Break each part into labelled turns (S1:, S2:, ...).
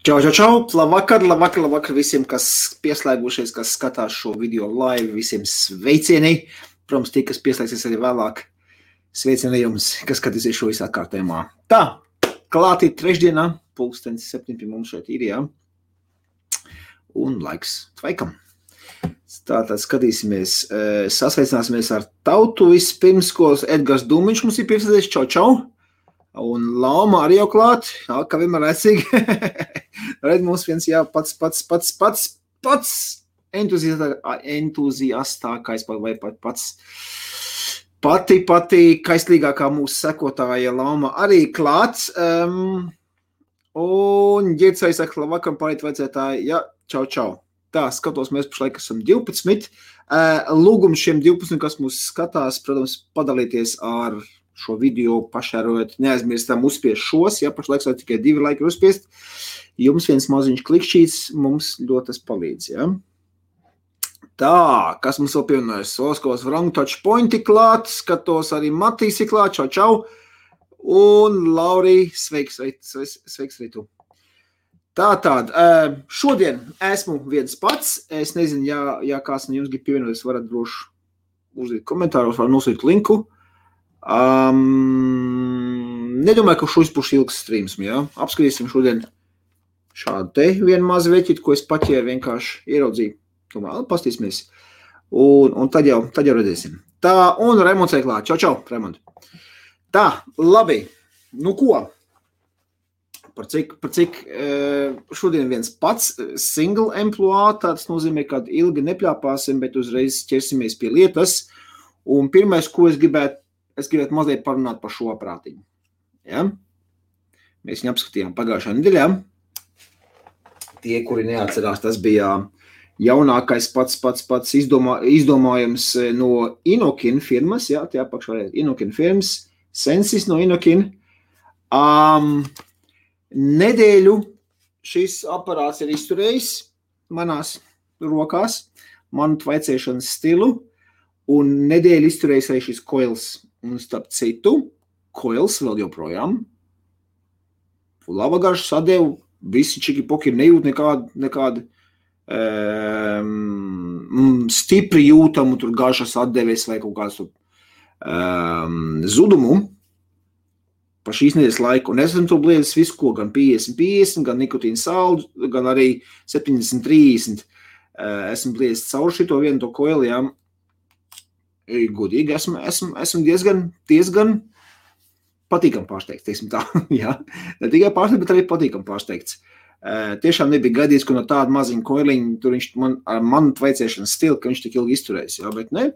S1: Čau, labvakar visiem, kas pieslēgušies, kas skatās šo video live, visiem sveicieni. Protams, tie, kas pieslēgsies arī vēlāk, sveicieni jums, kas skatīsies šo visā kārtējumā. Tā, klātī trešdienā, 7 pie mums šeit ir, jā. Un laiks tvaikam. Tātad skatīsimies, sasveicināsimies ar tautu vispirms, ko Edgars Dūmiņš mums ir piesaistīts. Čau. Un Lauma arī jau klāt, kā vienmēr rēcīgi. Redz mums viens, jā, pats entuziastākais vai pati kaislīgākā mūsu sekotāja Lauma arī klāts. Un ģirdsai saka, labvakar, pārīt vajadzētāji, jā, čau. Tā, skatos, mēs pašlaik esam 12. Lūgums šiem 12, kas mūs skatās, protams, padalīties ar šo video pašērojot, neaizmirstam uzspiest šos, ja pašlaik tikai 2 laiki uzspiest. Jums viens maziņš klikšķīts, mums ļoti tas palīdz, ja. Tā, kas mums vēl pievienojas? Oskos Wrong Touch Pointi klāt, skatos arī Matīs ir klāt, čau. Un Laurī, sveiks arī tu. Tātad, šodien esmu viens pats, es nezinu, ja kāds no jums grib pievienoties, varat droši uzdīt komentāros, var nosūt linku. Nedomāju, ka šis būs ilgs streams, jā. Apskatīsim šodien šādu te vienu mazu veķitu, ko es paķēru vienkārši ieraudzīju. Tomēr, pastīsimies. Un tad jau redzēsim. Tā, un Raimonds ir klāt. Čau, Raimond. Tā, labi. Nu ko? Par cik šodien viens pats single employee, tāds nozīmē, ka ilgi nepļāpāsim, bet uzreiz ķersimies pie lietas. Un pirmais, ko es gribētu mazliet parunāt par šo aprātiņu. Ja? Mēs viņu apskatījām pagājušā nedēļā. Tie, kuri neatcerās, tas bija jaunākais pats izdomājums no Inokin firmas. Ja? Tie apakšā Inokin firmas. Sensis no Inokin. Nedēļu šis aparāts ir izturējis manās rokās, manu tvaicēšanas stilu, un nedēļu izturējis arī šis coils. Un starp citu, coils vēl joprojām. Laba garša sadevu, visi čiki-poki nejūt nekādu stipri jūtamu tur garšas atdeves vai kaut kādu zudumu pa šīs nedēļas laiku. Un es esmu to bliedzis visu, ko gan 50-50, gan nikotīna saldu, gan arī 70-30. Esmu bliedzis caur šito vienu to coilu, jā. Godīgi, esmu diezgan patīkam pārsteigts, teiksim tā, jā. Ne tikai pārsteigts, bet arī patīkam pārsteigts. Tiešām nebija gaidīts, ka no tāda maziņa koiliņa, tur viņš ar manu tvaicēšanas stilu, ka viņš tik ilgi izturēs, jā, bet ne.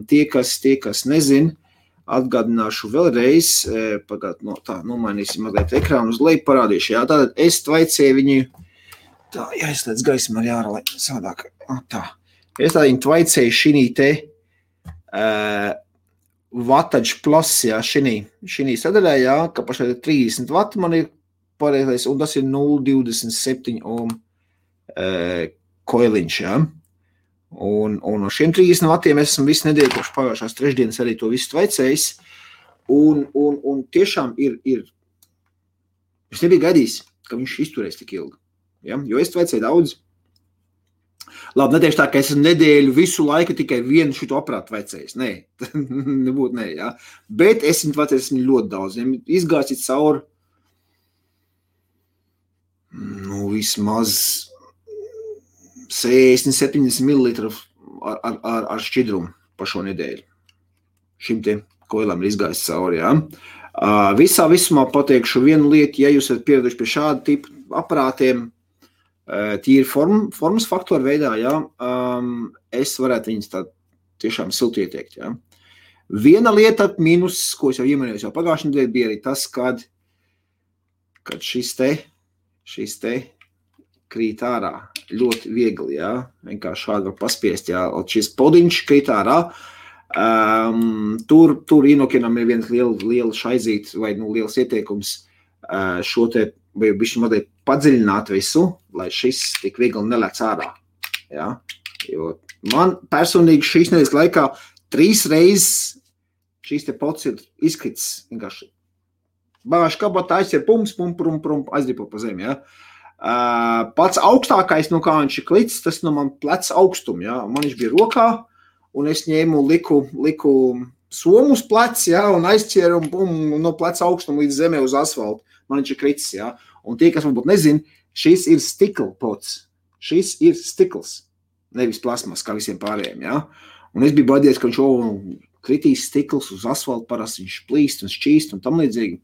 S1: Tie, kas nezin, atgādināšu vēlreiz, nomainīsim mazliet ekrānu uz leju parādīšu, jā, tātad es tvaicēju viņu, tā, jāizslēdz gaismu ar jāra, lai savādāk, tā. Es tā viņu tvaicēju šinī te Wattage Plus, jā, šinī sadaļā, jā, ka pašai 30 vati man ir pareizais, un tas ir 0,27 ohm koiliņš, jā. Un no šiem 30 vatiem esmu visu nedēļu kopš pagājušās trešdienas arī to visu tvaicējis, un tiešām ir, es nebiju gaidījis, ka viņš izturēs tik ilgi, ja? Jo es tvaicēju daudz. Labi, netieši tā, ka es nedēļu visu laiku tikai vienu šito aparātu tvaicējis. Nē, nebūtu nē, jā. Bet es viņu tvaicējis ļoti daudz. Izgācis cauri, vismaz 60-70 ml ar šķidrumu pa šo nedēļu. Šim te koilam ir izgājis cauri, jā. Visā visumā pateikšu vienu lietu, ja jūs esat pieraduši pie šāda tipa aparātiem, tīri formas faktoru veidā, jā, es varētu viņus tā tiešām silti ieteikt, jā. Viena lieta mīnus, ko es jau iemanījos jau pagājušajā nedēļā, bija arī tas, kad šis te krīt ārā ļoti viegli, jā, vienkārši šādi var paspiest, jā, šis podiņš krīt ārā, tur Inokinam ir viens liela šaizīt vai liels ieteikums šo te bišķi mazliet padziļināt visu, lai šis tik viegli nelēc ārā, jā, jo man personīgi šīs nedēļas laikā 3 reizes šīs te pots ir izkrits vienkārši bāž kabatā, aiziet pum, aizdripo pa zemi, ja. Pats augstākais, nu kā viņš ir klicis, tas no man plec augstumu, ja. Man viņš bija rokā, un es ņēmu, liku somu uz plec, ja, un aizķēru un no plec augstumu līdz zemē uz asfaltu. Man viņš ir kricis, ja. Un tie, kas varbūt nezin, šis ir stikla pots. Šis ir stikls, nevis plasmas, kā visiem pārējiem, ja. Un es biju baidījies, ka viņš kritīs stikls uz asfaltu, parasti viņš plīst un šķīst un tam līdzīgi.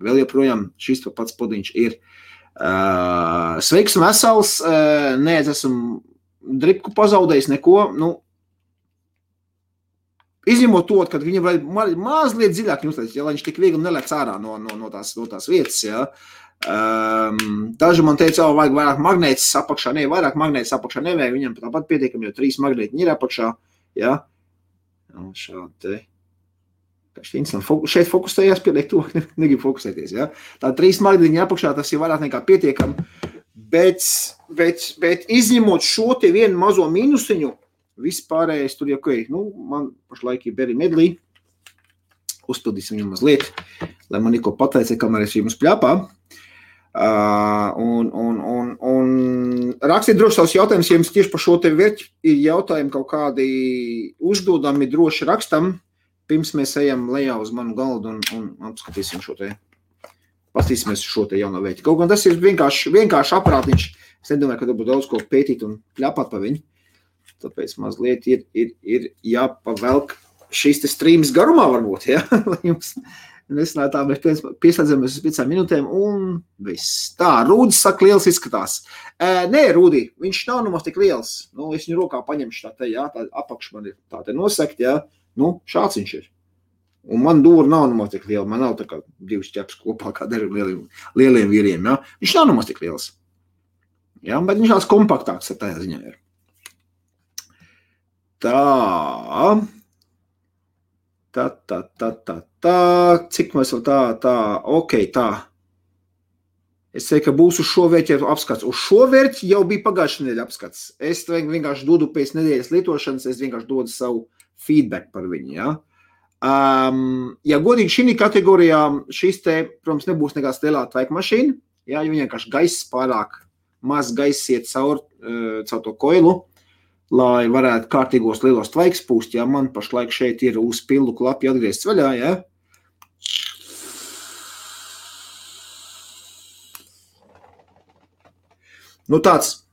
S1: Vēl joprojām šis pats podiņš ir. Sveiks un vesels, nē, es esmu dripku pazaudējis neko, nu, izņemot to, kad viņam vajag mazliet dziļāk ņūslēs, ja, lai viņš tik viegli nelec ārā no tās vietas, ja. Daži man teica, vajag vairāk magnētis apakšā, vairāk magnētis apakšā nevajag, viņam tāpat pietiekam, jo 3 magnētiņi ir apakšā, ja. Šādi te. Šeit fokusējās, pieliek to, negrib fokusēties, ja. Tā 3 magnētiņi apakšā, tas ir vairāk nekā pietiekam, bet izņemot šo te vienu mazo mīnusiņu, vispārējais tur jau, nu, man pašlaik ir Berry Medley, uzpildīsim viņu mazliet, lai man neko pateica, kamēr es jums pļāpā. Un rakstiet droši savus jautājumus, ja jums tieši par šo te vērķi ir jautājumi kaut kādi uzdodami droši rakstam, pirms mēs ejam lejā uz manu galdu un apskatīsim šo te, pastīsimies šo te jauno vērķi. Kaut gan tas ir vienkārši aparātiņš, es nedomāju, ka būtu daudz ko pētīt un pļāpāt pa viņu, tāpēc mazliet ir jāpavelk šīs te streams garumā varbūt, ja, lai jums nesanāk tā, mēs pieslēdzamies uz 5 minūtēm un viss. Tā, Rūdis saka, liels izskatās. Nē, Rūdi, viņš nav nemaz tik liels. Nu, es viņu rokā paņemšu tā te, jā, tā apakš man ir tā te nosekt, jā. Nu, šāds viņš ir. Un man dūra nav nemaz tik liela. Man nav tā kā 2 ķeps kopā kā dažiem lieliem vīriem, jā. Viņš nav nemaz tik liels. Jā, bet viņš tāds kompaktāks ar tajā ziņā ir. Cik mēs vēl ok, tā. Es teiktu, ka būs uz šo vērķi apskats. Uz šo vērķi jau bija pagājušā nedēļa apskats. Es vienkārši dodu pēc nedēļas lietošanas, es vienkārši dodu savu feedback par viņu, ja. Ja godīgi šī kategorijā, šis te, protams, nebūs nekāds lielā tvaika mašīna, ja, jo vienkārši gaiss pārāk maz gaiss iet caur to koilu, lai varētu kārtīgos lielos tvaiks pūst, ja man pašlaik šeit ir uz pildu klapi atgriezts vaļā, ja. Nu tāds,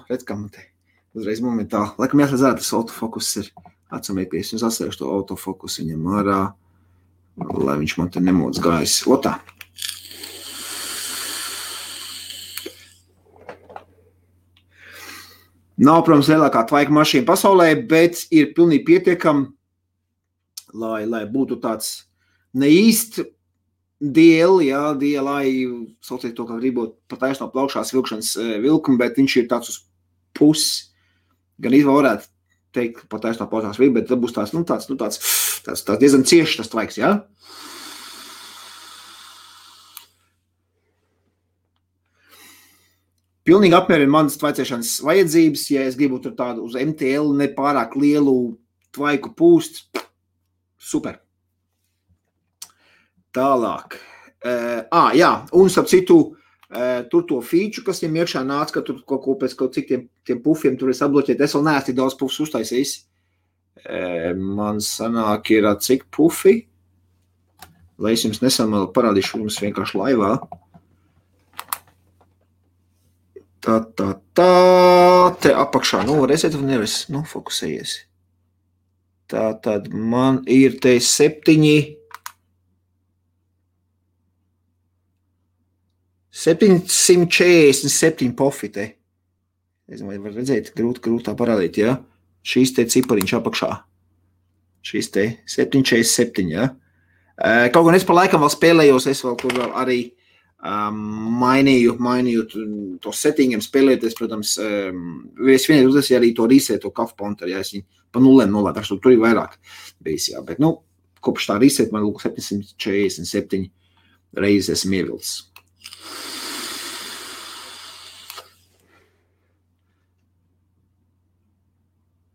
S1: redz, kā man te uzreiz momentāli, laikam jāsadzēr, tas autofokus ir atsamēties, un sasēšu to autofokus viņam ārā, lai viņš man te nemoc gājis. Otā. Nav, protams, lielākā tvaika mašīna pasaulē, bet ir pilnīgi pietiekami, lai būtu tāds neīst DL, jā, DLI, sauciet to, kā gribot pataisno plaukšās vilkšanas vilkumu, bet viņš ir tāds uz pusi, gan izvēl varētu teikt, pataisno plaukšās vilkumu, bet tad būs tāds diezgan cieši tas tvaiks, jā. Pilnīgi apmierina manas tvaicēšanas vajadzības, ja es gribu tur tādu uz MTL nepārāk lielu tvaiku pūst. Super. Tālāk. Jā, un starp citu, tur to feature, kas viņam iekšā nāca, ka tur kaut ko pēc kaut cik tiem pufiem tur es atbloķēt, es vēl neesmu tik daudz pufus uztaisījis. Man sanāk ir cik pufi, lai es jums nesam parādīšu jums vienkārši laivā. Te apakšā, nu, redzēt, vai nevis, nu, fokusējies. Tad man ir te 747 pofi te. Es domāju, var redzēt, grūtā parādīt, ja? Šīs te cipariņš apakšā. Šīs te 747, ja? Kaut gan es par laikam vēl spēlējos, es vēl tur vēl arī mainīju to settingiem spēlēties, protams, es vienreiz uztaisīju arī to reset, to kafu ponteru, ja es viņu pa nulēm nolēdu, tur ir vairāk bijis, jā, bet, nu, kopš tā reset man 747 reizes esmu ievilcis.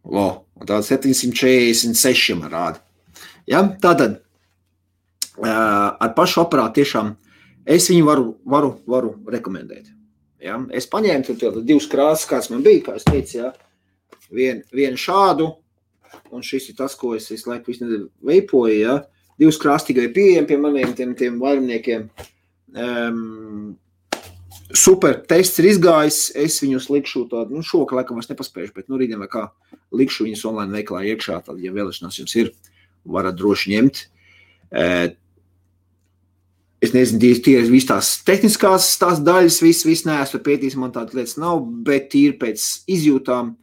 S1: Un tāda 746 man rāda. Ja, tātad, ar pašu aparātu tiešām es viņu varu rekomendēt. Ja? Es paņēmu divas krāsas, kāds man bija, kā es teicu, ja? Vienu šādu, un šis ir tas, ko es laiku visu nedēļu veipoju, ja? Divas krāsas tikai pieejami pie maniem tiem vairumniekiem. Super, tests ir izgājis, es viņus likšu tādu, šovakar laikam es nepaspējuši, bet rītdien vai kā likšu viņus online veiklā iekšā, tad, ja vēlēšanās jums ir, varat droši ņemt. Es nezinu, tie ir viss tās tehniskās tās daļas, viss neesmu pētījis, man tādas lietas nav, bet tīri pēc izjūtām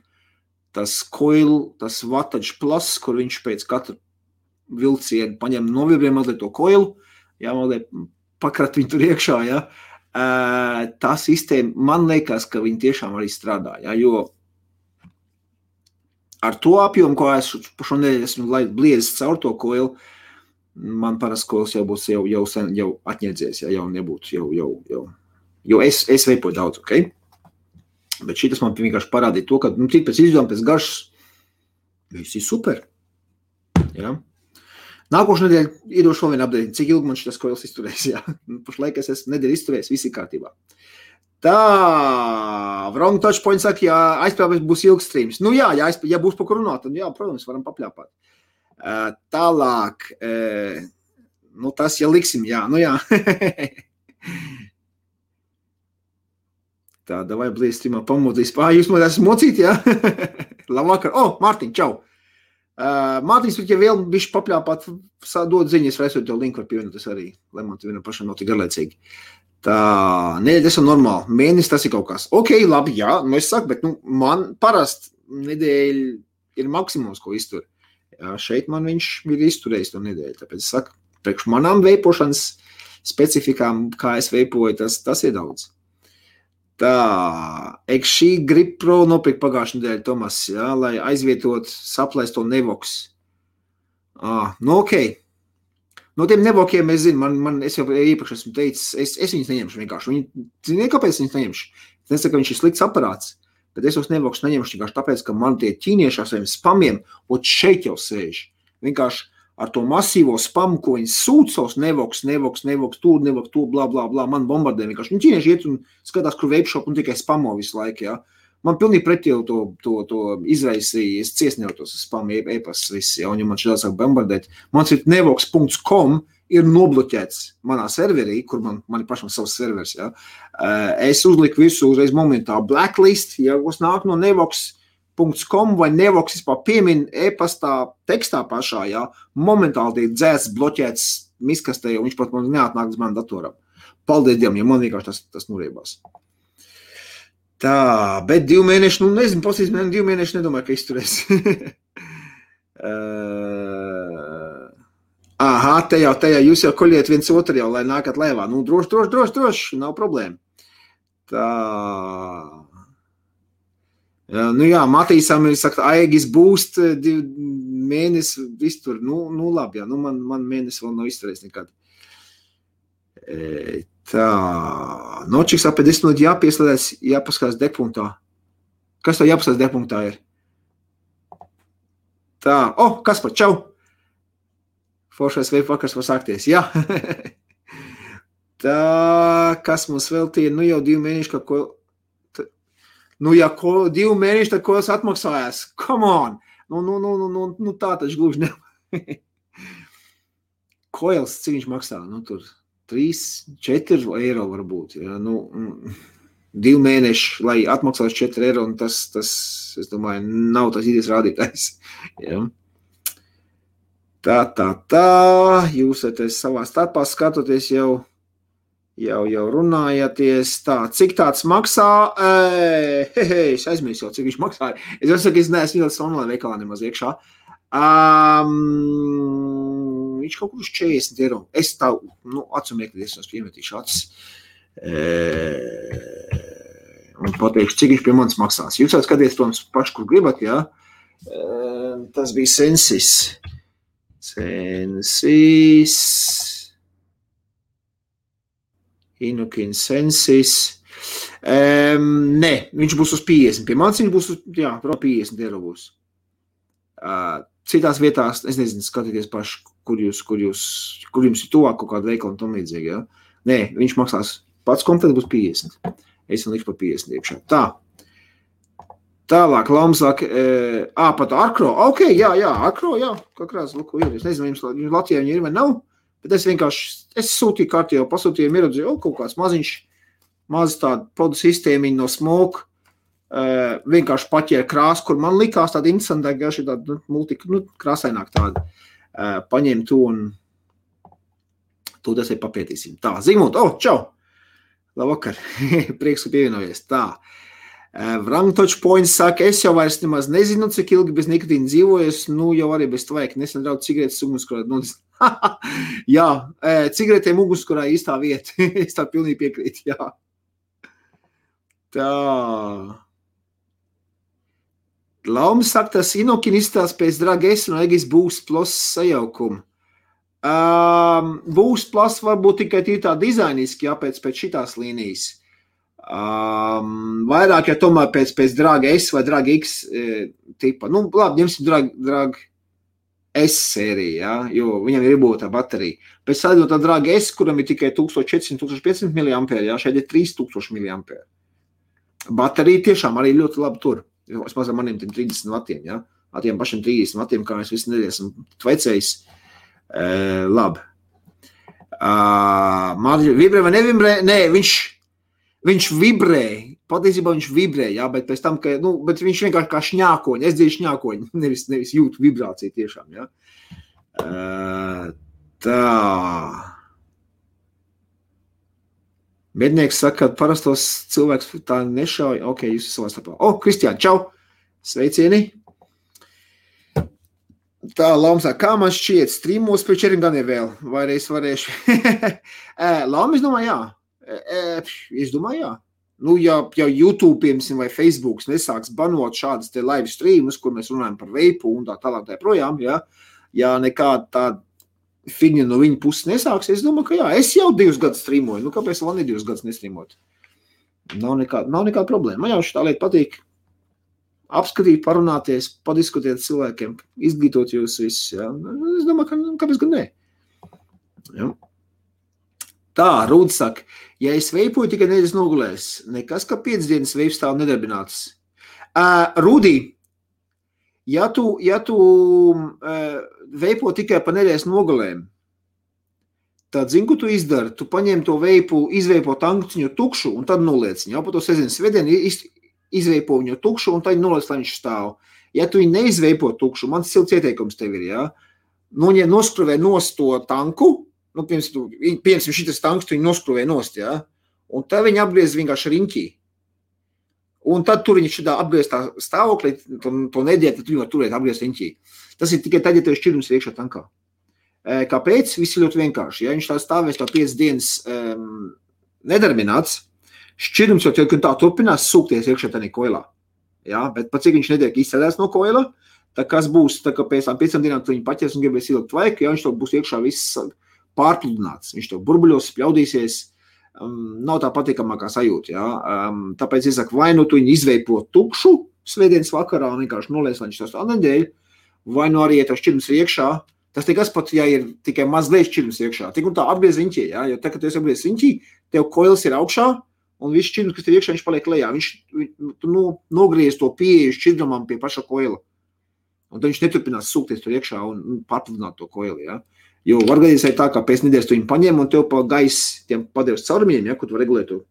S1: tas coil, tas wattage plus, kur viņš pēc katra vilcienu paņem novibriem mazliet to coilu, jā, mazliet pakrat viņu tur iekšā, jā. Tā sistēma, man liekas, ka viņi tiešām arī strādā, jā, jo ar to apjomu, ko es šonedēļ esmu bliedzis caur to coilu, man parasti koils jau būs jau atņēdzies, ja jau nebūtu, jo es veipoju daudz, ok? Bet šitas man vienkārši parādīja to, ka, tik pēc izdevuma, pēc garšas, viss ir super, ja? Nākošu nedēļu iedošu vēl vienu update, cik ilgi man šitas koils izturēs, ja? Pašlaik es esmu nedēļu izturējis, viss ir kārtībā. Tā, Wrong Touchpoint saka, ja aizpļāpēs būs ilgs streams. Nu jā, ja būs pa kur runāt, tad jā, protams, varam papļāpāt. Tālāk, tas, ja liksim, jā, jā. Tā, davai blīz streamā pamodīs. Jūs man esat mocīt, jā? Labvakar. Mārtiņ, čau. Mārtiņš, ja vēl bišķi papļāpāt, dod ziņas, vai esot jau linku var pievienoties arī, lai man te vienam pašam nav tik garlaicīgi. Tā, nedēļa esam normāli. Mēnesis tas ir kaut kas. Ok, labi, jā, es saku, bet man parasti nedēļa ir maksimums, ko iztur. Jā, šeit man viņš ir izturējis to nedēļu, tāpēc es saku, priekš manām veipošanas specifikām, kā es veipoju, tas ir daudz. Tā, šī Grip Pro nopirkt pagājušajā nedēļā, Tomas, jā, lai aizvietot saplēsto Nevox. Ok. No tiem Nevokiem es zinu, es jau iepriekš esmu teicis, es viņus neņemšu vienkārši. Ziniet, kāpēc viņus neņemšu? Es nesaku, ka viņš ir slikts aparāts, bet es tos Nevox neņemšu vienkārši tāpēc, ka man tie ķīnieši ar saviem spamiem, šeit jau sēž. Vienkārši ar to masīvo spamu, ko viņi sūt savus Nevox, tur, blā, man bombardē vienkārši. Ķīnieši iet un skatās, kur veipšop un tikai spamo visu laiku, jā. Man pilnīgi pretī to izraisīja, es ciesnevu tos spamu e-pasas viss, jā, un ja man šādā sāk bombardēt. Mans ir nevox.com ir nobloķēts manā serverī, kur man ir pašam savs servers, jā. Es uzliku visu uzreiz momentā blacklist, ja kas nāk no nevox.com vai Nevox vispār piemin e-pastā tekstā pašā, jā, momentāli tiek dzēsts, bloķēts miskastē, un viņš pat man neatnāk uz manu datoram. Paldies Dievam, ja man vienkārši tas nuriebās. Tā, bet 2 mēneši, nezinu, pasīs, 2 mēneši nedomāju, ka izturēs. Aha, te jau, jūs jau koļiet viens otru jau, lai nākat laivā. Droši, nav problēma. Tā. Jā, Matīsam ir, saka, Aegis boost 2 mēnesi iztur. Labi, jā, man mēnesi vēl nav izturējis nekad. Tā, nočiks ap 10 minūti jāpieslēdās, jāpaskatās degpunktā. Kas to jāpaskatās degpunktā ir? Tā, Kaspar, čau! Foršais veipu vakars var sākties, jā. Tā, kas mums vēl tie, jau 2 mēneši, ka ko... 2 mēneši, tad ko es atmaksājās? Come on! Tā taču gluži ne. Koils, cik viņš maksā? Tur 3-4 eiro varbūt. Ja? 2 mēneši, lai atmaksās 4 eiro, un tas, es domāju, nav tas idejas rādītājs. Ja? Tā, jūs savā starpā skatoties jau runājaties. Tā, cik tāds maksā? Es aizmirsu jau, cik viņš maksāja. Es saku, es neesmu ļoti online veikalā nemaz iekšā. Viņš kaut kur uz 40 eiro. Es tā, atsumieklīties, es piemetīšu acis. Un pateikšu, cik viņš pie manis maksās. Jūs jau skaties, protams, paši, kur gribat, jā. Tas bija Sensis. Inukin Sensis. Nē, viņš būs uz 50. Pie manis viņš būs uz, 50 eiro būs. citās vietās, es nezinu, skatieties paši, kur jums ir tuvāk kaut kāda veikala un tam līdzīgi, ja? Nē, viņš maksās pats komplekts būs 50. Es viņu likšu par 50 iekšā. Tā. Tālāk, Lams saka, pat Arkro. Ok, jā, Arkro, jā, kakrās, lūk, ir. Es nezinu, jums Latvijā viņi ir vai nav, bet es sūtīju kārtī jau pasūtījumu ierodzīju, kaut kāds maziņš, maz tāda podu sistēmiņa no Smoke, vienkārši paķēra krāsu, kur man likās tāda interesantāk, ja šī tāda krāsaināk tāda. Paņem to un to tas papētīsim. Tā, Zigmund, čau! Labvakar, prieks, ka pievienojies. Tā, Vrangtoč Points saka, es jau vairs nemaz nezinu, cik ilgi bez nikotīna dzīvojas, jau arī bez tvaika, nesen draudz cigaretes ugunskurā. Jā, cigaretēm ugunskurā īstā vieta, es tā pilnīgi piekrītu, jā. Tā. Laumis saka, tas Inokin izstās pēc Drag S un Egis Boost Plus sajaukuma. Boost Plus varbūt tikai tā dizainiski, jā, pēc šitās līnijas. Vairāk, ja tomēr pēc Drag S vai Drag X tipa. Labi, ņemsim Drag S sēriju, jā, jo viņam ir iebūtā baterija. Pēc tā Drag S, kuram ir tikai 1400-1500 mAh, jā, šeit ir 3000 mAh. Baterija tiešām arī ļoti labi tur. Es mazam maniem 30 vatiem, ja? Atiem pašiem 30 vatiem, kā es visu nedēļ esmu tvecējis. Labi. Vibrē vai nevibrē? Nē, viņš vibrē. Patiesībā viņš vibrē, jā, bet pēc tam, bet viņš vienkārši kā šņākoņi. Es dzirdu šņākoņi, nevis jūtu vibrāciju tiešām, jā. Tā. Mednieks saka, ka parastos cilvēks tā nešauj. Ok, jūs esat savā starpā. Kristiāni, čau! Sveicieni! Tā, Lams saka, kā man šķiet, streamos pēc 4 gadiem vēl? Vai es varēšu? Lams, es domāju, jā. Es domāju, jā. Ja YouTube, piemēram, vai Facebook nesāks banot šādas te live streamus, kur mēs runājam par veipu un tā tālāk tā projām, jā. Ja nekāda tāda figņa no viņa puses nesāks, es domāju, ka jā, es jau 2 gadus streamoju. Kāpēc vēl ne 2 gadus nestreamot? Nav nekāda problēma. Man jau šitā lieta patīk apskatīt, parunāties, padiskutēt cilvēkiem, izglītot jūs visus. Ja? Es domāju, kāpēc gan ne? Ja? Tā, Rūda saka, ja es veipoju tikai nedēļas nogulēs, nekas, ka 5 dienas veips stāv nedarbināts. Rūdī, ja tu veipo tikai pa nedēļas nogalēm, tad zini, ko tu izdari? Tu paņem to veipu, izveipo tankciņu tukšu un tad noliec viņu. Pa to sezinu svētdienu izveipo viņu tukšu un tad noliec, lai viņš stāv. Ja tu viņu neizveipo tukšu, mans silts ieteikums tev ir, ja? Noskruvē nost to tanku, piemēram, šitas tanks, tu viņu noskruvē nost, ja? Un tad viņi apgriez vienkārši riņķī. Un tad tur viņš apgriez tā stāvoklī, to nedēļ, tad viņu var turēt apgriez riņķī. Tas ir tikai tad, ja tev šķirums ir iekšā tankā. Kāpēc? Viss ir ļoti vienkārši. Ja viņš tā stāvēs tā 5 dienas nedarbināts, šķirums jau tā turpinās sūkties iekšā tādā koilā. Ja? Bet pat cik viņš netiek izsēdēs no koila, tā kas būs, tā kā pēc 5 dienām tu viņu paķers un gribēs ilgt vajag, ja viņš to būs iekšā viss pārpludināts. Viņš to burbuļos spļaudīsies, nav tā patīkamākā sajūta. Ja? Tāpēc es saku, vai nu tu viņu izveipo tukšu svētdienas vakarā un vienkārši noliec, lai viņš tā nedēļ, vai nu arī, ja tev šķirums ir iekšā, tas tikas pat, ja ir tikai mazliet šķirums iekšā. Tik un tā apgriez riņķī, ja? Jo tā, kad tu esi apgriez riņķī, tev koils ir augšā, un viss šķirums, kas tev iekšā, viņš paliek lejā. Tu nogriez to pieeju šķidrumam pie paša koila. Un tad viņš neturpinās sūkties tur iekšā un pārpludināt to koili, ja? Jo var gadījums arī tā, kā pēc nedēļas tu viņu paņem un tev pa gaisu tiem padevs caurumiņiem, ja, kur tu var regulēt to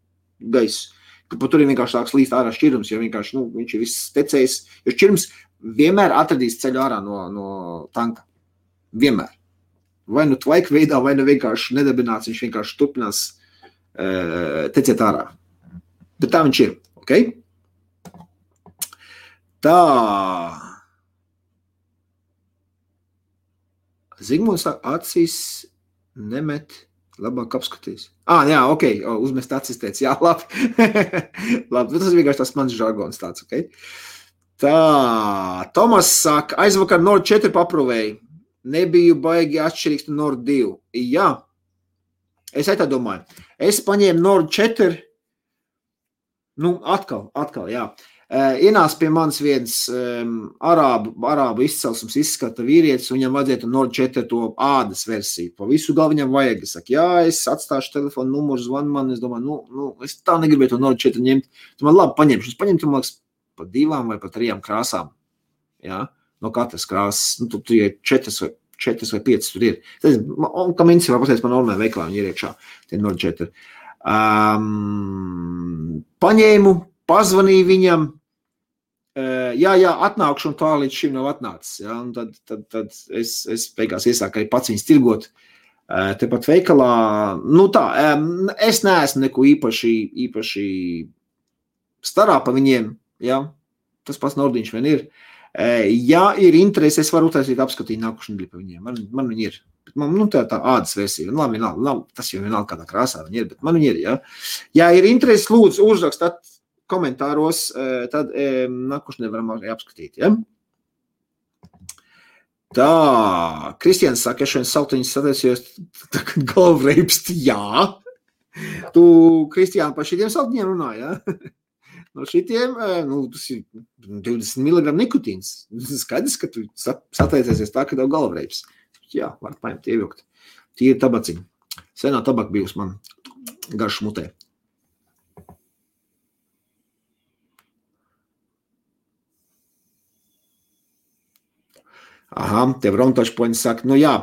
S1: gaisu. Ka tur ir vienkārši tāds līst ārā šķirums, jo vienkārši, viņš ir viss tecējis, jo šķirums vienmēr atradīs ceļu ārā no tanka. Vienmēr. Vai nu tvaika veidā, vai nu vienkārši nedarbināts, viņš vienkārši turpinās tecēt ārā. Bet tā viņš ir, ok? Tā. Zigmunds acīs nemet, labāk apskatīs. Jā, ok, uzmest acis teica, jā, labi. Labi, tas vienkārši tas mans žargons tāds, ok? Tā, Tomas saka, aizvakar Nord 4 paprovēju. Nebiju baigi atšķirīgs no Nord 2. Jā, es tā domāju. Es paņēmu Nord 4, atkal, jā. Ienāca pie manis viens arābu izcelsmes izskata vīrietis, un viņam vajadzētu Nord 4 to ādas versiju. Pa visu galvu viņam vajag. Es saku, jā, es atstāšu telefonu numuru, zvanu man. Es domāju, es tā negribēju to Nord 4 ņemt. Tu man labi paņemšu. Es paņemtu, man liekas, pa 2 vai pa 3 krāsām. Jā, no katras krāsas. Nu, tur ir 4 vai 5 tur ir. Un kā minci var pateikt, man normāli veiklā viņi ir iekšā. Tie Nord 4. Paņēmu, pazvanīju viņam. Jā, atnākšu, un tā līdz šim nav atnācis. Ja? Un tad es beigās iesāku arī pats viņus tirgot tepat veikalā. Nu tā, es neesmu neko īpaši starā pa viņiem. Ja? Tas pats Nordiņš vien ir. Ja ir interesi, es varu utaisīt apskatīt nākušu nedēļu pa viņiem. Man viņi ir. Man, tā ādas versija. Labi, tas jau vienalga kādā krāsā viņi ir, bet man viņi ir. Ja, ja ir interesi, lūdzu, uzrakstāt komentāros, tad nākušu nevaram arī apskatīt. Ja? Tā, Kristians saka, es šodien saltiņus sataisījos tagad galvreipsti. Jā. Tu, Kristiāna, par šitiem saltiņiem runā, ja? No šitiem, tas ir 20 mg nikotīns. Skaidrs, ka tu sataisies tā, ka tev galvreips. Jā, var paņemt ievilkt. Tīri tabaciņi. Senā tabaka bijusi man garš mutē. Aha, tev Rontašpoņi saka, jā,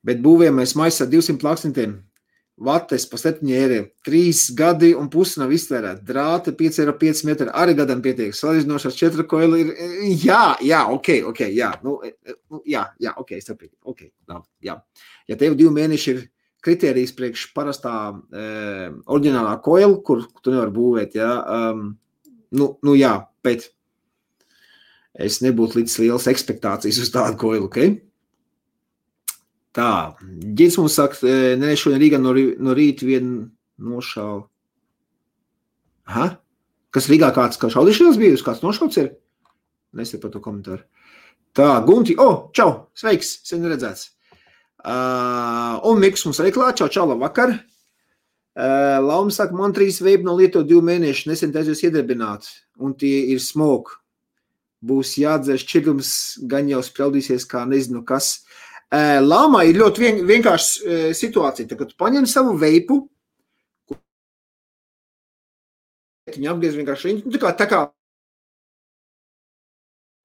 S1: bet būvējam mēs maisa 200 plāksnitiem. Vates pa 7 eiro, 3 gadi un pusi nav iztērēt. Drāte 5,5 metri, arī gadam pietiek. Salīdzinošās 4 koili ir, jā, ok, jā, ok, saprīt, ok, jā. Ja tev 2 mēneši ir kritērijs priekš parastā oriģinālā koila, kur tu nevar būvēt, jā, jā, bet es nebūtu līdz liels ekspektācijas uz tādu koilu, ok? Tā, Ģits mums saka, šodien Rīgā no rīta vien nošāva. Aha, kas Rīgā kāds šaudīšanās bijusi, kāds nošauts ir? Nesat par to komentāru. Tā, Gunti, čau, sveiks, sen redzēts. Un Miks mums arī klāt, čau, labvakar. Lauma saka, man 3 veipi no Lietuva 2 mēneši, nesen taisies iedarbināt, un tie ir smoke. Būs jādzer šķirums, gan jau spraudīsies, kā nezinu kas. Lāmā ir ļoti vienkārši situācija. Tad, kad tu paņem savu veipu, viņi apgriez vienkārši, tā kā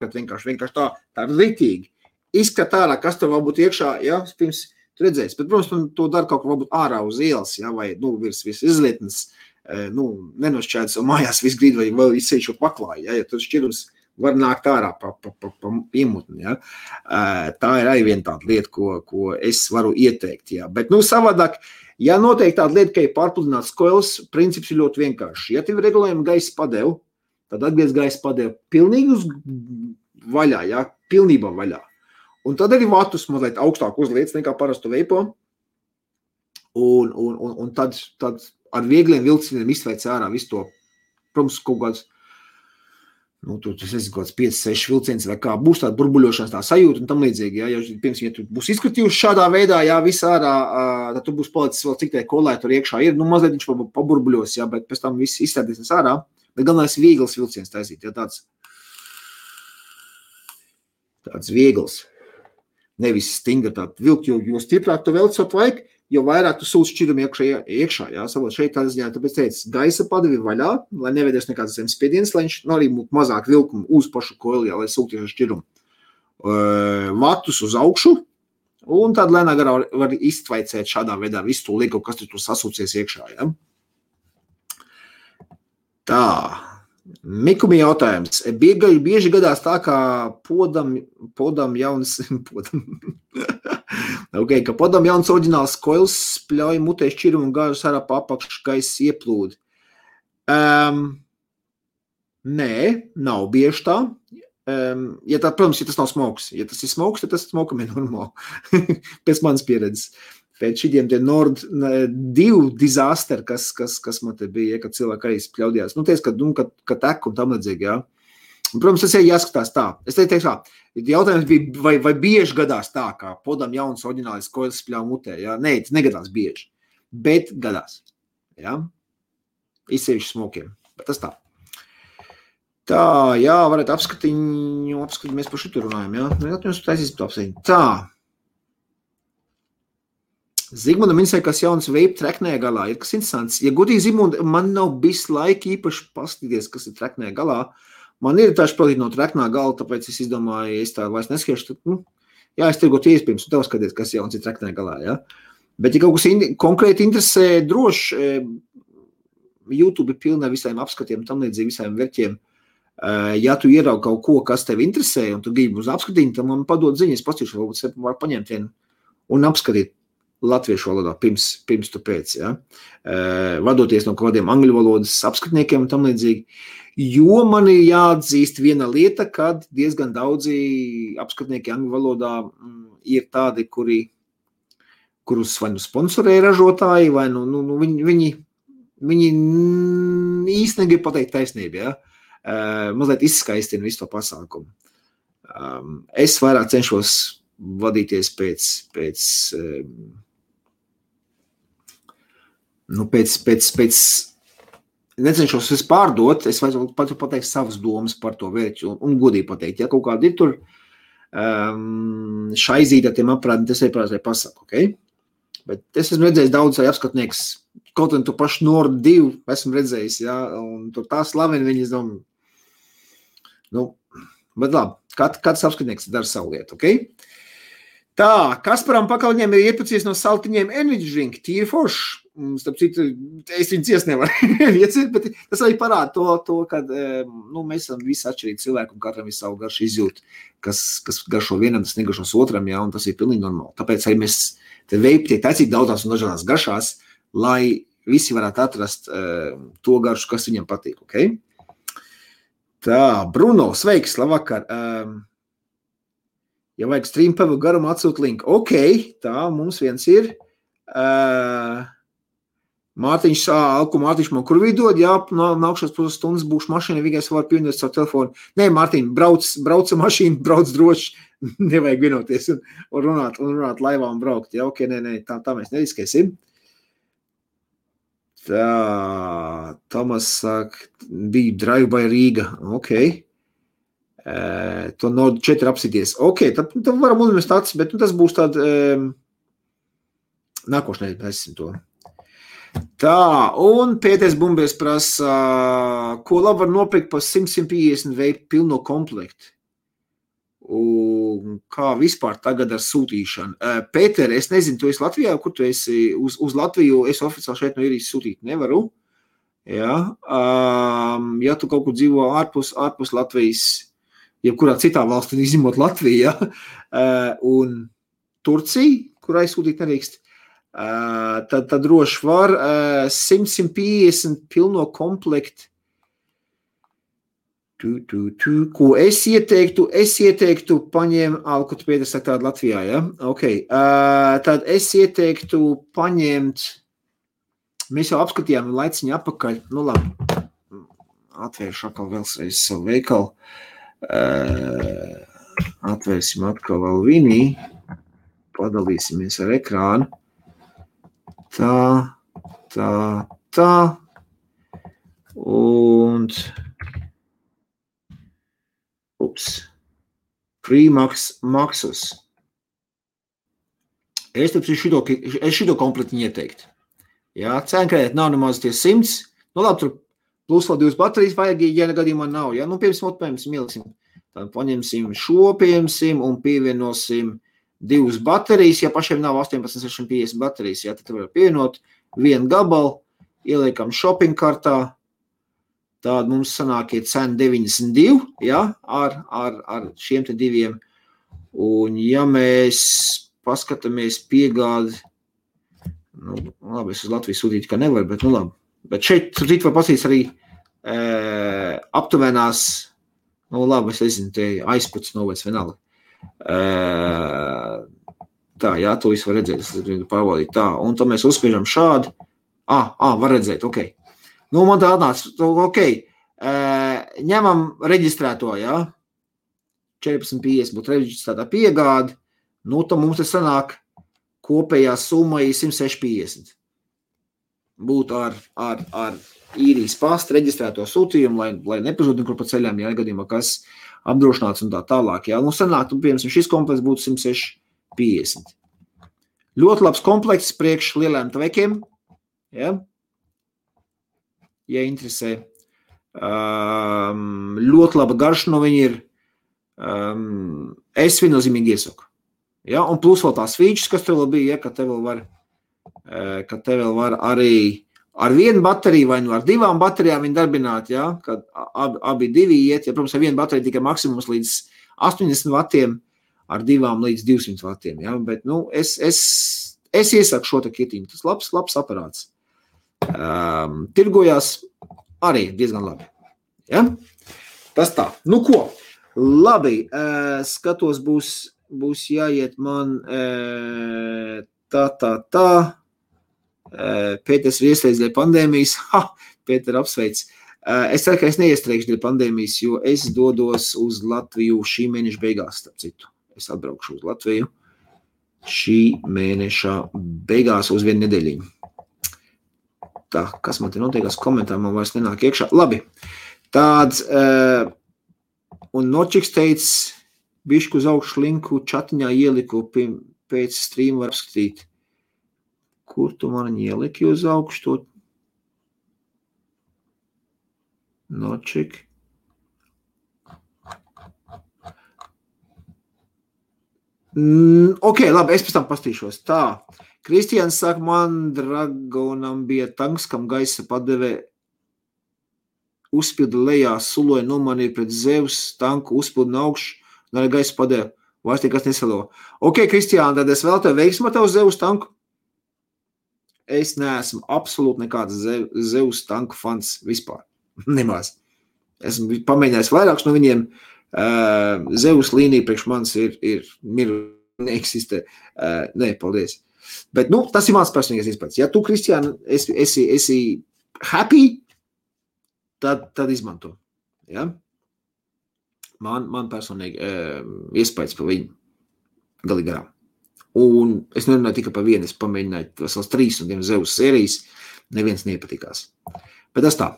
S1: vienkārši tā ritīgi. Izskat ārā, kas tev vēl būtu iekšā, ja, pirms tu redzēsi. Bet, protams, man to dara kaut ko varbūt ārā uz ielas, ja, vai, virs izlietnes, nenošķēdz, un mājās viss grīd, vai vēl izsējušo paklāju, ja tad šķirums var nākt ārā pa iemutni. Ja? Tā ir arī viena tāda lieta, ko es varu ieteikt. Ja? Bet savādāk, ja noteikti tāda lieta, ka ir pārpludināts koils, princips ir ļoti vienkārši. Ja tev ir regulējumi gaisa padevu, tad atgriez gaisa padevu pilnīgi uz vaļā, ja? Pilnībā vaļā. Un tad arī vatus mazliet augstāk uzliec nekā parastu veipo. Un tad ar viegliem vilcieniem izveic ārā visu to, protams, kaut kāds tas ir kaut kāds 5-6 vilciens vai kā, būs tāda burbuļošanas tā sajūta un tam līdzīgi, ja tu būs izskatījuši šādā veidā, visā ārā, tad tu būs palicis vēl cik tie kolē tur iekšā ir, mazliet viņš paburbuļos, bet pēc tam viss izstādīsies ārā, bet galvenais viegls vilciens taisīt, tāds viegls, nevis stinga tāda vilkt, jo stiprāk tu velc savu vajag, jo vairāk tu sūc šķirumu iekšā, jā, savot šeit tādā ziņā, tāpēc teicu, gaisa padevi vaļā, lai neveidies nekāds zemes spiediens, lai viņš arī būtu mazāk vilkumu uz pašu koili, lai sūkties ar šķirumu. Vatus uz augšu, un tad lēnā garā var iztvaicēt šādā veidā visu to lieku, kas tur sasūcies iekšā, jā. Tā, Mikumi jautājums. Bieži gadās tā, kā podam jauns, ka podam jauns oriģināls koils spļauj mutē šķirumu un gāžas ārā pa apakšu gaisa ieplūdi. Nē, nav bieži tā. Protams, ja tas nav smoks. Ja tas ir smoks, tad tas smokam ir normāli. Pēc manas pieredzes. Pēc šitiem tie Nord 2 disaster, kas man te bija, kad cilvēki arī spļaudījās. Ka tek un tam līdzīgi, jā. Un, protams, tas ir jāskatās tā. Es teiktu tā, jautājums bija, vai bieži gadās tā, kā podam jauns oriģinālis koils spļauj mutē, jā. Nē, tas negadās bieži, bet gadās, jā. Izsevišķi smokiem, bet tas tā. Tā, jā, varētu apskatīt, mēs par šitu runājam, jā. Mēs taisīsim to apsēņu. Tā. Zigmundam interesē, kas jauns vape treknē galā. Ir kas interesants. Ja godīgi, Zigmund, man nav bijis laika īpaši paskatīties, kas ir treknē galā. Man ir taču palīdz no treknā gala, tāpēc es izdomāju, ja es tā vairs neskiešu, tad, jā, es tirgot iespējams, un tev skaties, kas jauns ir treknē galā, jā. Bet, ja kaut kas konkrēti interesē, droši, YouTube ir pilnā visiem apskatiem, tam līdzīgi visiem verķiem. Ja tu ieraugi kaut ko, kas tev interesē, un tu gribi uz apskatījumu, tad man padod ziņas, pastīšu, varbūt var paņemt vienu un apskatīt latviešu valodā pirms tu pēc, ja? Vadoties no kādiem angļu valodas apskatniekiem un tam līdzīgi. Jo man ir jāatzīst viena lieta, kad diezgan daudzi apskatnieki angļu valodā ir tādi, kurus vai nu sponsorē ražotāji, vai viņi īsti negrib pateikt taisnību, ja? Mazliet izskaistina visu to pasākumu. Es vairāk cenšos vadīties pēc necenšos es pārdot, es vajag pateikt savas domas par to vērķu un godīgi pateikt, ja kaut kādi ir tur šaizīti ar tiem aprādiem, tas ir prātē pasaku, ok? Bet es esmu redzējis daudz apskatnieks, kaut un tu pašu Nord 2 esmu redzējis, ja, un tur tā slaveni viņi izdom. Bet labi, kāds apskatnieks dara savu lietu, ok? Tā, Kasparam Pakaļņiem ir iepacies no saltiņiem energy drink, tīri forši. Starp citu, es viņu ciest nevaru ieciet, bet tas arī parāda to kad mēs esam visi atšķirīgi cilvēki un katram ir savu garšu izjūt, kas garšo vienam, tas negaršos otram, jā, un tas ir pilnīgi normāli. Tāpēc arī mēs te vape tiek taicīgi daudzās un dažādās garšās, lai visi varētu atrast to garšu, kas viņam patīk, ok? Tā, Bruno, sveiks, labvakar. Ja vajag stream pavu garumu atsūt linku. Ok, tā, mums viens ir. Mārtiņš, Mārtiņš man kur vidod, jā, nākšās pusstundas būšu mašīna, vienkārši var pievienot savu telefonu. Nē, Mārtiņ, brauc mašīnu, brauc droši, nevajag vienoties un runāt laivā un braukt. Jā, ok, nē, tā mēs neriskēsim. Tā, Tomas saka, bija Drive by Rīga, ok. To Nord 4 apsities. Ok, tad varam uzmest acis, bet tas būs tād nākošanai, esam to. Tā, un Pēters Bumbers prasa, ko labi var nopirkt par 100-150 vape pilno komplektu? Un kā vispār tagad ar sūtīšanu? Pēter, es nezinu, tu esi Latvijā, kur tu esi uz Latviju, es oficiāli šeit no Irijas sūtīt nevaru. Ja, ja tu kaut kur dzīvo ārpus Latvijas, jebkurā citā valstī, izņemot Latviju, ja, un Turcija, kurai sūtīt nerīkst, tad droši var 100-150 pilno komplektu. Ko es ieteiktu paņem, ko tu Pēters saka tādu Latvijā, ja? Ok, tad es ieteiktu paņemt, mēs jau apskatījām laiciņu apakaļ, nu labi, atvēršu atkal vēlreiz savu veikalu, atvērsim atkal vēl vinī, padalīsimies ar ekrānu, tā, un Maxus. Es šito komplektiņu ieteiktu. Jā, cenkredēt nav nemaz tie 100. Nu labi, tur plus vēl 2 baterijas vajag, ja gadījumā nav. Jā, nu piemēram, ieliksim. Tad paņemsim šo, piemēram, un pievienosim 2 baterijas. Ja pašiem nav 18-650 baterijas, jā, tad var pievienot 1 gabalu, ieliekam shopping kartā. Tāda mums sanākie cena 92, ja, ar šiem te 2. Un ja mēs paskatāmies piegādi, nu, labi, es uz Latviju sūtītu, ka nevar, bet nu labi. Bet šeit var pasīties arī aptuvenās, nu labi, es nezinu, te aizputs novēc vienalga. Tā, jā, to visu var redzēt, es pārbaudīt tā. Un tad mēs uzspiežam šādi. Var redzēt, ok. Nu, man tā atnāca, ok, ņemam reģistrēto, jā, 14,50 būtu reģistrētā piegāde, nu, tad mums te sanāk kopējā summa ir 106,50. būt ar īrijas pastu reģistrēto sūtījumu, lai nepazūd nekur pa ceļām, ja gadījumā kas apdrošināts un tā tālāk. Ja? Nu, sanāk, piemēram, šis komplekts būtu 106,50. Ļoti labs komplekts priekš lieliem tvekiem, ja? Ja interesē. Ļoti laba garša no viņa ir. Es viennozīmīgi iesaku. Ja? Un plus vēl tās features, kas tev vēl bija, ja? Ka te vēl var arī ar vienu bateriju vai nu ar divām baterijām viņi darbināt, ja? Kad abi divi iet, ja, protams, ar vienu bateriju tikai maksimums līdz 80 vatiem, ar divām līdz 200 vatiem, ja? Bet, nu, es iesaku šo te kitiņu, tas labs aparāts. Tirgojās arī diezgan labi, ja? Tas tā, nu ko, labi, skatos būs jāiet man tā. Pēters ir iestrēdz dēļ pandēmijas. Pēter apsveic. Es ceru, ka es neiestrēgšu dēļ pandēmijas, jo es dodos uz Latviju šī mēneša beigās, starp citu. Es atbraukšu uz Latviju šī mēneša beigās uz vienu nedēļiņu. Tā, kas man te notiekās komentāri, man vairs nenāk iekšā. Labi, tāds, un Nočiks teica, bišku uz augšu linku čatiņā ieliku pēc streama var apskatīt. Kur tu man ieliki uz augšu to? Nočik. Ok, labi, es pēc tam pastīšos. Tā, Kristians saka, man Dragonam bija tanks, kam gaisa padeve uzpilda lejā, suloja nomanīja pret Zeus tanku, uzpilda no augšu, un arī gaisa padeve. Vairs nekas nesalo. Ok, Kristiāna, tad es vēl tev veiksmu ar tev Zeus tanku. Es neesmu absolūti nekāds Zeus tanku fans vispār. Nemaz. Esmu pamēģinājis vairākus no viņiem. Zeus līnija priekš manis ir neeksistē. Nē, paldies. Bet, nu, tas ir mans personīgais izpēc. Ja tu, Kristiāna, esi happy, tad izmanto. Ja? Man personīgi iespējas par viņu galīgi garām. Un es nerunāju tikai par vienu, es pamēģināju vesels 3 un tiem Zeus sērijas, neviens nepatikās. Bet tas tā.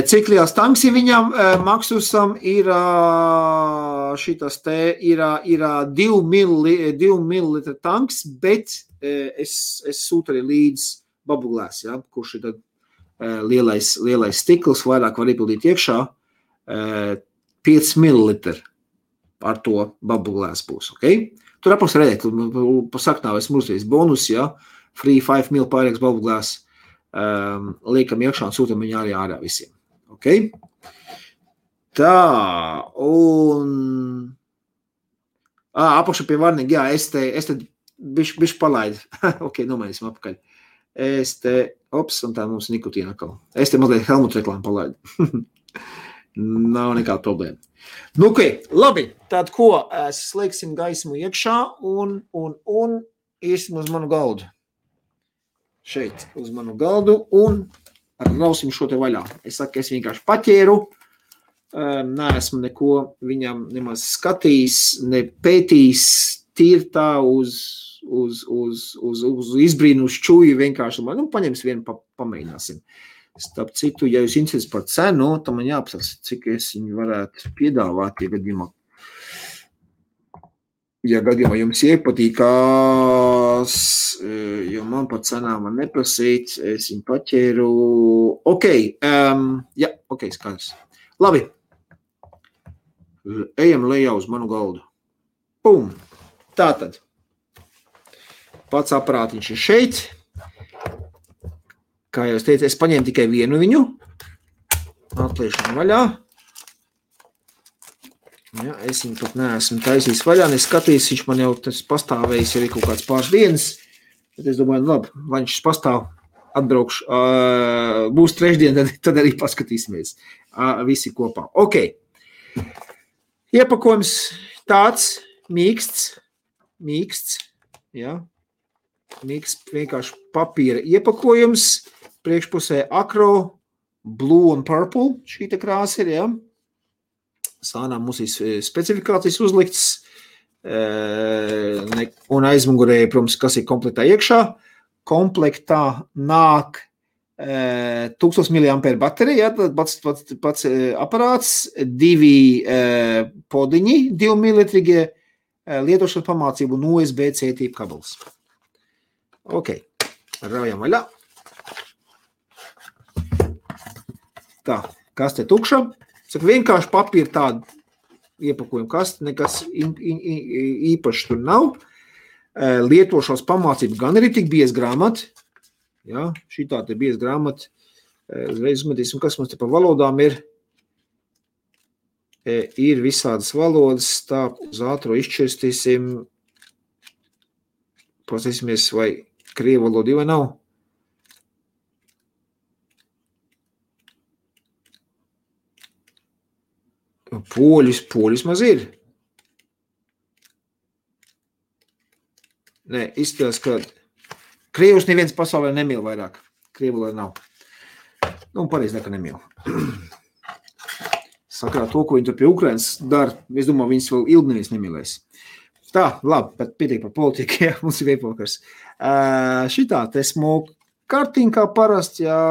S1: Cik liels tanks ir viņam? Maxusam ir šitas te, ir 2 millilitra tanks, bet es sūtu arī līdz bubbleglass, ja, kurš ir tad lielais stikls, vairāk var iepildīt iekšā, 5 millilitri ar to bubbleglass būs, ok? Tur apaks redzēt, pa saknā esmu uzreiz bonus, ja, free 5 mil pārēks bubbleglass, liekam iekšā un sūtam viņu arī ārā visiem, ok? Tā, un... apakšā pie varnīgi, jā, es te bišķi palaidu, ok, nomainīsim apakaļ. Es te, un tā mums nikotīna atkal. Es te mazliet Helmut reklāmu palaidu. Nav nekāda problēma. Nu, ok, labi, tad ko, slēgsim gaismu iekšā un iesim uz manu galdu. Šeit uz manu galdu un rausim šo te vaļā. Es saku, es vienkārši paķēru, neesmu neko viņam nemaz skatījis, ne pētījis, tīri tā uz izbrīnu, uz čuju vienkārši. Nu, paņems vienu, pamēģināsim. Starp citu, ja jūs interesēs par cenu, tad man jāapsaka, cik es viņu varētu piedāvāt, ja gadījumā jums iepatīkās, jo man par cenām man neprasīt, es viņu paķēru. Ok, jā, ok, skaidrs. Labi, ejam lejā uz manu galdu. Pum, tātad. Pats aparātiņš ir šeit. Kā jau es teicu, es paņēmu tikai vienu viņu. Atliešanu vaļā. Ja, es viņu pat neesmu taisījis vaļā, neskatījis, viņš man jau tas pastāvējis arī kaut kāds pāris dienas. Bet es domāju, labi, vai viņš pastāv, atbraukšu, būs trešdien, tad arī paskatīsimies visi kopā. Ok. Iepakojums tāds mīksts, ja. Mīksts vienkārši papīra iepakojums. Priekšpusē akro, blue un purple, šī te krāsa ir, ja. Sānā mums ir specifikācijas uzlikts, un aizmugurē, protams, kas ir kompletā iekšā. komplektā nāk 1000 mAh baterija, tad pats aparāts, 2 podiņi, 2 militrīgie, lietošanas pamācību un USB-C tīpa kabels. Ok, raujam vaļā. Tā, kaste tukša. Saka, vienkārši papīra tāda iepakojuma kaste, nekas īpaši tur nav. Lietošanas pamācību gan arī tik bieza grāmata. Ja, šī tā te bieza grāmata. Uzreiz uzmetīsim, kas mums te pa valodām ir. Ir visādas valodas, tā uz ātro izšķirstīsim. Pasīsimies, vai krievu valoda vai nav. Poļus maz ir. Nē, izskatās, ka krievus neviens pasaulē nemīl vairāk. Krievu valoda nav. Nu, pareizi neka nemīl. Sakarā to, ko viņi tur pie Ukrainas dara, es domāju, viņas vēl ilgi neviens nemīlēs. Tā, labi, bet pietiek par politiku, ja, mums ir veipokars. Šitā te smoke kartiņa kā parasti, jā,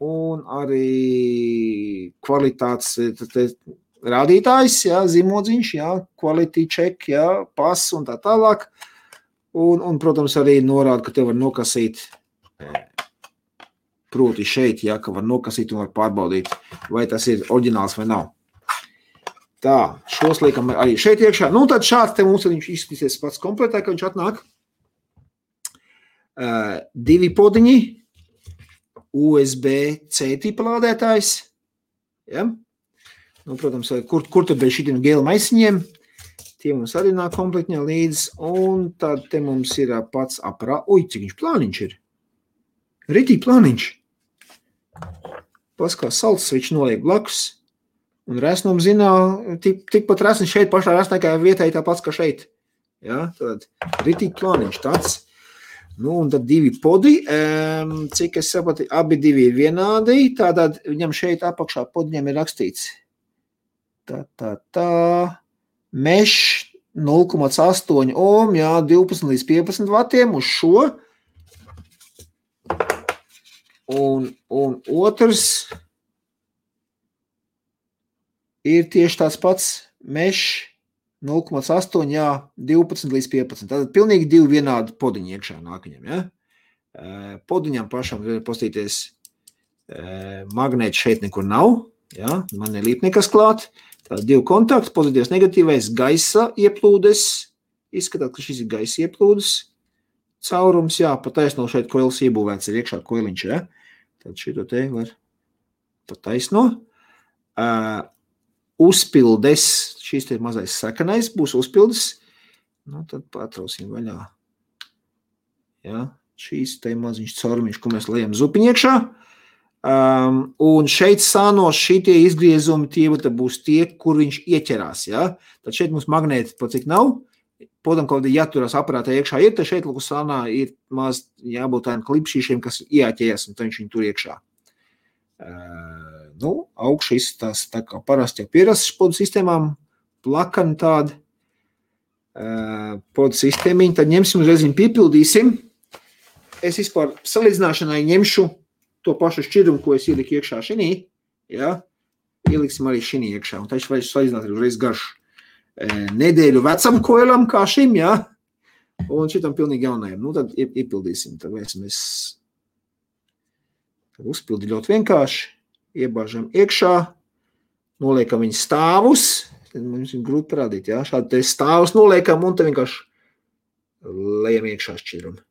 S1: un arī kvalitātes rādītājs, jā, zīmodziņš, jā, quality check, jā, pass un tā tālāk. Un, protams, arī norāda, ka te var nokasīt, proti šeit, jā, ka var nokasīt un var pārbaudīt, vai tas ir oriģināls vai nav. Tā, šos liekam arī šeit iekšā. Nu, tad šāds te mums viņš izskatīsies pats kompletā, ka viņš atnāk. 2 podiņi, USB-C tipa lādētājs. Ja? Nu, protams, kur tad bez šitiem gēla maisiņiem. Tie mums arī nāk komplektņā līdz. Un tad te mums ir pats aparā. Ui, cik viņš plāniņš ir. Ritīgi plāniņš. Paskā salds viņš noliek blakus. Un resnum zinā, tikpat resni šeit pašā resnē, kā vietai tāpats, kā šeit. Ja, tad ritīgi plāniņš tāds. Nu, un tad 2 podi, cik es sapratu, abi 2 ir vienādi, tātad viņam šeit apakšā podiņam ir rakstīts. Tā, mesh 0,8 ohm, jā, 12 līdz 15 vatiem uz šo. Un otrs ir tieši tāds pats mesh 0,8, jā, 12 līdz 15. Tātad pilnīgi 2 vienādi podiņi iekšā nākaņam, ja? Podiņam pašam postīties magnēti šeit nekur nav, ja? Man nelīp nekas klāt. Tātad 2 kontakti, pozitīvs, negatīvais, gaisa ieplūdes. Izskatāt, ka šis ir gaisa ieplūdes caurums, jā, pataisno šeit koils iebūvēts ir iekšā koiliņš, ja? Tad šito te var pataisno. Uzpildes, šīs te mazais sakanais būs uzpildes, nu tad patrausim vaļā. Ja, šīs te maziņš caurumiņš, ko mēs lejam zupiņu iekšā. Un šeit sānos šitie izgriezumi, tie būs tie, kur viņš ieķerās. Ja? Tad šeit mums magnēti pat cik nav. Podam, kaut kādā jāturās aparātā iekšā ir, tad šeit lūk sānā ir maz jābūt tādiem klipšīšiem, kas ieķējas, un tad viņš viņu tur iekšā. Nu, augšu izstās tā kā parasti jau pierasts podu sistēmām, plakani tādi podu sistēmiņi, tad ņemsim uzreiz viņu piepildīsim. Es vispār salīdzināšanai ņemšu to pašu šķirumu, ko es ieliku iekšā šinī, ja? Ieliksim arī šinī iekšā, un taču vajag salīdzināt arī uzreiz garšu nedēļu vecam koilam kā šim, ja? Un šitam pilnīgi jaunajam. Nu, tad iepildīsim, tad mēs uzpildi ļoti vienkārši, iebāžam iekšā, noliekam viņu stāvus, tad mums viņu grūti parādīt, ja? Šādi te stāvus noliekam, un tad vienkārši lejam iekšā šķirumu.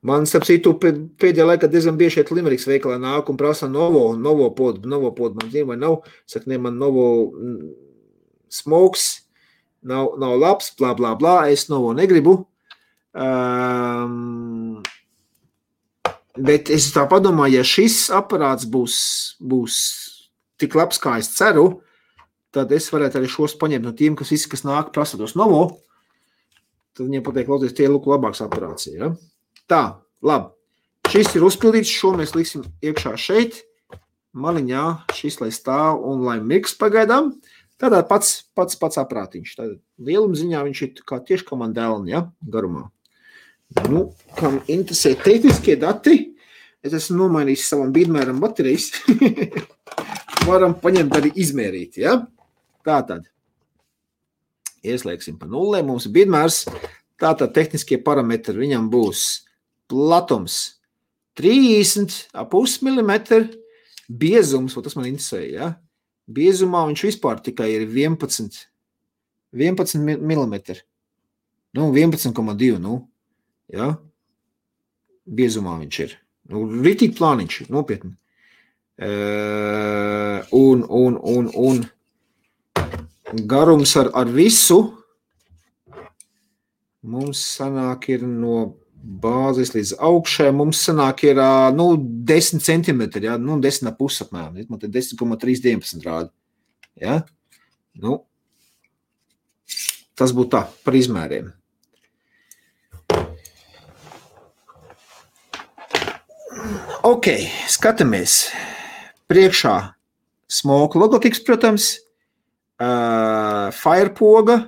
S1: Man, starp citu, pēdējā laikā diezgan bieži šeit Limeriks veikalā nāk un prasa novo podu, man zina vai nav, saka, ne, man novo smokes, nav labs, blā, blā, blā, es novo negribu. Bet es tā padomāju, ja šis aparāts būs tik labs, kā es ceru, tad es varētu arī šos paņemt no tiem, kas nāk prasa tos novo, tad viņiem pateikt, lauties, tie lūk labāks aparāts, ja? Tā, labi. Šis ir uzpildīts, šo mēs liksim iekšā šeit. Maliņā šis, lai stāv un lai miks pagaidām. Tādā pats aprātiņš. Tātad lieluma ziņā viņš ir tieši kā man dēlni, ja, garumā. Nu, kam interesē tehniskie dati, es esmu nomainījis savam bīdmēram baterijas. Varam paņemt arī izmērīt, ja? Tātad. Ieslēgsim pa nullē, mums ir bīdmērs. Tātad tehniskie parametri viņam būs platums 30,5 mm, biezums, tas man interesē, ja? Biezumā viņš vispār tikai ir 11 mm. Nu, 11,2, nu, ja? Biezumā viņš ir. Nu, ritīgi plāniņš, nopietni. Un garums ar visu mums sanāk ir no bāzes līdz augšai, mums sanāk ir 10 centimetri, ja? 10,5 apmēram, man te 10,319 rāda. Ja? Nu, tas būtu tā, par izmēriem. Ok, skatāmies. Priekšā smoke logokicks, protams, firepoga.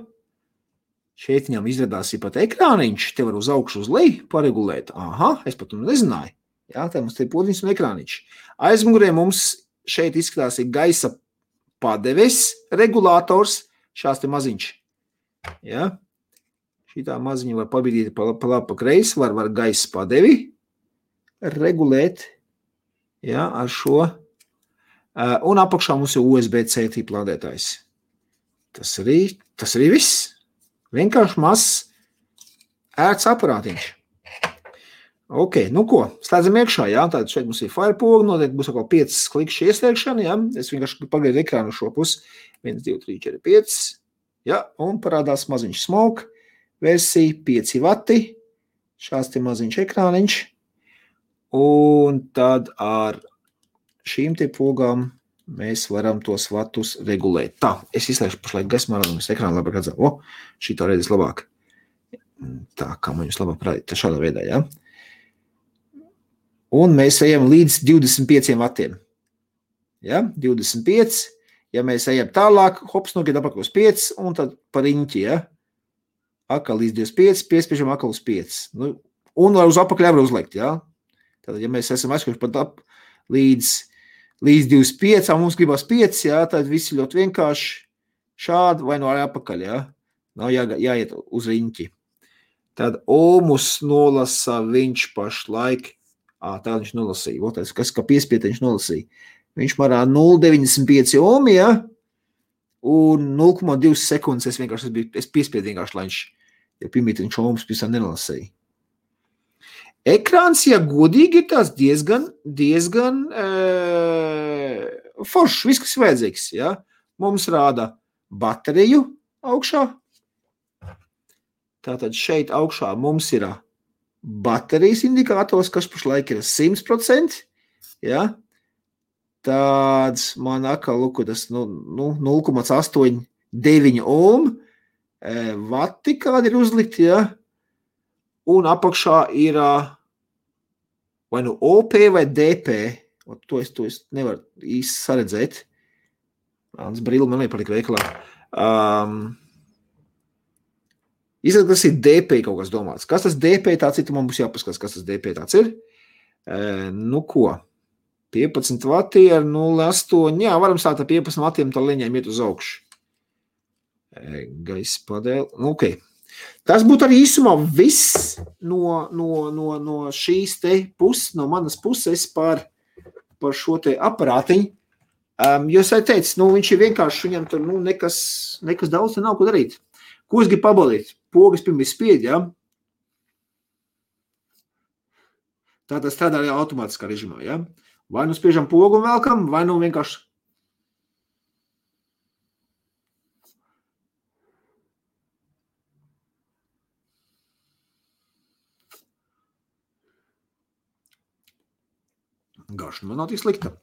S1: Šeit viņam izradās pat ekrāniņš, te var uz augšu uz leju paregulēt. Aha, es pat nezināju. Jā, tā mums te ir podziņš un ekrāniņš. Aizmugurē mums šeit izskatās ir gaisa padeves regulators, šās te maziņš. Jā, šitā maziņa var pabīdīt pa labi pa kreisi, var gaisa padevi regulēt, jā, ar šo. Un apakšā mums ir USB-C tipa lādētājs. Tas arī viss. Vienkārši mazs ērts aparātiņš. Ok, nu ko, slēdzam iekšā, jā, tātad šeit mums ir firepoga, noteikti būs atkal 5 klikšķi ieslēgšana, jā, es vienkārši pagaidu ekrānu šo pusi, 1, 2, 3, 4, 5, jā, un parādās maziņš smoke, versija 5 vati, šās te maziņš ekrāniņš, un tad ar šīm te pogām mēs varam tos vatus regulēt. Tā, es izslēgšu pašlaik gaismā, es ekrānu labāk redzam. Šito redzes labāk. Tā, kā man jūs labāk parādīt, tā šādā veidā, jā. Un mēs ejam līdz 25 vatiem. Ja, 25. Ja mēs ejam tālāk, hops, nokiet apakal uz 5, un tad par riņķi, ja. Akal līdz 25, piespiežam akal uz 5. Nu, un uz apakaļ var uzlikt, ja. Tātad, ja mēs esam aizkuši pat ap līdz 25, mums gribas 5, jā, tad visi ļoti vienkārši šādi vai no arī apakaļ, jā. Nav jāiet uz riņķi. Tad ohmus nolasa viņš pašlaik, tā viņš nolasīja, otais, kas kā piespiet viņš nolasīja. Viņš marā 0,95 ohmi, jā, un 0,2 sekundes es piespiedu vienkārši, lai viņš, ja pirmīt viņš ohmus pisā nenolasīja. Ekrāns, ja godīgi, ir tās diezgan foršs, viss, kas vajadzīgs, ja? Mums rāda bateriju augšā. Tātad šeit augšā mums ir baterijas indikators, kas pašlaik ir 100%, ja? Tāds man atkal, lūk, tas 0,89 ohm vati kādi ir uzlikti, ja? Un apakšā ir vai nu OP vai DP. To es nevaru īsti saredzēt. Mans brīli man nepalika veikalā. Izsaka, tas ir DP kaut kas domāts. Kas tas DP tāds ir, man būs jāpaskatās, kas tas DP tāds ir. Nu ko? 15 vati ar 0,8. Jā, varam sākt ar 15 vatiem, tā leņiem iet uz augšu. Gaisa padēli. Nu, ok. Tas būtu arī īsumā viss no šīs te puses, no manas puses par šo te aparātiņu. Jo es teicu, viņš ir vienkārši, viņam tur nekas daudz te nav ko darīt. Ko es gribu pabalīt? Pogas pirms spied, ja? Tā tas strādā arī automātiskā režimā, ja? Vai nu spiežam pogu un velkam, vai nu vienkārši garšana man nav tik slikta.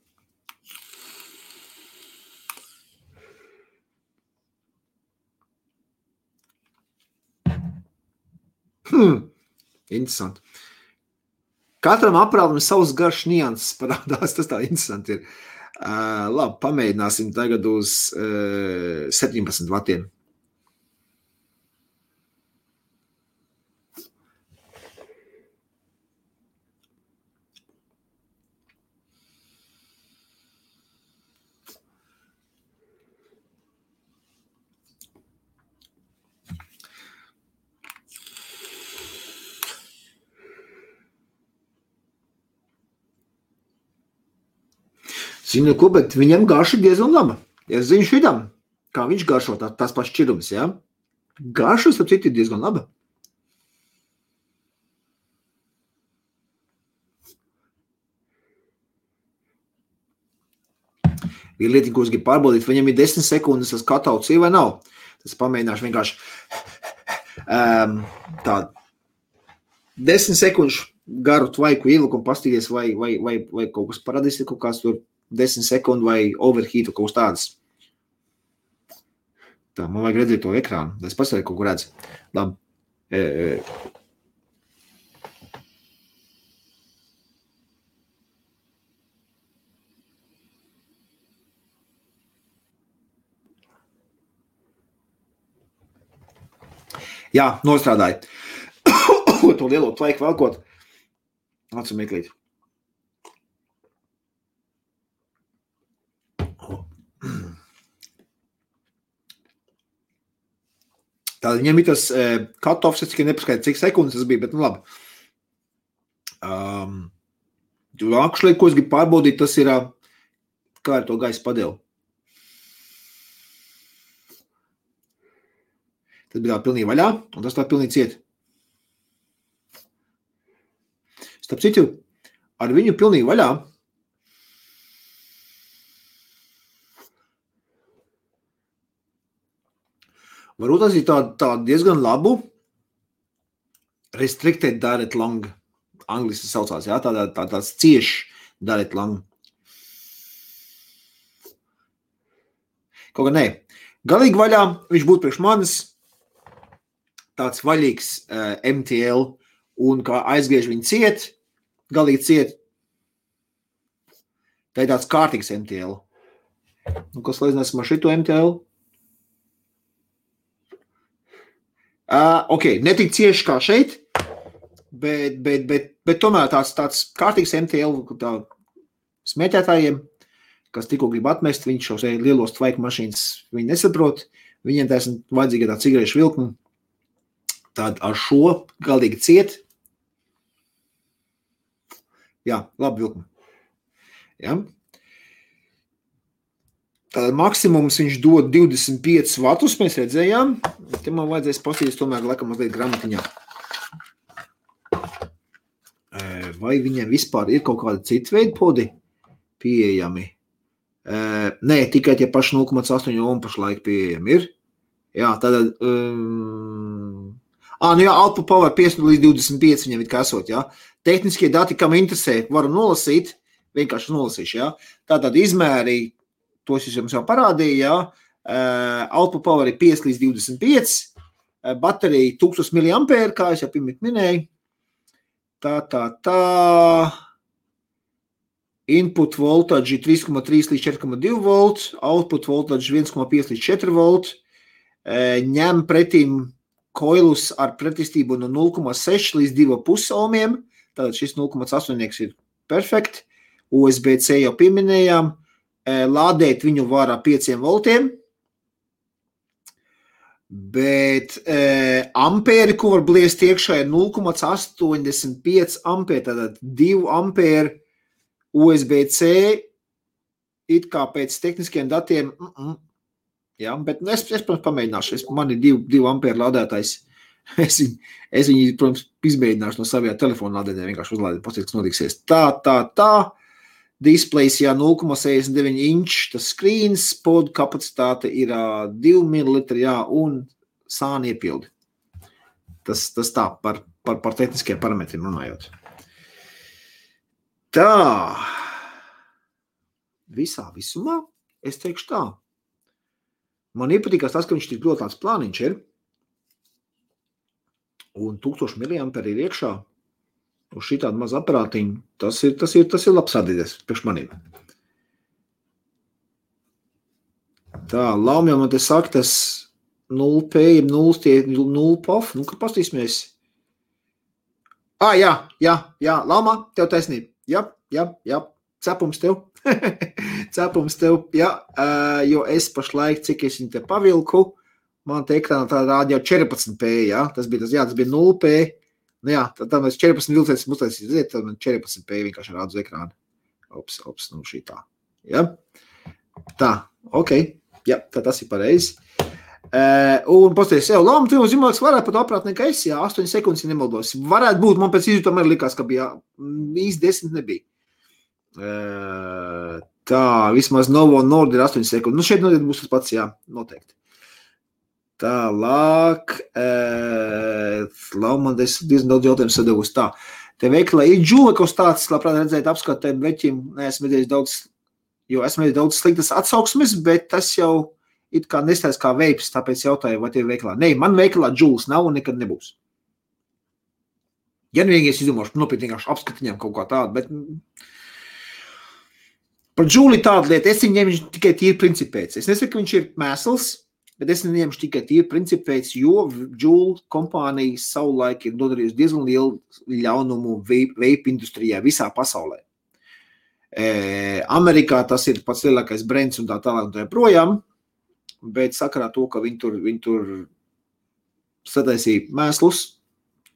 S1: Interesanti. Katram aprātam savs garš nianses parādās, tas tā interesanti ir. Labi, pamēģināsim tagad uz 17 vatiem. Zinu, ko, bet viņam garša diezgan laba. Es zinu šitam, kā viņš garšo tās pašas šķirums, ja? Garša, starp citu, ir diezgan laba. Ir lieta, ko es gribu pārbaudīt, viņam ir 10 sekundes tas katauts ir vai nav. Tas pamēģināšu vienkārši tādu 10 sekundžu garu tvaiku ielikumu pastīties, vai kaut kas paradīs, kaut kāds tur 10 sekundu vai overheatu kaut kas tāds. Tā, man vajag redzēt to ekrānu. Es pastāju kaut ko redzu. Labi. Jā, nostrādāju. To lielo tvaiku velkot. Acu meklīt. Tātad viņam ir tas cut-offs, es tikai nepaskaidru, cik sekundes tas bija, bet nu labi. Actually, ko es gribu pārbaudīt, tas ir, kā ar to gaisa padeli. Tas bija tā pilnīgi vaļā, un tas tā pilnīgi ciet. Starp citu, ar viņu pilnīgi vaļā varbūt tas ir tā diezgan labu restricted direct lung, angliski saucās, jā, tāds cieši direct lung. Kaut kā nē. Galīgi vaļā viņš būtu priekš manis tāds vaļīgs MTL, un kā aizgriež viņu ciet, galīgi ciet, tā ir tāds kārtīgs MTL. Un kas līdzinās ar šito MTL? Ok, netik cieši kā šeit, bet tomēr tāds kārtīgs MTL smēķētājiem, kas tikko grib atmest, viņš šos lielos tvaiku mašīnas viņi nesaprot, viņiem tā esmu vajadzīga tā cigarešu vilkuma, tad ar šo galīgi ciet. Jā, labi vilkuma. Jā. Tātad maksimums viņš dod 25 vatus, mēs redzējām. Te man vajadzēs pastīties tomēr laikam mazliet gramatiņā. Vai viņiem vispār ir kaut kāda cita veida podi pieejami? Nē, tikai tie paši 0,8 ohm pašlaik pieejami ir. Jā, tātad... nu jā, output power 5 līdz 25 viņam ir kasot, jā. Tehniskie dati, kam interesē, varam nolasīt, vienkārši nolasīšu, jā. Tātad izmēri, tos es jums jau parādīju, jā. Output power ir 5 līdz 25, baterija 1000 mAh, kā es jau pirmīt minēju. Tā. Input voltage ir 3,3 līdz 4,2 volts, output voltage 1,5 līdz 4 volt, ņem pretīm koilus ar pretestību no 0,6 līdz 2,5 ohmiem, tātad šis 0,8 ir perfekt, USB-C jau pieminējām, lādēt viņu var ar 5 voltiem, bet ampēri, ko var bliest iekšā, ir 0,85 ampēri, tātad 2 ampēri USB-C, it kā pēc tehniskiem datiem, jā, bet es protams, pamēģināšu, man ir 2 ampēri lādētājs, es viņu, protams, izmēģināšu no savajā telefona lādētājā, vienkārši uzlādēt, pasīt, kas notiksies. Tā. Displays, jā, 0,69 inč, tas screens, pod kapacitāte ir 2 ml, jā, un sāni iepildi. Tas tā, par tehniskiem parametriem runājot. Tā, visumā, es teikšu tā. Man iepatīkās tas, ka viņš tik ļoti tāds plāniņš ir, un 1000 mAh ir iekšā, uz šitādu mazu aparātiņu, tas ir labs atdīdes priekš manīm. Tā, Laumjā man te saka, tas 0P, 0 POF, nu, kad pastīsimies. Jā, Laumā, tev taisnība. Jā, cepums tev. Cepums tev, jā, jo es pašlaik, cik es viņu te pavilku, man te ekrānā tā rāda jau 14P, jā, tas bija 0P, nu jā, tad mēs 14 vilcēs uztaisīt, tad man 14P vienkārši rāda uz ekrāna. Ops, nu šī tā, jā. Tā, ok, jā, tad tas ir pareizi. Un pasties, Lama, tu zīmāks varētu pat aprāt nekā es, jā, 8 sekundes nemaldos. Varētu būt, man pēc izjūtām arī likās, ka bija īsti 10 nebija. Tā, vismaz Novo Nord ir 8 sekundes. Nu, šeit noteikti būs tas pats, jā, noteikti. Tālāk, Lama, es diezgan daudz jautājumu sadevus. Tā, te veiklā ir džūlekos tāds, labprāt redzēt apskatēm veķim, neesmu redzējis daudz, jo esmu redzējis daudz sliktas atsauksmes, bet tas jau it kā nestājas kā veips, tāpēc jautāju, vai tie veiklā. Nē, man veiklā džūls nav un nekad nebūs. Ja vienīgi es izdomāšu nopietnīgāšu apskatiņām kaut kā tādu, bet par džūli tādu lietu, es viņu ņemšu tikai tīri principēc. Es nesaku, ka viņš ir mēsls, bet es viņu ņemšu tikai tīri principēc, jo džūli kompānija savulaik ir nodarījusi diezgan lielu ļaunumu vape industrijā visā pasaulē. Amerikā tas ir pats lielākais brands un tā tālāk un tā projām, bet sakarā to, ka viņi tur sataisīja mēslus,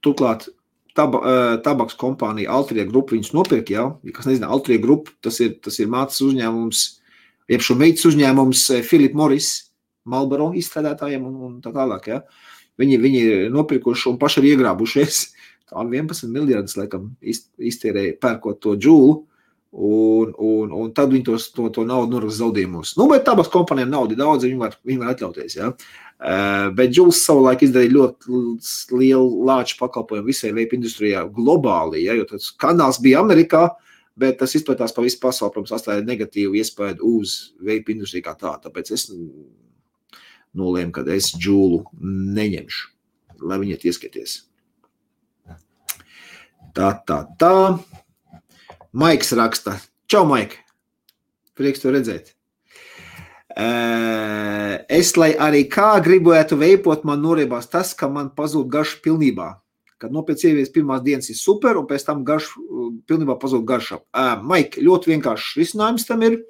S1: turklāt tabaks kompānija Altria Group viņus nopirka, jā, kas nezina, Altria Group, tas ir mācas uzņēmums, jeb šo meitas uzņēmums Philip Morris, Marlboro izstrādātājiem un tā tālāk, jā. Viņi ir nopirkuši un paši ir iegrābušies, tā 11 miljardus, laikam, iztērēja pērkot to džūlu, un tad viņi to naudu norakst zaudējumos. Nu, bet tabaks kompānijām naudu daudz, viņi var atļauties, jā. Bet džūls savulaik izdarīja ļoti lielu lāču pakalpojumu visai vape industrijā globāli, ja, jo tas kanāls bija Amerikā, bet tas izplatās pa visu pasauli, protams, atstāja negatīvu iespēju uz vape industriju kā tā, tāpēc es nolēmu, ka es džūlu neņemšu, lai viņi ieskieties. Tā. Maiks raksta. Čau, Maik. Prieks to redzēt. Es, lai arī kā gribētu veipot, man noriebās tas, ka man pazūd garša pilnībā. Kad pēc ievies pirmās dienas ir super, un pēc tam pilnībā pazūd garša. Maik, ļoti vienkāršs risinājums tam ir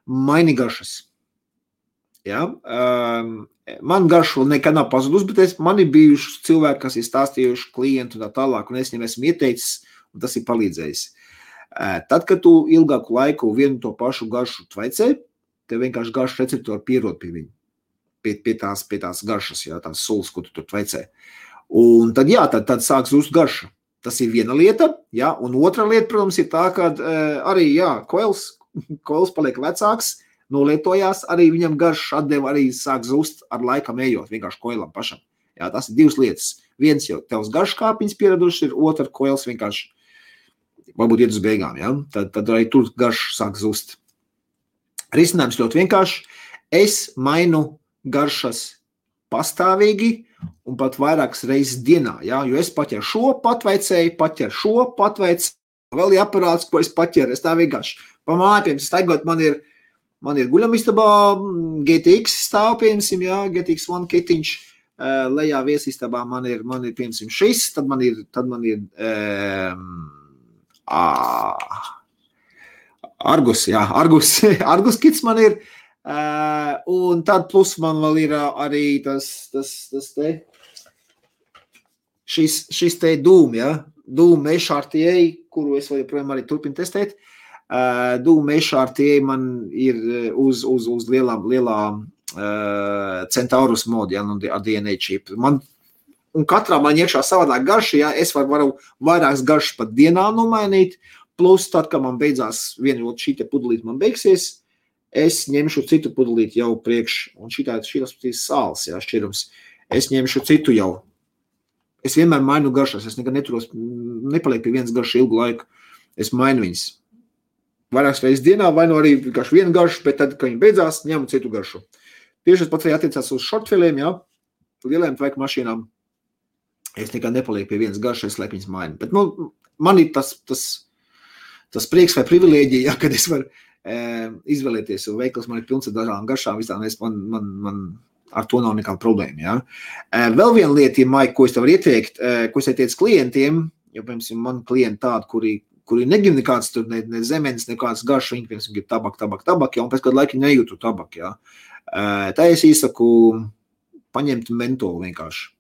S1: maini garšas. Ja? Man garša vēl nekad nav pazudus, bet man ir bijuši cilvēki, kas ir stāstījuši klientu un tā tālāk, un es viņam esmu ieteicis, un tas ir palīdzējis. Tad, kad tu ilgāku laiku vienu to pašu garšu tvaicē, tev vienkārši garšu receptori pierod pie viņa, pie tās garšas, jā, tās sulas, ko tu tur tvaicē. Un tad, jā, tad sāk zust garša. Tas ir viena lieta, jā, un otra lieta, protams, ir tā, ka arī, jā, koils paliek vecāks, nolietojās, arī viņam garša atdeva arī sāk zust ar laikam ejot, vienkārši koilam pašam. Jā, tas ir divas lietas. Viens jau tevs garškāpiņas pieraduši ir, otra koils vienkārši varbūt iet uz beigām, ja? Tad arī tur garš sāk zust. Risinājums ļoti vienkārši. Es mainu garšas pastāvīgi un pat vairākas reizes dienā, ja? Jo es paķeru šo patveicēju, vēl ir aparāts, ko es paķeru. Es tā vienkārši pa mājām staigot, man ir guļamistabā GTX stāv, piemēram, ja? GTX One kitiņš, lejā viesistabā man ir piemēram šis, tad man ir Argus kits man ir, un tad plus man vēl ir arī tas te, šis te Doom, ja, Doom HRTA, kuru es vēl joprojām arī turpinu testēt, Doom HRTA man ir uz lielā Centaurus modi, ja, ar DNA chip. Un katrā man iekšā savādāk garša, ja es varu vairākas garšas pat dienā nomainīt, plus tad, kad man beidzās viena šī te pudelīt man beigsies, es ņemšu citu pudelīt jau priekš, un šīs sāls, ja, šķirums, es ņemšu citu jau. Es vienmēr mainu garšas, es nekad nepaliek pie vienas garšas ilgu laiku, es mainu viņas. Vairākas reizes dienā, vai no arī vienkārši vienu garšu, bet tad, kad viņi beidzās, ņemu citu garšu. Tieši tas pats arī attiecās uz shortfiliem, ja, lieliem tveika mašīnām. Es nekad nepalieku pie vienas garšas, es laiku viņas mainu. Bet, man ir tas prieks vai privilēģija, ja, kad es varu izvēlēties, jo veikals man ir pilns ar dažādām garšām, visām man ar to nav nekāda problēma. Ja? Vēl viena lieta, Maik, ko es tev varu ieteikt, ko es ieteicu klientiem, jo, piemēram, man klienti tādi, kuri negrib nekāds tur, ne zemenes, nekāds garš, viņi, piemēram, grib tabak, ja, un pēc kādu laiku nejūtu tabak, ja. Tā es īsaku paņemt mentolu vienkārši,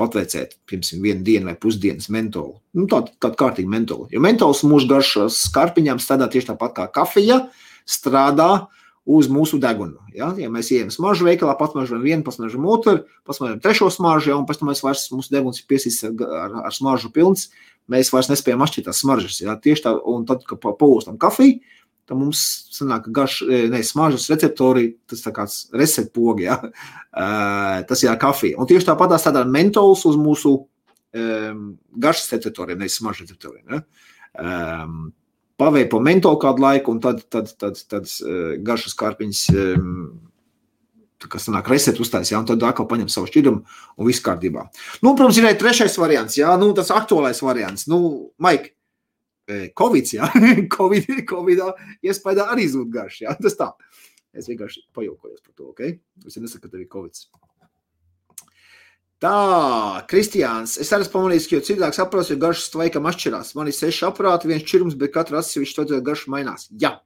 S1: patveicēt, piemēram, vienu dienu vai pusdienas mentolu. Nu, tādu kārtīgu mentolu. Jo mentols mūsu garšas skarpiņām strādā tieši tāpat kā kafija, strādā uz mūsu degunu. Ja, mēs ejam smaržu veikalā, pasmaržam vienu, pasmaržam otru, pasmaržam trešo smaržu, ja, un pēc tam mūsu deguns ir piesīts ar smaržu pilns, mēs vairs nespējam atšķirt tās smaržas. Ja, tieši tā, un tad, kad paostam kafiju, tad mums sanāk smaržas receptori, tas tā kāds receptpogi, ja, tas ir kafija. Un tieši tāpat strādā mentols uz mūsu garšas receptoriem, nevis smaržas receptoriem. Ja. Paveipo mentolu kādu laiku, un tad garšas kārpiņas, kas sanāk receptu uztais, ja, un tad atkal paņem savu šķidumu un viss kārtībā. Nu, protams, ir trešais variants, ja, nu, tas aktuālais variants. Nu, Maik, Covids, ja, Covidā iespējā arī zūd garš, ja, tas tā. Es vienkārši pajaukojos par to, ok? Es nesaku, ka tev ir Covids. Tā, Kristiāns, es arī pamanīju, ka jau cilvēks aprās, jo garšas tvaikam atšķirās. Man ir 6 aparāti, viens šķirums, bet katra atsevišķi to garšu mainās. Jā.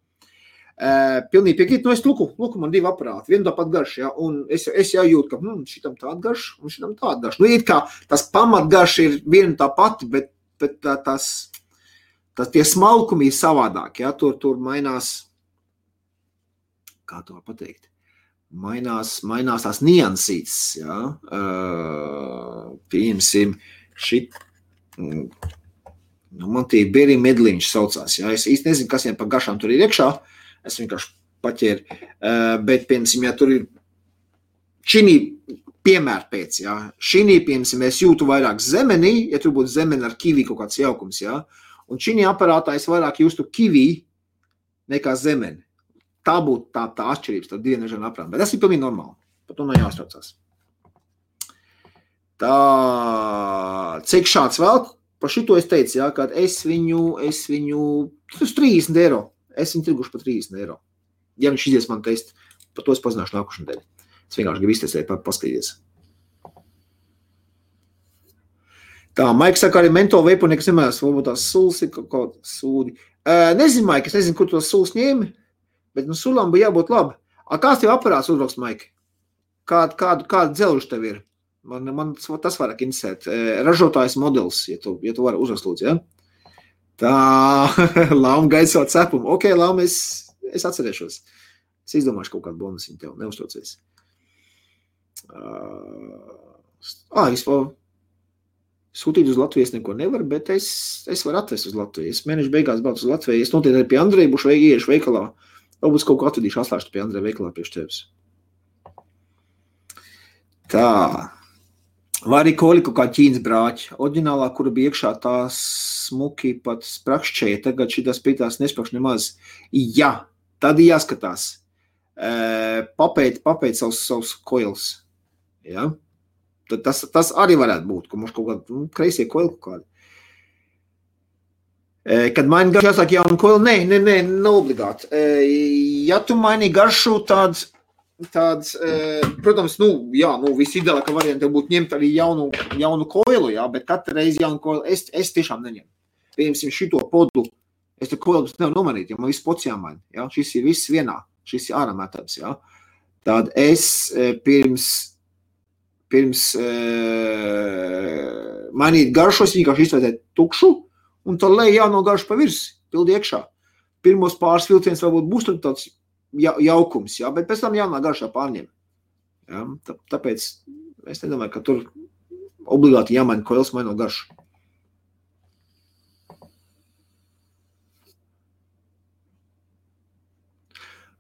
S1: Pilnīgi piekrīt, nu es luku, man 2 aparāti, vienu tāpat garšu, ja, un es jau jūtu, ka šitam tāda garša un šitam tāda garša. Nu, it kā tas pamatgarša ir viena tā pati, bet tie smalkumi ir savādāk, ja, tur mainās, kā to pateikt? Mainās tās niansītes, ja, pieņemsim šit, nu, man tie beri medliņš saucās, ja, es īsti nezinu, kas viņam par garšām tur ir iekšā, es vienkārši paķēru, bet, piemēram, ja tur ir šinī piemēr pēc, ja, šinī, piemēram, es jūtu vairāk zemenī, ja tur būtu zemeni ar kivi kaut kāds jaukums, ja, un šinī aparātā es vairāk jūstu kivi nekā zemeni. Tā būtu tā atšķirības, tā divi nežana aprām. Bet tas ir pilnīgi normāli. Par to nav jāstraucās. Tā, cik šāds vēl? Par šito es teicu, jā, ka es viņu, tas 30 eiro. Es viņu tirguši par 30 eiro. Ja viņš izies man teikt, par to es pazināšu nākušanu dēļ. Es vienkārši gribu iztestēt, paskatīties. Tā, Maiks saka, arī mentolu veipu nekas nemēs, varbūt tās sulas ir kaut sūdi. Nezinu, Maik, es nezinu, kur tos sulas ņēmi. Bet nu sulam bija jābūt labi. Kāds tev aparāts uzrakst, Maik? Kāda dzelža tev ir? Man tas vairāk interesēt. Ražotājs modelis, ja tu vari uzrakst lūdzu, ja? Tā, Lauma gaida savu cepumu. Ok, Lauma, es atcerēšos. Es izdomāšu kaut kādu bonusiņu tev, neuztraucies. Vispār sūtīt uz Latvijas neko nevar, bet es varu atvest uz Latvijas. Mēneša beigās braucu uz Latviju. Es noteikti arī pie Andreja būšu ieiešu veikalā. Varbūt kaut ko atvedīšu atslēgšu pie Andreja veikalā priekš tevis. Tā. Vai arī koļi kaut kā ķīnas brāķi. Oriģinālā, kura bija iekšā tā smuki pat sprakšķēja, tagad šitās pītās nesprakš nemaz. Jā, tad jāskatās. Papēt savus koils. Ja? Tad tas arī varētu būt, ka mums kaut kādi kreisie koili kaut kādi. Kad maini garšu jāsāk jaunu koili, ne obligāti. Ja tu maini garšu tāds, protams, visideālākā varianta būtu ņemt arī jaunu koilu, jā, bet katru reizi jaunu koilu es tiešām neņemu. Piemēram, šito podu, es te koilu nevaru nomainīt, jo man viss pods jāmaina, jā, šis ir viss vienā, šis ir ārā metods, jā. Tad es pirms mainīt garšos, vienkārši izvērtēt tukšu, un tad lej jauno garšu pa virsi, pildi iekšā. Pirmos pāris vilciens varbūt būs tur tāds jaukums, jā, bet pēc tam jaunā garšā pārņem. Jā, tāpēc es nedomāju, ka tur obligāti jāmaina koils maino garšu.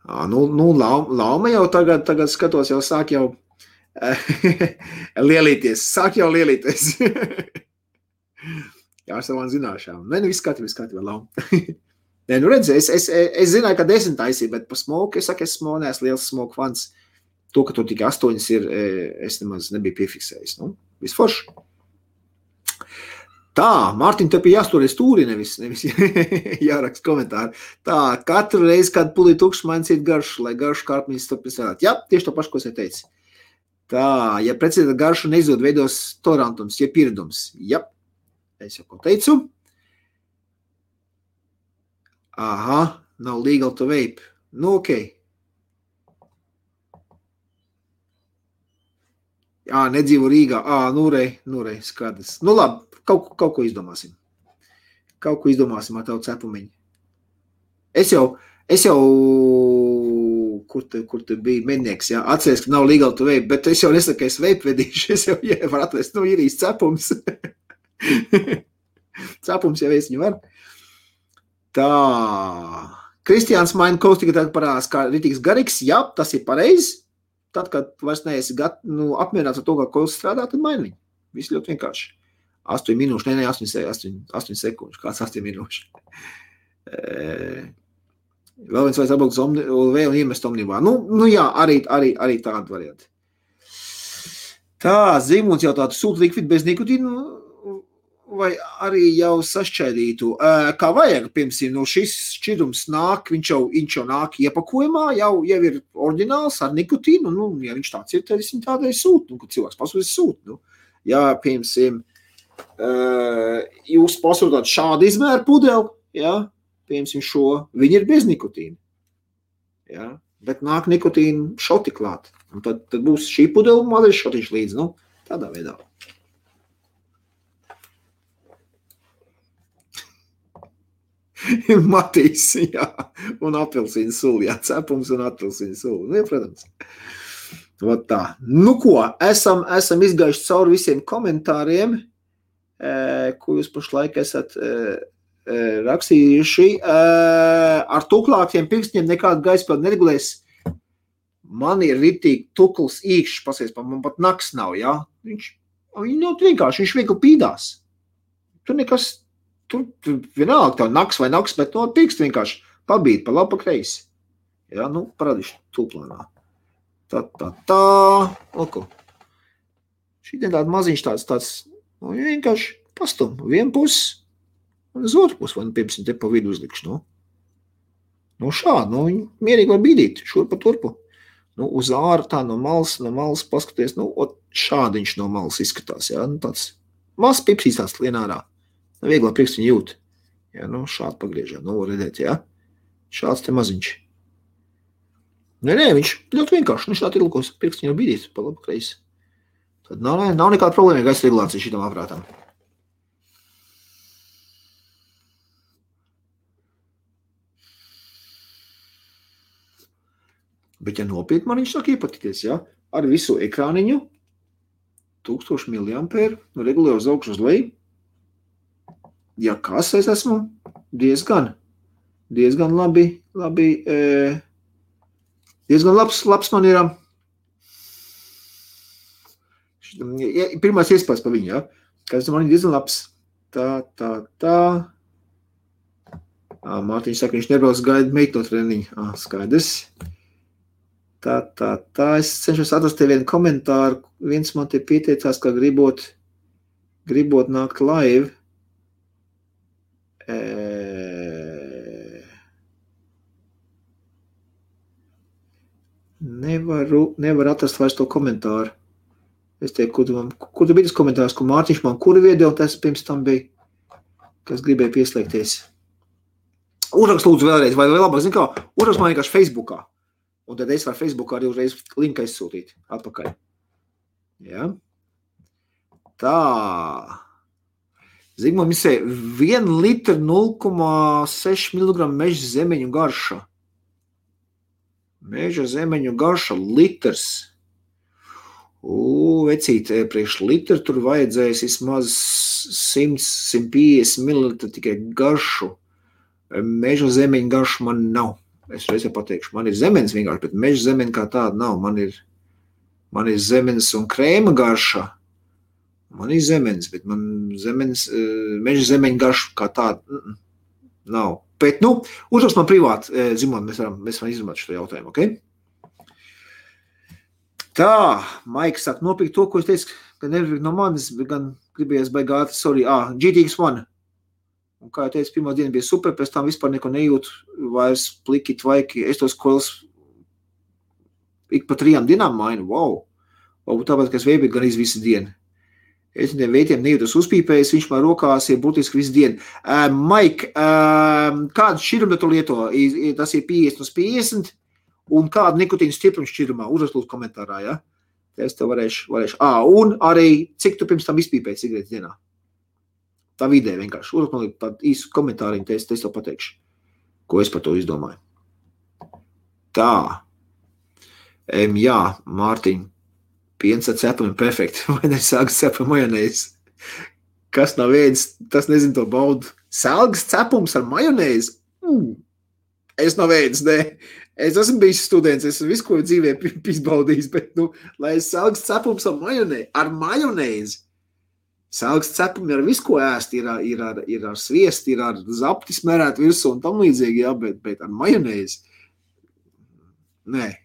S1: Lauma jau tagad skatos, jau sāk jau lielīties. Jā, ar savām zināšām. Viss kārtībā, Lauma. Redz, es zināju, ka 10 taisīja, bet pa smoku, es neesmu liels smoku fans. To, ka tur tikai 8 ir, es nemaz nebiju piefiksējis. Viss forši. Tā, Mārtiņ, te pie jāsturēs stūri, nevis jāraksta komentāri. Tā, katru reizi, kad pulī tukšs maincīt garšu, lai garšu kārpnīs turpināt. Jā, tieši to pašu, ko es teicu. Tā, ja precīzi garšu neizdod, veidos tolerantums, ja pieredums. Jā, es jau ko teicu. Aha, nav legal to vape. Nu, okei. Nedzīvo Rīgā. Nu rei, skaidrs. Nu, labi, kaut ko izdomāsim. Kaut ko izdomāsim ar tavu cepumiņu. Es jau, kur te bija mednieks, jā, atceries, ka nav legal to vape, bet es jau nesaku, ka es vape vedīšu, es jau var atrast, ir īsti cepums. Cepums jau es viņu var. Tā. Kristiāns maina kaut tikai tagad parādās, kā ritīgs garīgs. Jā, tas ir pareizi. Tad, kad vairs neesi apmierināts ar to, kā kols strādā, tad maini viņu. Viss ļoti vienkārši. 8 minūšu, 8 sekundžu. Kāds 8 minūšu? Vēl viens vajag atbraukt uz OLV un iemest omnivā. Nu jā, arī tāda varianti. Tā, Zīmuns jautā, tu sūti likvidu bez nikotīnu vai arī jau sašķaidītu? Kā vajag, piemēram, šis šķidrums nāk, viņš jau nāk iepakojumā, jau ir oriģināls ar nikotīnu, ja viņš tāds ir, tad es viņu tādai sūtu, kad cilvēks pasūdīs sūtu. Ja, piemēram, jūs pasūtāt šādu izmēru pudeli, ja, piemēram, šo, viņi ir bez nikotīna, ja, bet nāk nikotīna šoti klāt, un tad būs šī pudeli mazais šotiņš līdz, tādā veidā. Matīs, jā, un apelsīnu suli, jā, cepums un apelsīnu suli, protams. Tā. Nu ko, esam izgājuši cauri visiem komentāriem, ko jūs pašlaik esat rakstījuši. Ar tuklākiem pirkstiem nekādu gaispildu neregulēs. Man ir ritīgi tukls īkšķis, pasies, man pat naks nav, jā. Viņš vienkārši, viņš viegli pīdās. Tur vienalga tev naks vai naks, bet pirksti vienkārši pabīt pa labu pa kreisi. Jā, parādīšu tūplānā. Tā. Lūko. Šī tāda maziņš tāds, vienkārši pastum. Vienu pusi un uz otru pusi, vai piemēram te pa vidu uzlikšu. Šādi, mierīgi var bīdīt, šurpa turpu. Uz āru tā no malas paskaties, šādi viņš no malas izskatās, jā, tāds mazs pipsīs tāds lien ārā. Vieglā priekš viņu jūt. Jā, šādi pagriežam, redzēt, jā. Šāds te maziņš. Nē, viņš ļoti vienkārši, viņš šādi ir lūkos, priekš viņu bīdīt pa labu kreisi. Tad nav nekāda problēma gaisa regulācija šitam aprātam. Bet, ja nopietni man viņš sāk iepatīties, jā, ar visu ekrāniņu, 1000 mAh, regulē uz augšu uz leju. Ja kas es esmu, diezgan labi, diezgan labs man ir, pirmais iespējas pa viņu, ja, kas man ir diezgan labs, tā, Mārtiņš saka, viņš nebrauc gaida meito treniņu, skaidrs, tā, es cenšos atrast te vienu komentāru, viens man te pieteicās, ka gribot nākt live, Nevar atrast vairs to komentāru. Es teiktu, kur tu bija tas komentārs, ko Mārtiņš man kuru video, tas pirms tam bija, kas gribēja pieslēgties. Uzrakst lūdzu vēlreiz, vai labāk, zin kā, uzrakst man vienkārši Facebookā. Un tad es varu Facebookā arī uzreiz linku aizsūtīt atpakaļ. Ja? Tā. Zigmund misē, 1 litra 0,6 mg meža zemeņu garša. Meža zemeņu garša litrs. Vecīt, priekš litru tur vajadzēs vismaz 100-150 ml tikai garšu. Meža zemeņu garšu man nav. Es reizē pateikšu, man ir zemenes vienkārši, bet meža zemeņu kā tāda nav. Man ir zemenes un krēma garša. Man ir zemenes, bet man meža zemeņu garšu kā tāda nav. Bet, uzrakst man privāti, Zimon, mēs varam izrunāt šo jautājumu, ok? Tā, Maiks saka, nopirkt to, ko es teicu, ka nevar no manis, gan gribējies baigāt, sorry, GTX1. Un kā jau teicu, pirmā diena bija super, pēc tam vispār neko nejūtu, vairs pliki, tvaiki, es tos koils ik pa 3 dienām mainu, wow. Varbūt tāpēc, ka es veibīju gan visu dienu. Es viņiem veitiem nejūtos uzpīpējis, viņš man rokās ir būtiski visu dienu. Mike, kādu šķirumu tu lieto? Tas ir 50/50, un kādu nikotīnu stiprumu šķirumā? Uzraklūdzu komentārā, ja? Es tev varēšu. Un arī, cik tu pirms tam izpīpēji cigaretes dienā? Tā vidē vienkārši. Uzraklūdzu tādu īsu komentāriņu, es tev pateikšu, ko es par to izdomāju. Tā. Jā, Mārtiņ. Piens ar cepami perfekti, vai ne sāks cepam majonēzi? Kas nav ēdis, tas nezinu to baudu. Sāks cepums ar majonēzi? Es nav ēdis, ne. Es esmu bijis students, es visu, ko dzīvē izbaudījis, bet, lai es sāks cepums ar majonēzi. Sāks cepumi ar visu, ko ēst, ir ar sviesti, ir ar zapti smerēt virsū un tam līdzīgi, jā, bet ar majonēzi. Nē.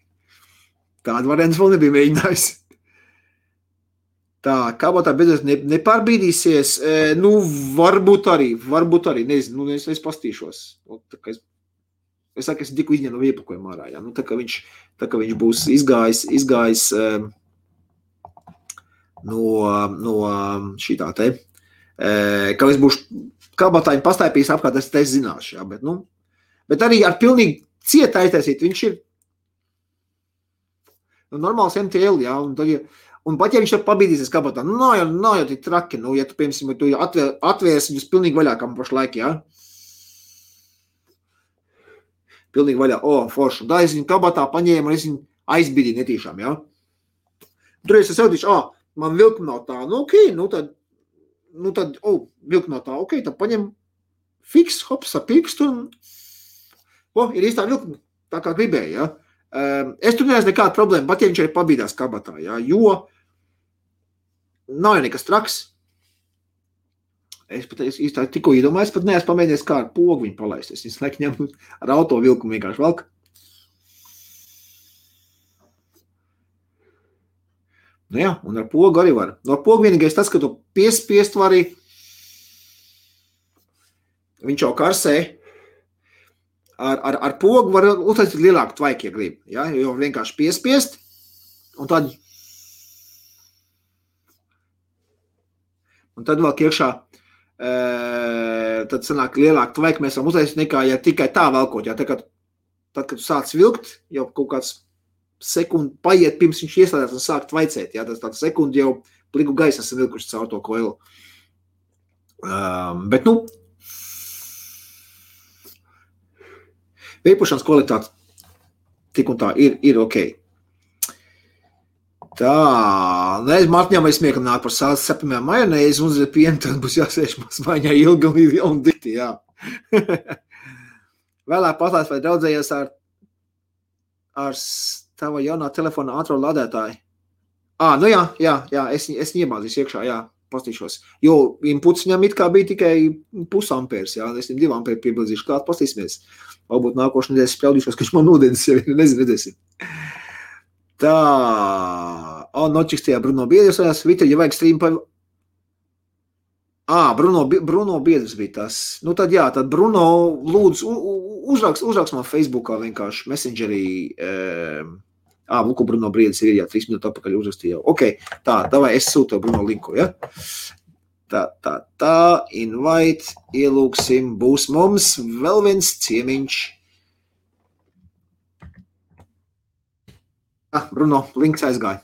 S1: Tādu variantu vēl nebija mēģinājis. Tā, kabatā beidzot nepārbīdīsies, varbūt arī, nezinu, es pastīšos. Es saku, es tikko izņēmu no iepakojuma ārā, jā, tā kā viņš būs izgājis no šitā te, ka es būšu kabatāņu pastāpījis apkārt, es zināšu, jā, bet arī ar pilnīgi cieta aiztaisīt, viņš ir normāls MTL, jā, un pat ja viņš tev pabīdīsies kabatā, nav jau tik traki, ja tu, piemēram, tu atvērsi viņus pilnīgi vaļā, kā man pašlaik, jā. Pilnīgi vaļā, forši. Tā es viņu kabatā paņēmu, un es viņu aizbīdīju netīšām, jā. Tur es saudīšu, man vilkuma nav tā, tad, vilkuma nav tā, tad paņem fiks, hops, ar pirkstu, un, ir īstā vilkuma, tā kā gribēju, jā. Es tur neesmu nekāda problēma, pat ja viņš arī pabīdās kabatā, jā, jo nav jau nekas traks. Es pat īstā tikko iedomāju, es pat neesmu pamēģinies kā ar pogu viņu palaist. Es viņus laikam ņem ar auto vilkumu vienkārši velk. Jā, un ar pogu arī var. No pogu vienīgais tas, ka tu piespiest vari, viņš jau karsē, ar pogu var uztaisīt lielāku tvaiku, ja grib. Ja? Jo vienkārši piespiest, un tad vēl iekšā, tad sanāk lielāku tvaiku mēs varam uztaisīt nekā, ja tikai tā velkot. Ja? Tad, kad tu sāc vilkt, jau kaut kāds sekundi paiet, pirms viņš ieslēdās un sāk tvaicēt. Ja? Tas tāds sekundi jau pliku gaisa esam vilkuši caur to koilu. Bet, veipošanas kvalitāte tik un tā ir ok. Tā, Mārtiņām vai smiekam nāk par sāles cepamiem majonēzi un uz pienu, tad būs jāsēž mazmaiņā ilgi un dikti, jā. Vēlāk paslēs, vai draudzējies ar tava jaunā telefona ātro lādētāju? Jā, es iemāzīšu iekšā, jā. Pastīšos. Jo inputs viņam it kā bija tikai 0,5 ampērs, jā, es 2 ampēri piebilzīšu klāt, pastīsimies. Varbūt nākošu nedēļas spēldīšos, ka viņš man ūdens jau nezinu, redzēsim. Tā, nočiks tajā Bruno Biedrs, Vita, ja vajag stream pa... Bruno Biedrs bija tas. Tad jā, tad Bruno lūdzu uzraks man Facebookā vienkārši Messengerī, Luku Bruno Briedis ir, jā, 3 minūtes atpakaļ uzrakstīja jau. Ok, tā, davai, es sūtu Bruno linku, ja? Tā, invite, ielūksim, būs mums vēl viens ciemiņš. Bruno, links aizgāja.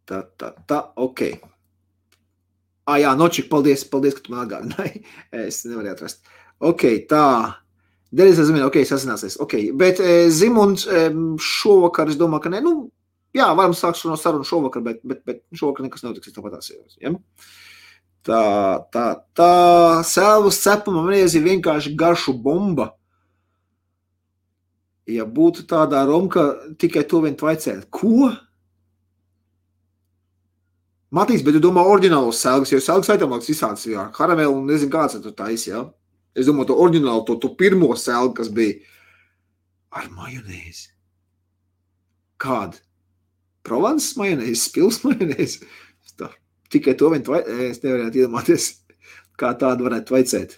S1: Tā, ok. Jā, Nočik, paldies, ka tu man atgādināji. Es nevarēju atrast. Ok, tā. Dēļ es zinu, ok, sasināsies, ok, bet Zimunds šovakar, es domāju, ka ne, jā, varam sākt no sarunu šovakar, bet šovakar nekas notiks, es tāpat jāsījos, ja? Tā, sēlvas cepama majonēzi ir vienkārši garšu bomba. Ja būtu tādā romka, tikai to vien tvaicēt. Ko? Matīs, bet tu domā oriģinālos sēlgas, jo sēlgas aitamāks visāds, jā, karamelu un nezinu kāds tur tais, jā? Es domāju, to oriģinālu, to pirmo sēlgu, kas bija ar majonēzi. Kāda? Provence majonēzi, Pils majonēzi? Tā. Tikai to vien es nevarētu iedomāties, kā tādu varētu vaicēt.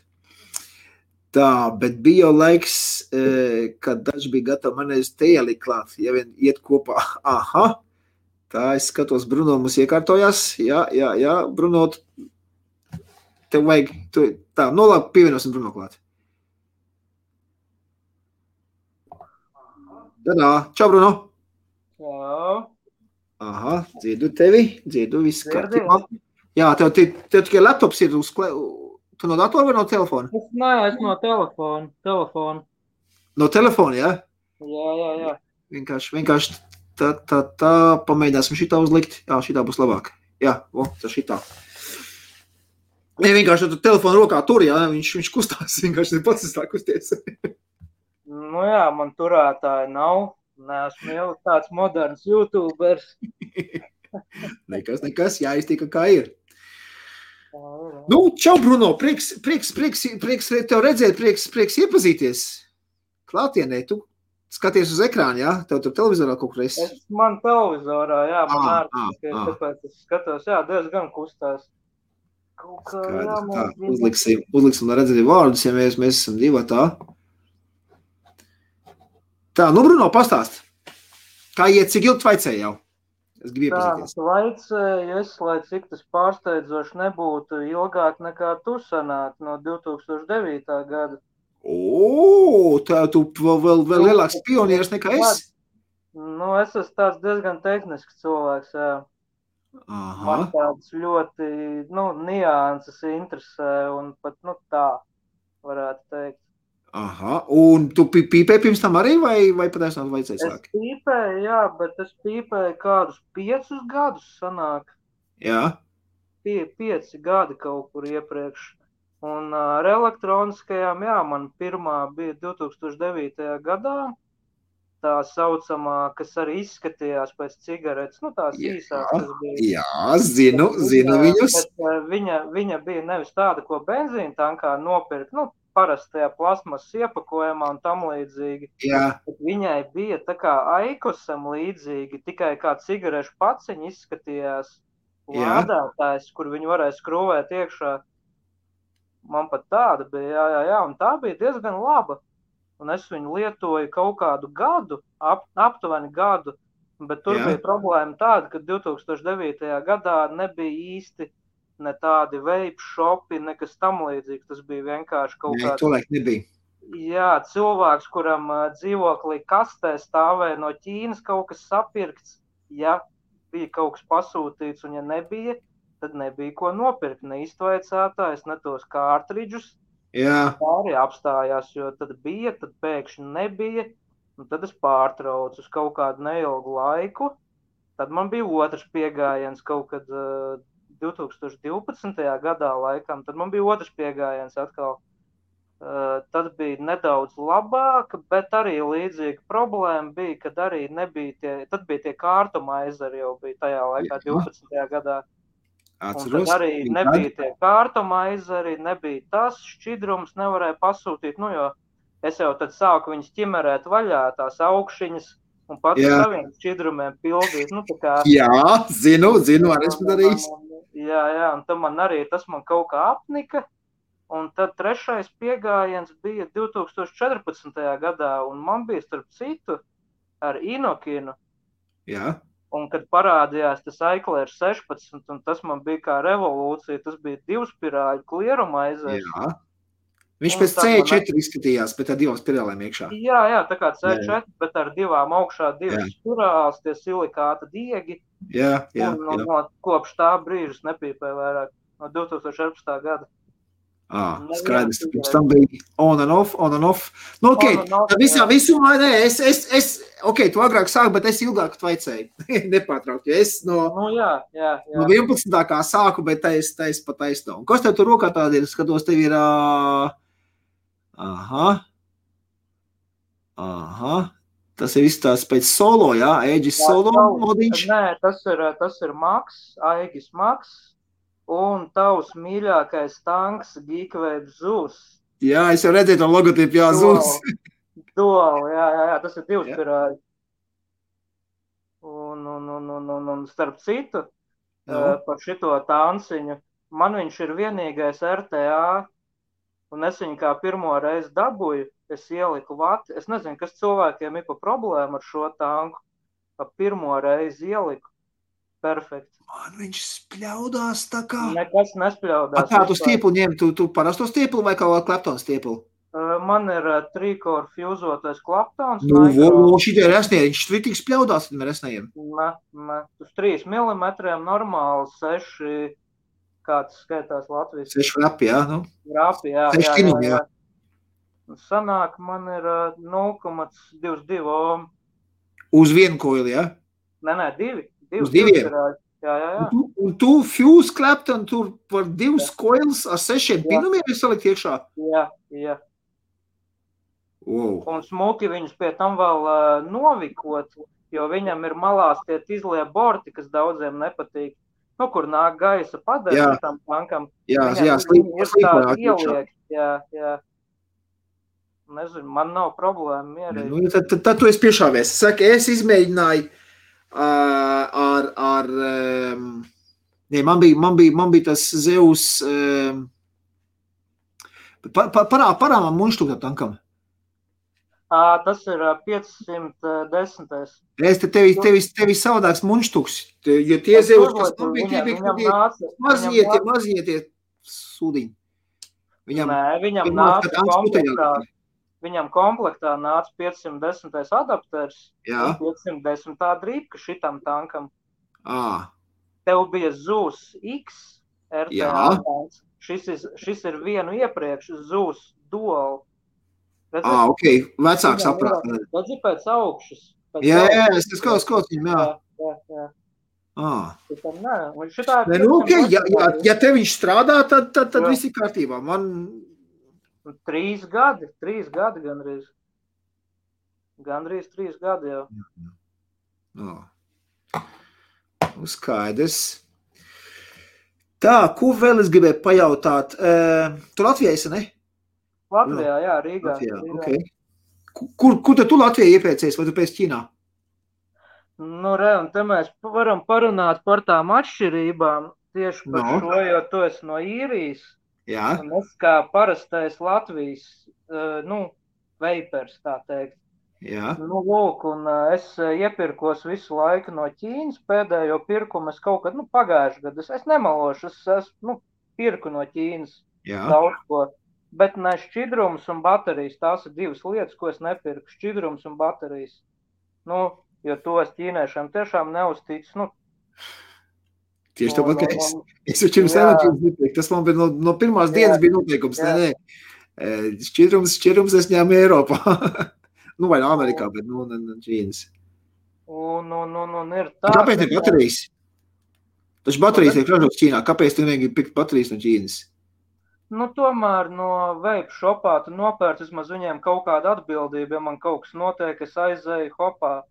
S1: Tā, bet bija jau laiks, kad daži bija gatavi man aiz te ielikt klāt, ja vien iet kopā. Aha, tā es skatos, Bruno mums iekārtojās. Jā, Bruno, tev vajag, tā, labi, pievienosim Bruno klāt. Tadā, čau, Bruno.
S2: Jā.
S1: Aha, dzirdu tevi, viss kārtībā. Jā, tev tikai laptops ir uz tu no datora vai no telefona?
S2: Es no telefona.
S1: No telefona, jā?
S2: Jā.
S1: Vienkārši tā, pamēģināsim šitā uzlikt. Jā, šitā būs labāk. Jā, tā šitā. Ja vienkārši tu telefonu rokā tur, jā, viņš kustās, vienkārši pats tā kusties.
S2: Nu jā, man turētāji nav. Neesmu jau tāds moderns YouTubers.
S1: Nekas, jāiztika kā ir. Nu, čau, Bruno, prieks tev redzēt, prieks iepazīties. Klātienē, tu skaties uz ekrānu, jā? Tev tur televizorā kaut kur esi?
S2: Man televizorā, jā, man ārtiski, tāpēc es skatos, jā, diezgan kustās.
S1: Tā, uzliksim, lai redzēt vārdus, ja mēs esam divi tā. Tā, nu, Bruno, pastāst. Kā iet, cik ilgi vaicēji jau? Es gribu iepazīties.
S2: Tā, vaicēju, lai cik tas pārsteidzoši nebūtu ilgāk nekā tu sanāk no 2009. Gada.
S1: Tā tu vēl lielāks pionieris nekā es?
S2: Nu, es esmu tāds diezgan tehnisks cilvēks, jā.
S1: Aha.
S2: Man tāds ļoti, nianses interesē un pat, tā varētu teikt.
S1: Aha, un tu pīpēji pirms tam arī vai patiesībā vajadzēja sākt?
S2: Es pīpēju, jā, bet es pīpēju kādus 5 gadus sanāk.
S1: Jā.
S2: 5 gadi kaut kur iepriekš. Un ar elektroniskajām, jā, man pirmā bija 2009. gadā. Tā saucamā, kas arī izskatījās pēc cigaretes, tās īsās, kas bija.
S1: Jā, zinu viņus.
S2: Viņa bija nevis tāda, ko benzīna tankā nopirkt, parastajā plasmas iepakojumā un tam līdzīgi.
S1: Jā.
S2: Viņai bija tā kā Aikosam līdzīgi, tikai kā cigarešu paciņa izskatījās lādētājs, kur viņu varēja skrūvēt iekšā. Man pat tāda bija, jā, un tā bija diezgan laba. Un es viņu lietoju kaut kādu gadu, aptuveni gadu, bet tur bija problēma tāda, ka 2009. gadā nebija īsti ne tādi vape shopi, nekas tam līdzīgs. Tas bija vienkārši kaut kāds...
S1: Tolaik nebija.
S2: Jā, cilvēks, kuram dzīvoklī kastē stāvēja no Ķīnas kaut kas sapirkts. Ja bija kaut kas pasūtīts un ja nebija, tad nebija ko nopirkt. Ne iztvaicētājs, ne tos kārtridžus.
S1: Jā.
S2: Tā arī apstājās, jo tad bija, tad pēkšņi nebija. Un tad es pārtraucu uz kaut kādu neilgu laiku. Tad man bija otrs piegājiens kaut kad... 2012. gadā laikam, tad man bija otrs piegājiens atkal. Tad bija nedaudz labāk, bet arī līdzīga problēma bija, kad arī nebija tad bija tie kārtuma aizari jau bija tajā laikā 12. gadā.
S1: Atceros.
S2: Un tad arī nebija tie kārtuma aizari, nebija tas šķidrums, nevarēja pasūtīt, jo es jau tad sāku viņus ķimerēt vaļā, tās augšiņas, un pats saviem šķidrumiem pildīt.
S1: Jā, zinu, arī esmu darījis.
S2: Jā, un tad tas man kaut kā apnika, un tad trešais piegājiens bija 2014. gadā, un man bija starp citu ar Inokinu.
S1: Jā.
S2: Un kad parādījās tas Iclair 16, un tas man bija kā revolūcija, tas bija 2 spirāļu klieruma aizēs.
S1: Jā. Viņš pēc C4 izskatījās, bet ar 2 spirālēm iekšā.
S2: Jā, tā kā C4, bet ar 2 augšā 2 spirāls, tie silikāta diegi.
S1: Jā.
S2: Un kopš tā brīža nepīpēju vairāk, no 2014. gada.
S1: Skaidrs, pirms tam bija on and off. Nu, visumā, tu agrāk sāki, bet es ilgāk tvaicēju. Nepārtraukt, jo es no 11. kā sāku, bet tais pa taisno. Un kas tev tur rokā tādi ir? Skatos, tev ir... Aha. Tas ir viss tās pēc solo, jā? Aegis solo modiņš?
S2: Nē, tas ir Max, Aegis Max. Un tavs mīļākais tanks Geekwave Zeus.
S1: Jā, es jau redzēju to logotipu, jā, Zeus.
S2: Dual, jā, tas ir 2 spirāļi. Un starp citu, par šito tanciņu. Man viņš ir vienīgais RTA, un es viņu kā pirmo reizi dabūju, es ieliku vati. Es nezinu, kas cilvēkiem ir pa problēmu ar šo tanku. Pa pirmo reizi ieliku. Perfekt.
S1: Man viņš spļaudās tā kā...
S2: Nekas nespļaudās.
S1: Kā tu stieplu ņem? Tu parasto stieplu vai kaut Clapton stieplu?
S2: Man ir trīkor fjuzotais Claptons.
S1: Šitie resnie, viņš tik spļaudās ar resnējiem?
S2: Ne. Uz 3 mm normāli 6, kāds skaitās Latvijas.
S1: 6 rapi, jā? Nu?
S2: Rapi, jā.
S1: 6 kinumi, jā.
S2: Sanāk, man ir 0,22 ohm.
S1: Uz vienu koili, jā?
S2: Nē, 2.
S1: Uz 2?
S2: Jā.
S1: Un tu fuse Clapton tur par 2 koils ar 6 pinumiem ir salikt iekšā?
S2: Jā.
S1: Wow.
S2: Un smuki viņus pie tam vēl novikot, jo viņam ir malās tie izlie borti, kas daudziem nepatīk. Nu, kur nāk gaisa padēļ tam tankam.
S1: Jā,
S2: slīpa ieliek. Jā. Nezinu, man nav problēma mierīgi.
S1: Nu, tad tu esi piešāvies. Saka, es izmēģināju man bija tas Zeus parā man muņštuk tā tankam.
S2: Tas ir 510.
S1: Es tevi savādāks muņštuks, jo tie Zeus, kas man bija, tie bija mazie sūdiņi.
S2: Viņam nāca komplektā. Viņam komplektā nāca 510. adapters un 510. drīpka šitam tankam. Tev bija Zeus X RTA tanks. Šis ir vienu iepriekš Zeus Dual.
S1: Ok, vecāks aprāt.
S2: Redzi pēc augšas.
S1: Jā, es kaut viņam, jā. Ja te viņš strādā, tad viss ir kārtībā. Man
S2: 3 gadi gandrīz. Gandrīz 3 gadi jau.
S1: Skaidrs. Tā, ko vēl es gribēju pajautāt? Tu Latvijā esi, ne?
S2: Latvijā, jā, Rīgā.
S1: Okay. Kur tu Latvijā iepriecējies, vai tu pēc Ķīnā?
S2: Nu, un te mēs varam parunāt par tām atšķirībām tieši par šo, jo tu esi no Īrijas.
S1: Jā.
S2: Un es kā parastais Latvijas, veipers, tā teikt.
S1: Jā.
S2: Nu, lūk, un es iepirkos visu laiku no Ķīnas, pēdējo pirkumu es kaut kad, pagājuši gadu, es nemalošu, es pirku no Ķīnas daudz ko. Bet ne šķidrums un baterijas, tās ir 2 lietas, ko es nepirku, šķidrums un baterijas. Jo to es ķīniešiem tiešām neusticu,
S1: Tieši tāpat, ka es jau pirms enerģijas nepirku. Tas man bija no pirmās dienas bija noteikums. Nē. Šķidrums es ņēmu Eiropā. Vai no Amerikā, bet no Ķīnas.
S2: Un ir tā.
S1: Kāpēc ir baterijas? Taču baterijas ir ražotas Ķīnā. Kāpēc tu negribi pirkt baterijas no Ķīnas?
S2: Tomēr no vape shopā tu nopērc vismaz viņiem kaut kādu atbildību, ja man kaut kas notiek, es aizēju hopā.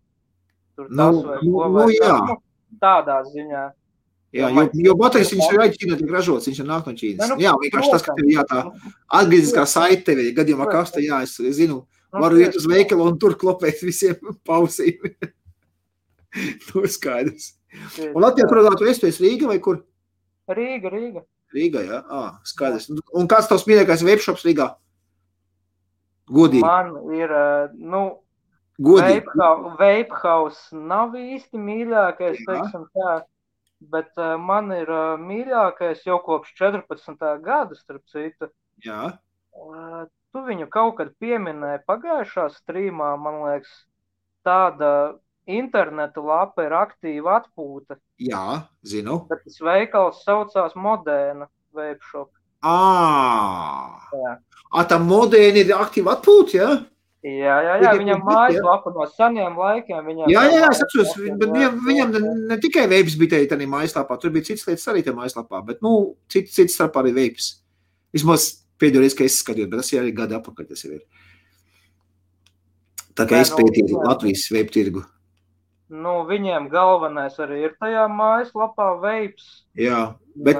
S2: Tur tas vai ko vai tas. Tādā ziņā.
S1: Jā, jo baterijas viņš ir Ķīnā tiek ražots, viņš ir nāk no Ķīnas. Jā, vienkārši tas, ka tev tā atgrieziskā saite tevi, gadījumā kasta, es zinu, varu iet uz veikalu un tur klopēt visiem pausīm. To ir skaidrs. Un Latvijā, kurā tu esi Rīga vai kur?
S2: Rīga.
S1: Rīgā, jā? Skaidrs. Un kāds tavs mīļākais webshops Rīgā? Godīgi.
S2: Man ir, Vape House nav īsti mīļākais, teiksim tā, bet man ir mīļākais jau kopš 14. gada, starp citu.
S1: Jā.
S2: Tu viņu kaut kad pieminēji pagājušā streamā, man liekas, tāda interneta lapa ir aktīva atpūta.
S1: Jā, zinu.
S2: Bet tas veikals saucās Modēna Vape Shop.
S1: Tā Modēna ir aktīva atpūta, jā?
S2: Jā, viņam mājaslapa no seniem laikiem.
S1: Jā, es atceros, bet viņam ne tikai vapes bija tādā mājaslapā, tur bija cits lietas arī tajā mājaslapā, bet, cits starp arī vapes. Vismaz pēdējo reizi, ka es skatījos, bet tas ir arī gadi apakaļ, tas ir. Tā kā es pētīju Latvijas vape tirgu.
S2: Viņiem galvenais arī ir tajā mājaslapā vapes.
S1: Jā, bet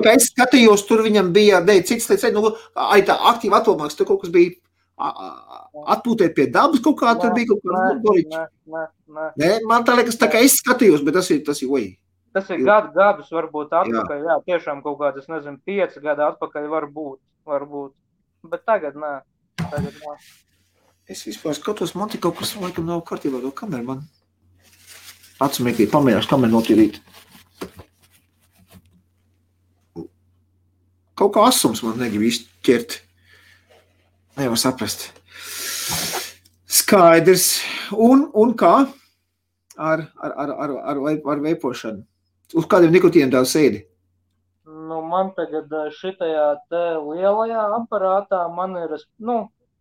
S1: kā es skatījos, tur viņam bija, cits lietas, tā aktīva atpūmāks, tur kaut kas bija atpūtēt pie dabas kaut kā, tur bija kaut kā. Nē, man tā liekas, tā kā es skatījos, bet tas ir, oj.
S2: Tas ir gadus varbūt atpakaļ, jā, tiešām kaut kāds, es nezinu, 5 gadi atpakaļ varbūt. Bet tagad nē.
S1: Es vispār skatos, man tik kaut kas laikam nav kārtībā, to kameru man. Atsmēkīt, pamērāšu kameru notīrīt. Kaut kā asums man negrib izķert. Nevar saprast. Skaidrs. Un kā? Ar veipošanu. Uz kādiem nikotīniem tev sēdi?
S2: Nu, man tagad šitajā te lielajā aparātā man ir,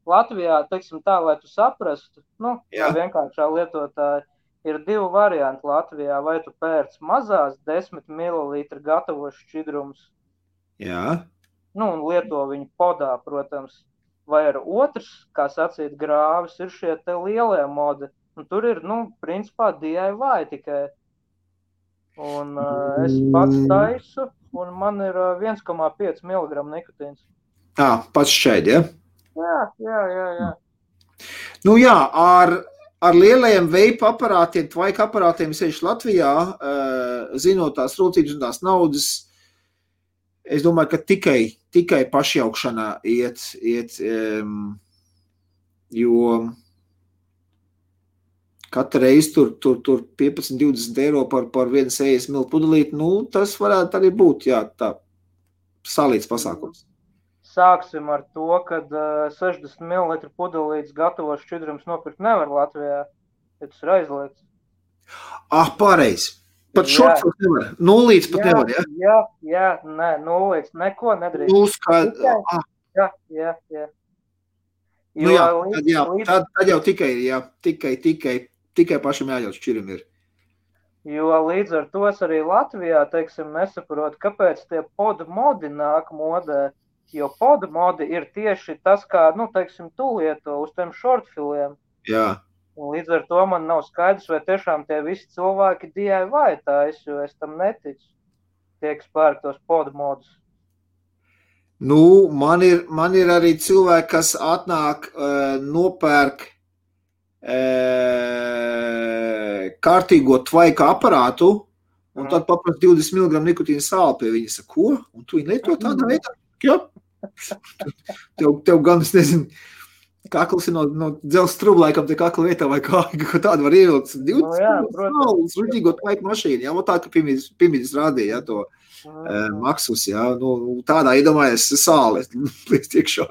S2: Latvijā, teiksim tā, lai tu saprastu, vienkāršā lietotāja, ir 2 varianti Latvijā, vai tu pērc mazās 10 ml gatavos šķidrums.
S1: Jā.
S2: Un lieto viņu podā, protams, vai ar otrs, kā sacīt, grāvis, ir šie te lielie modi. Un tur ir, principā DIY tikai. Un es pats taisu, un man ir 1,5 mg nikotīns.
S1: Pats šķēdi, ja?
S2: Jā.
S1: Nu jā, ar lielajiem veipa aparātiem, tvaika aparātiem sevišķi Latvijā, zinot tās rūcības un tās naudas, es domāju, ka tikai pašjaukšanā iet, jo katru reizi tur 15-20 eiro par 1,60 ml pudelīti, tas varētu arī būt, jā, tā salīdz pasākums.
S2: Sāksim ar to, kad 60 ml pudelītes gatavos šķidrums nopirkt nevar Latvijā, ja tas ir aizliegts.
S1: Pareizi. Pat šorts nevar. Nulīts pat nevar, ja?
S2: Jā, nē, nulīts, neko nedrīkst. Jā.
S1: Tad jau tikai pašam jāļaut šķirim ir.
S2: Jo līdz ar to arī Latvijā, teiksim, nesaprot, kāpēc tie podmodi nāk modē. Jo podmodi ir tieši tas, kā, teiksim, tu lieto uz tiem šortfiliem.
S1: Jā.
S2: Un līdz ar to man nav skaidrs, vai tiešām tie visi cilvēki DIY tais, jo es tam neticu. Tiek spērk tos podmodus.
S1: Man ir arī cilvēki, kas atnāk, nopērk kārtīgo tvaika aparātu, un tad paprast 20 mg nikotīna sāli pie viņa. Saka, ko? Un tu viņi lieto tādā veidā? Jā. Tev gan, es nezinu, kakls ir no dzels strublaikam te kakla vietā vai kā tādu var ievilkt. 20 sāles, ruģīgo tvaika mašīnu, jā, tā, ka Pimidis rādīja, jā, to Maksus, jā, tādā iedomājies sāli, līdz tiekšā,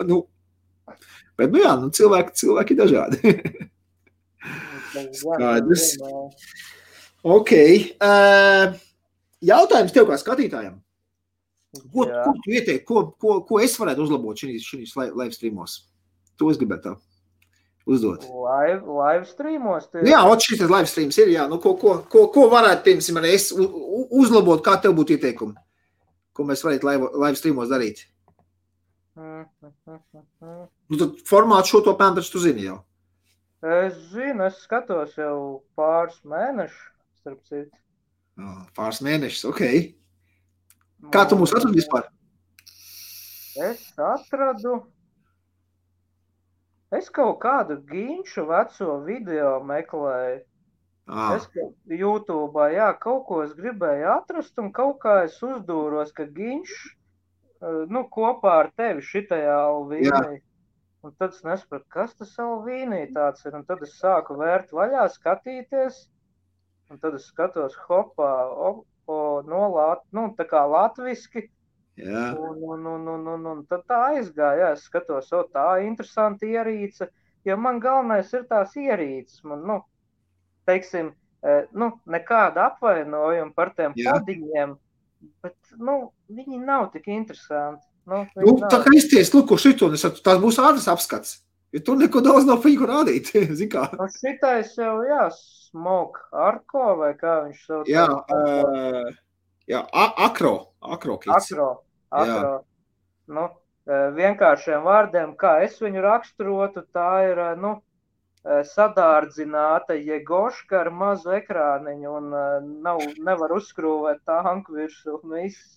S1: Bet, jā, cilvēki dažādi. Skaidrs. Ok. Jautājums tev kā skatītājam. Ko tu ieteikti, ko es varētu uzlabot šīs live streamos? To es gribētu uzdot.
S2: Live streamos?
S1: Jā, šis live streams ir, jā. Ko varētu, piemēram, es uzlabot, kā tev būtu ieteikumi? Ko mēs varētu live streamos darīt? Tad formātu šo to pēm, taču tu zini jau.
S2: Es zinu, es skatos jau pāris mēnešus, starp citu.
S1: Pāris mēnešus, ok. Kā tu mūs atradi vispār?
S2: Es atradu. Es kaut kādu ginšu veco video meklēju. Es YouTube'ā, jā, kaut ko es gribēju atrast, un kaut kā es uzdūros, ka ginš, kopā ar tevi šitajā Alvīnī. Un tad es nesapratu, kas tas Alvīnī tāds ir, un tad es sāku vērt vaļā, skatīties, un tad es skatos hopā, tā kā latviski, un tad tā aizgāja, es skatos, tā interesanti ierīce, jo man galvenais ir tās ierīces, man, teiksim, nekāda apvainojuma par tiem podiņiem, bet, viņi nav tik interesanti.
S1: Tā kā izties, ko šito, tās būs ātras apskats, jo tur neko daudz nav par viņu rādīt, zin kā.
S2: Šitais jau, Smoke Arko, vai kā viņš sauc?
S1: Akro kits.
S2: Akro. Vienkāršiem vārdiem, kā es viņu raksturotu, tā ir, sadārdzināta jegoška ar mazu ekrāniņu un nevar uzskrūvēt tanku virsū un viss.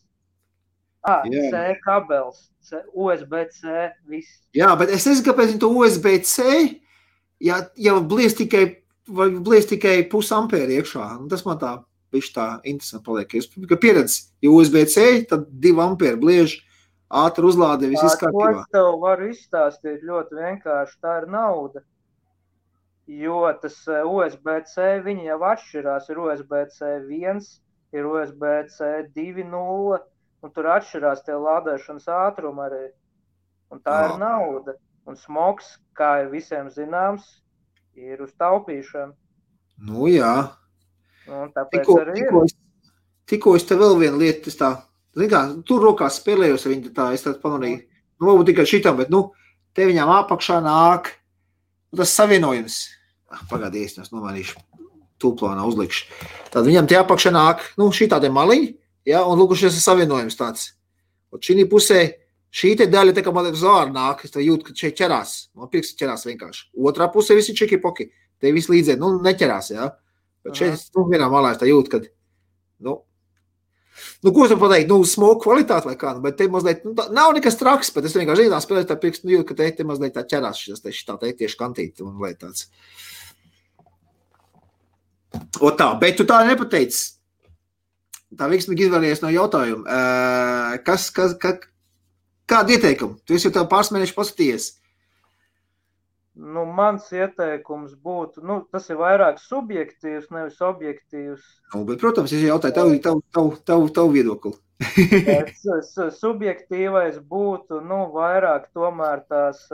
S2: C kabels, USB-C, viss.
S1: Jā, bet es nezinu, kāpēc to USB-C, ja blies tikai pusampēri iekšā. Tas man tā viņš tā interesanti paliek. Ka pieredz, ja USB-C, tad 2 ampēri bliež, ātri uzlāde, viss izkārtībā.
S2: To es tev varu izstāstīt ļoti vienkārši, tā ir nauda. Jo tas USB-C, viņi jau atšķirās, ir USB-C 1, ir USB-C 2.0, un tur atšķirās tie lādēšanas ātrumi arī. Un tā ir nauda. Un smogs, kā ir visiem zināms, ir uz taupīšanu.
S1: Nu jā.
S2: Un tāpēc arī ir.
S1: Tikko es te vēl vienu lietu, es tā, tur rokās spēlējos, viņi tā, es tā pamanīju, nu varbūt tikai šitam, bet, te viņām apakšā nāk, tas savienojums. Pagādies, es nomainīšu, tūplānā uzlikšu. Tad viņam tie apakšā nāk, šī tādi maliņi, ja, un lūk, šis ir savienojums tāds. Un šī pusē, šī te daļa, tā kā man uz āru nāk, es tā jūtu, ka šeit ķerās. Man pirksti ķerās vienkārši. Otrā pusē visi čiki-poki. Te visi līdzē, neķerās, jā. Bet šeit, vienā malā es tā jūtu, kad, ko es varu pateikt, smogu kvalitāti vai kā, bet te mazliet, nav nekas traks, bet es vienkārši zināt spēlēt tā pirksti, jūtu, ka te mazliet tā ķerās šis tā tieši kantīti un lai tāds. O tā, bet tu tā nepateici. Tā veiksmīgi izvēlējies no jautājuma. Kādu ieteikumu? Tu esi jau tev pāris mēneši paskatījies.
S2: Mans ieteikums būtu, tas ir vairāk subjektīvs, nevis objektīvs.
S1: Bet, protams, es jautāju tavu viedokli.
S2: Subjektīvais būtu, vairāk tomēr tās,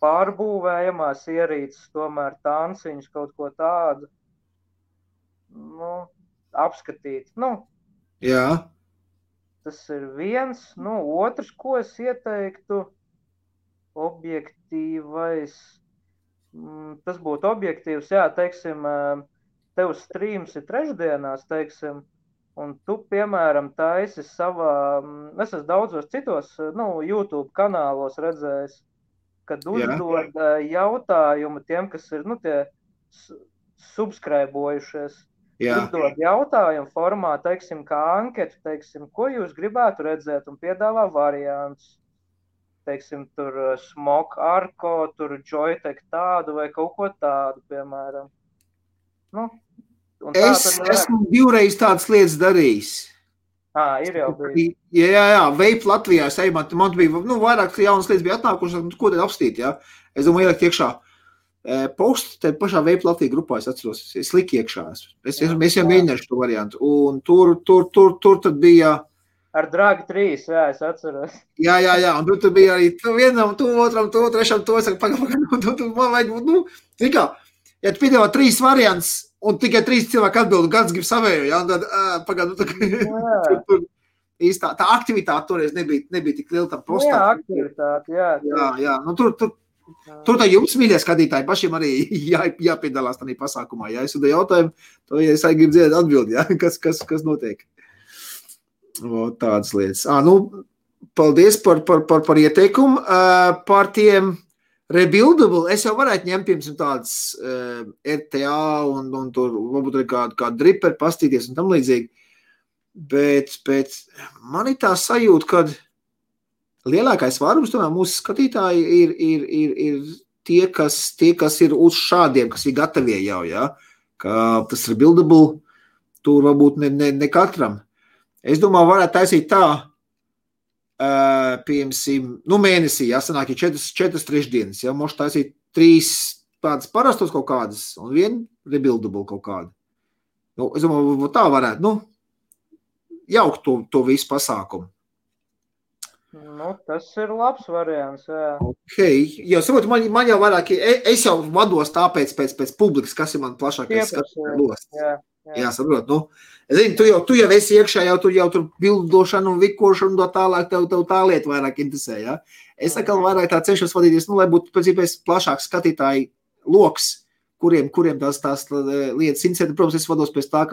S2: pārbūvējamās ierīces, tomēr tanciņas, kaut ko tādu, apskatīt.
S1: Jā.
S2: Tas ir viens. Otrs, ko es ieteiktu, objektīvais. Tas būtu objektīvs, jā, teiksim, tev streams ir trešdienās, teiksim, un tu, piemēram, taisi savā, es esmu daudzos citos, YouTube kanālos redzējis, kad uzdod jautājumu tiem, kas ir, tie subscribojušies. Uzdod jautājumu formā, teiksim, kā anketu, teiksim, ko jūs gribētu redzēt un piedāvā variants. Teiksim, tur Smok Arko, tur Joytech tādu vai kaut ko tādu, piemēram.
S1: Esmu divreiz tādas lietas darījis.
S2: Ir jau bijis.
S1: Jā, Vape Latvijā, man bija, vairāk jaunas lietas bija atnākušas, ko tad apstīt, jā. Es domāju, ielikt iekšā. Postu, te pašā Vape Latvija grupā es atceros, es liku iekšā. Es jau mēģināšu to variantu. Un tur tad bija...
S2: Ar Dragi 3, jā, es atceros.
S1: Jā, un tur bija arī vienam, otram, trešam, es saku, pagaidām, man vajag, ja tu piedāvā 3 variants, un tikai 3 cilvēki atbild, un kāds grib savēju, jā, un tad, pagaidām, īstā, tā aktivitāte toreiz nebija tik liela tam postā.
S2: Jā, aktivitāte, jā.
S1: Jā, tur tā jums, mīļie skatītāji, pašiem arī jāpiedalās tādā pasākumā, jā, es uzdēju jautājumu, to, ja es arī gribu dzirdēt atbildi, jā, kas notiek. Tādas lietas. Paldies par ieteikumu. Par tiem rebuildable, es jau varētu ņemt, piemēram, tādas RTA un tur varbūt arī kādu driperi pastīties un tam līdzīgi. Bet man ir tā sajūta, kad lielākais vairums tomēr mūsu skatītāji ir tie, kas ir uz šādiem, kas ir gatavie jau, jā. Ka tas rebuildable tur varbūt ne katram. Es domāju, varētu taisīt tā, piemēram, mēnesī, jā, sanāk, ja 4 trešdienas, jā, mošu taisīt 3 tādas parastos kaut kādas un 1 rebuildable kaut kādu. Es domāju, tā varētu, jaukt to visu pasākumu.
S2: Tas ir labs variants, jā.
S1: Ok, jo saprotu, man jau vairāk, es jau vados tāpēc pēc publikas, kas ir man plašākais skatījums. Jā, saprot, es zinu, tu jau esi iekšā, jau tur bildošana un vikošana un tālāk, tev tā lieta vairāk interesē, jā. Es atkal vairāk tā cenšos vadīties, lai būtu pēc iespējas plašāks skatītāji loks, kuriem tās lietas interesē. Protams, es vados pēc tā,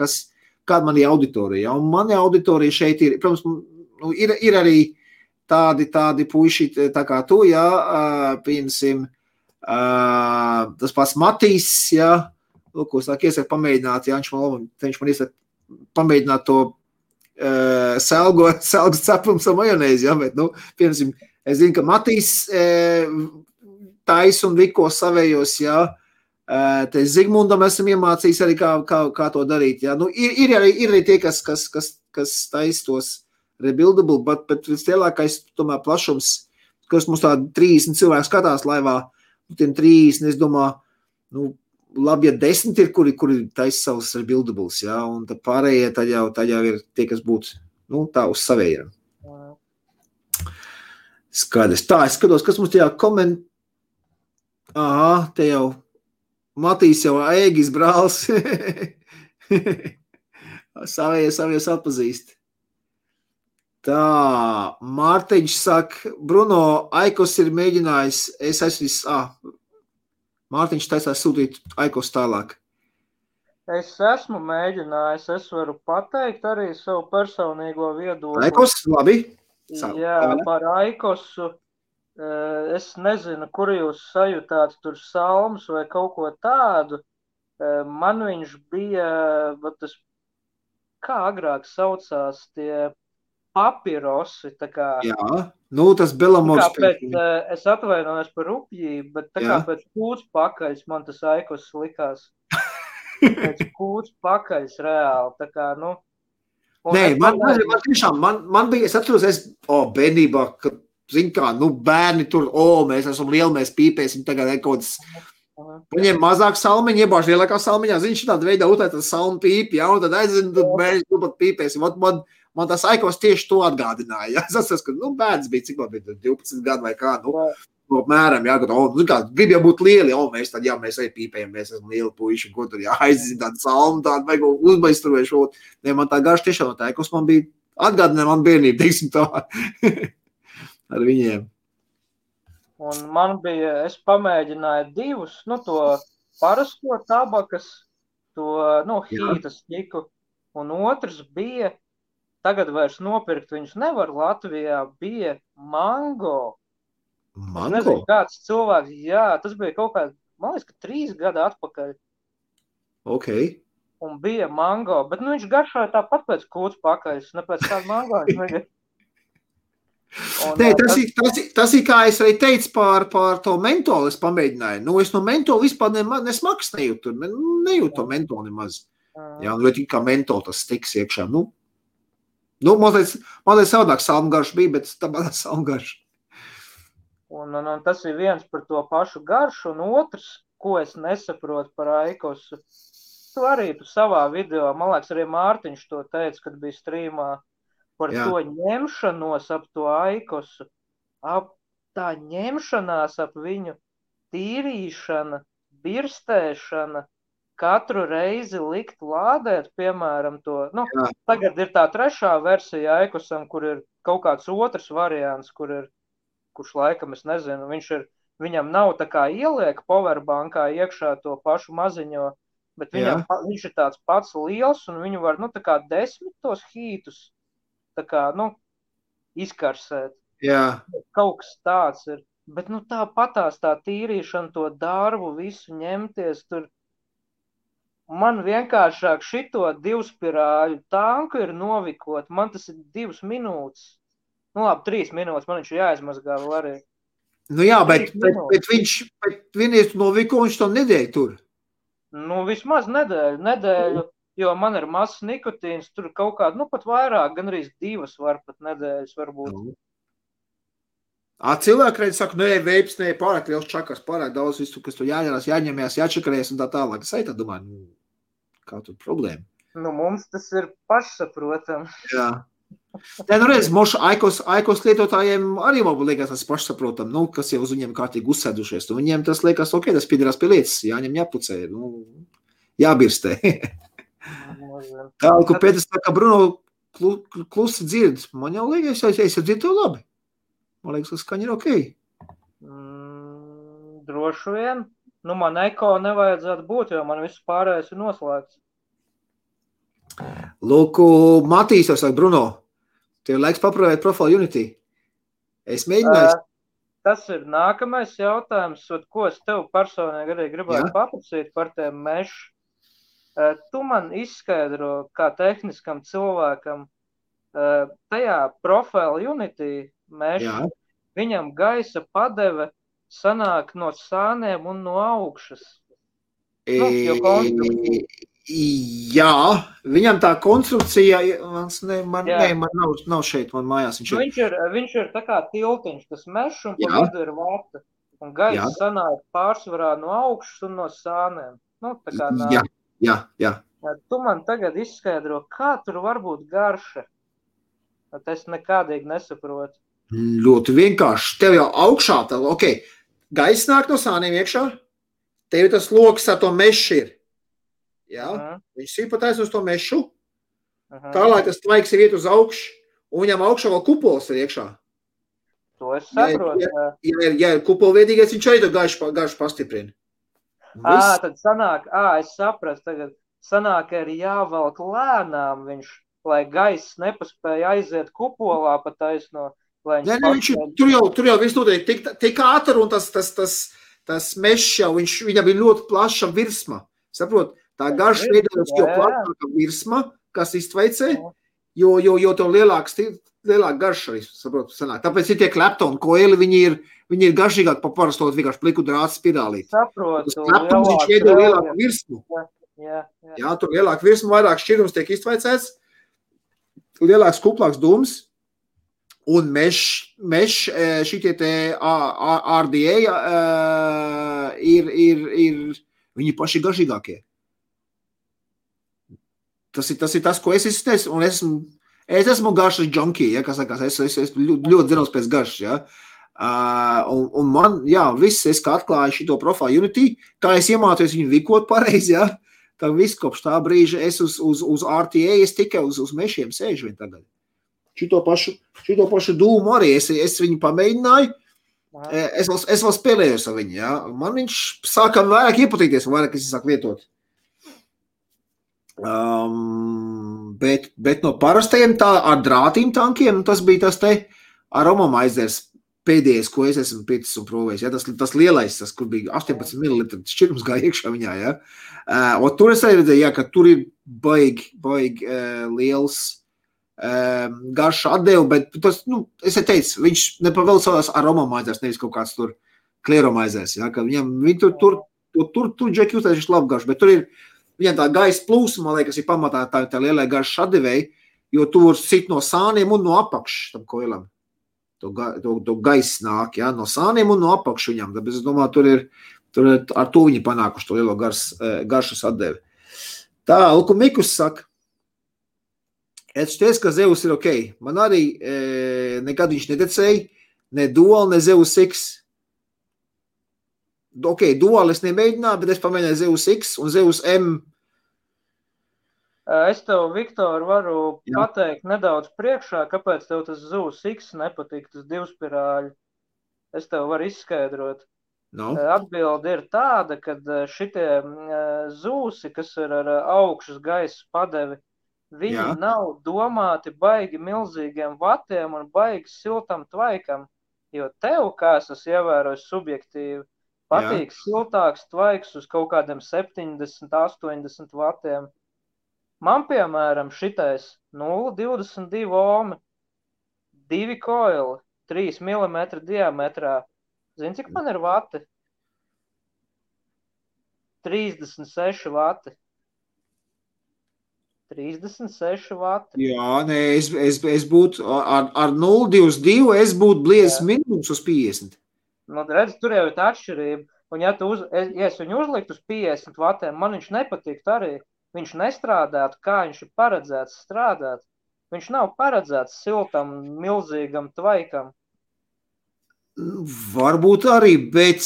S1: kāda man ir auditorija, un mani auditorija šeit ir, protams, ir arī tādi puiši, tā kā tu, jā, piemēram, tas pats Matīs, jā, ko es iesaku pamēģināt, ja viņš man iesaka pamēģināt to selgas cepums ar majonēzi, ja, bet, piemēram, es zinu, ka Matīs tais un viko savējos, ja, Te Zigmundam esam iemācījis arī, kā to darīt. Ja? Nu, ir arī tie, kas taisa tos rebuildable, bet vislielākais tomēr plašums, kas mums tādi 30 cilvēki skatās laivā, nu, tiem 30, es domāju, nu, labi, ja 10 ir, kuri taisa savus rebuildables, ja? Un tad pārējie tad jau ir tie, kas būtu, nu, tā uz savējiem. Skaidrs. Tā, es skatos, kas mums tajā Aha, te jau Matīs jau Ēgis brālis. Savies atpazīst. Tā, Mārtiņš saka, Bruno, Aikos ir mēģinājis, Mārtiņš taisās sūtīt Aikos tālāk.
S2: Es esmu mēģinājis, es varu pateikt arī savu personīgo viedokli.
S1: Aikos, labi.
S2: Jā, par Aikosu. Es nezinu, kur jūs sajūtāt tur salmus vai kaut ko tādu. Man viņš bija, tas, kā agrāk saucās, tie papirosi, tā kā.
S1: Jā, nu tas Belamors.
S2: Es atvainojos par rupjību, bet tā kā pēc kūts pakaļs man tas Aikos likās. Pēc kūts pakaļs reāli, tā kā, nu.
S1: Nē, man tiešām, man bija, es atceros, bērnībā, kad zin kā, nu bērni tur, mēs esam lieli, mēs pīpēsim tagad kaut kāds, paņem mazāk salmiņu, iebāž lielākā salmiņā, zin, šitāda veidā utēt tas salmu pīpi, ja, un tad aizin, tad mēs tu pat pīpēsim. Man tas Aikos tieši to atgādināja, ja. Es atceros, ka, nu, bērns bija, cik man bija 12 gadu vai kā, nu, apmēram, jā, kad, grib jau būt lieli, mēs tad, jā, mēs arī pīpējam, mēs esam lieli puiši, ko tur, jā, aizin tādu salmu, tādu vajag uzbaistruvēšu, ne, man tā garš tiešām no tā Aikos man bija atgādināja man bērnību, teiksim tā. Ar viņiem.
S2: Un man bija, es pamēģināju divus, nu, to parasto tabakas, to, nu, hītas ķiku, un otrs bija, tagad vairs nopirkt viņus nevar Latvijā, bija mango.
S1: Mango?
S2: Es nezinu, kāds cilvēks, jā, tas bija kaut kā, man liekas, ka 3 gadi atpakaļ.
S1: Ok.
S2: Un bija mango, bet, nu, viņš garšoja tāpat pēc kūts pakaļs, ne pēc kāda mango viņš negad.
S1: Nē, tas ir, kā es arī teicu par to mentolu, es pamēģināju. Nu, es no mentola vispār nesmaks nejūtu, nejūtu to mentolu nemaz. Jā, nu, kā mentola tas stiks iekšā. Nu mazliet savādāk salmgarš bija, bet tāpēc salmgarš.
S2: Un tas ir viens par to pašu garšu, un otrs, ko es nesaprotu par Aikosu. Tu arī savā video, man liekas, arī Mārtiņš to teica, kad bija strīmā. Par to ņemšanos ap to Aikosu, tā ņemšanās ap viņu, tīrīšana, birstēšana, katru reizi likt lādēt, piemēram, to, nu, tagad ir tā 3. versija Aikosam, kur ir kaut kāds otrs variants, kurš laikam, es nezinu, viņam nav tā kā ieliek powerbankā iekšā to pašu maziņo, bet viņš ir tāds pats liels, un viņu var, nu, tā kā 10 tos hītus, tā kā, nu, izkarsēt.
S1: Jā.
S2: Kaut kas tāds ir. Bet, nu, tāpatās tā tīrīšana, to darbu, visu ņemties tur. Man vienkāršāk šito 2 spirāļu tanku ir novikot. Man tas ir 2 minūtes. Nu, labi, 3 minūtes. Man viņš ir jāizmazgā vēl arī.
S1: Nu jā, bet vienreiz noviko, viņš to nedēļu tur.
S2: Nu, vismaz nedēļu. Jo man ir mazs nikotīns, tur kaut kāda, nu pat vairāk, gan arī 2 var pat nedēļas varbūt.
S1: Cilvēki reiz saka, nē, veips, nē, pārāk liels čakars, pārāk daudz visu, kas tur jāņemās, jāņemjās, jāčakarēs un tā tālāk. Es arī tā domāju, nu, kā tur problēma?
S2: Nu, mums tas ir pašsaprotam.
S1: Jā. Nē, nu reiz, mošu Aikos lietotājiem arī varbūt liekas tas pašsaprotam, nu, kas jau uz viņiem kārtīgi uzsēdušies. Un viņiem tas liekas, ok, tas piedarās pie lietas, jāņem jāpucē, nu, jābirstē. Tā, ko Pēters saka, Bruno klusi dzird. Man jau liekas, es jau dzirdu to labi. Man liekas, ka skaņa ir ok.
S2: Droši vien. Nu, man eko nevajadzētu būt, jo man viss pārējais ir noslēgts.
S1: Lūk, Matīs jau saka, Bruno, tev laiks paprojēt Profile Unity. Es mēģināju.
S2: Tas ir nākamais jautājums, ko es tev personīgi arī gribētu paprasīt par tiem mešu. Tu man izskaidro, kā tehniskam cilvēkam, tajā Profile Unity mešu, viņam gaisa padeve sanāk no sāniem un no augšas. Jo konstrukcija.
S1: Jā, viņam tā konstrukcija, man nav šeit, man mājās.
S2: Viņš ir tā kā tiltiņš, tas mešs un pa vidu ir vata. Un gaiss sanāk pārsvarā no augšas un no sāniem. Tā kā nāk.
S1: Jā.
S2: Tu man tagad izskaidro, kā tur var būt garša. Es nekādīgi nesaprotu.
S1: Ļoti vienkārši. Tev jau augšā, gaiss nāk no sāniem iekšā, tev tas loks ar to mešu ir. Jā, viņš sīpatais uz to mešu, tālāk tas tvaiks ir iet uz augšu, un viņam augšā vēl kupols ir iekšā.
S2: To es saprotu.
S1: Ja ir kupolviedīgais, viņš arī to garšu pastiprina.
S2: Tad sanāk, es sapratu tagad, sanāk, ka ir jāvelk lēnām viņš, lai gaiss nepaspēja aiziet kupolā pa taisno.
S1: Tur jau viss notiek tik ātri, un tas mešs jau, viņam ir ļoti plaša virsma. Saprot, tā garša veidojas jau plašāka virsma, kas iztveicē, jo to lielāka garša arī, saprot, sanāk. Tāpēc ir tie Clapton koeli, viņi ir garšīgāk pa parastot vienkārši pliku drāts spirālīt.
S2: Saprotu.
S1: Tas Clapton, viņš veido lielāku virsmu. Jā, tur lielāku virsmu, vairāk šķirums tiek iztveicēts, lielāks kuplāks dūms. Un meš šitie te RDA ir viņi paši garšīgākie. Tas ir tas, ko es izsniedzu, un es esmu garšas junkie, ja, kā sakās, es ļoti zinos pēc garšas, ja. Un man, viss, es kā atklāju šito profilu Unity, kā es iemācījos viņu vikot pareizi, ja, tā viss kopš tā brīža es uz RTA, es tikai uz mešiem sēžu vien tagad. Šito pašu dūmu arī es viņu pamēģināju, es vēl spēlējos ar viņu, ja. Man viņš sāka vairāk iepatīties, vairāk es sāku lietot. Bet no parastajiem ar drātīm tankiem, tas bija tas te Aromamizers pēdējais, ko es esmu pietis un provējis, ja, tas lielais, tas, kur bija 18 ml šķirums gāja iekšā viņā, ja. Un tur es arī redzēju, ja, ka tur ir baigi liels garša atdevu, bet tas, es teicu, viņš nepavēl savās Aromamizers, nevis kaut kāds tur Clearomizers, ja, ka viņi tur džeki uztais, viņš labi garš, bet tur ir viņam tā gaisa plūsma, man liekas, ir pamatā tā lielai garša atdevēji, jo tu var sit no sāniem un no apakšas tam koilam. To gaisa nāk, ja, no sāniem un no apakšas viņam, tāpēc es domāju, tur ar to viņi panākuši to lielo garšas atdevi. Tā, Luku Mikus saka, es šķies, ka Zeus ir ok. Man arī nekad viņš nedecēja, ne Dual, ne Zeus X. Ok, Dual es nemēģināju, bet es pamēģināju Zeus X un Zeus M.
S2: Es tev, Viktor, varu pateikt nedaudz priekšā, kāpēc tev tas Zeus X nepatīk, tas divspirāļi. Es tev varu izskaidrot. Atbilde ir tāda, ka šitie zūsi, kas ir ar augšas gaisa padevi, viņi nav domāti baigi milzīgiem vatiem un baigi siltam tvaikam, jo tev, kā es esmu ievērojis subjektīvi, patīk siltāks tvaiks uz kaut kādiem 70, 80 vatiem. Man, piemēram, šitais 0,22 ohmi, 2 koili, 3 mm diametrā. Zini, cik man ir vati? 36 vati. 36 vati.
S1: Jā, nē, es būtu ar 0,22, es būtu bliezis minimums uz 50.
S2: Redz, tur jau ir tā atšķirība. Un ja es viņu uzliktu uz 50 vatiem, man viņš nepatīk arī. Viņš nestrādātu, kā viņš ir paredzēts strādāt. Viņš nav paredzēts siltam, milzīgam tvaikam.
S1: Varbūt arī, bet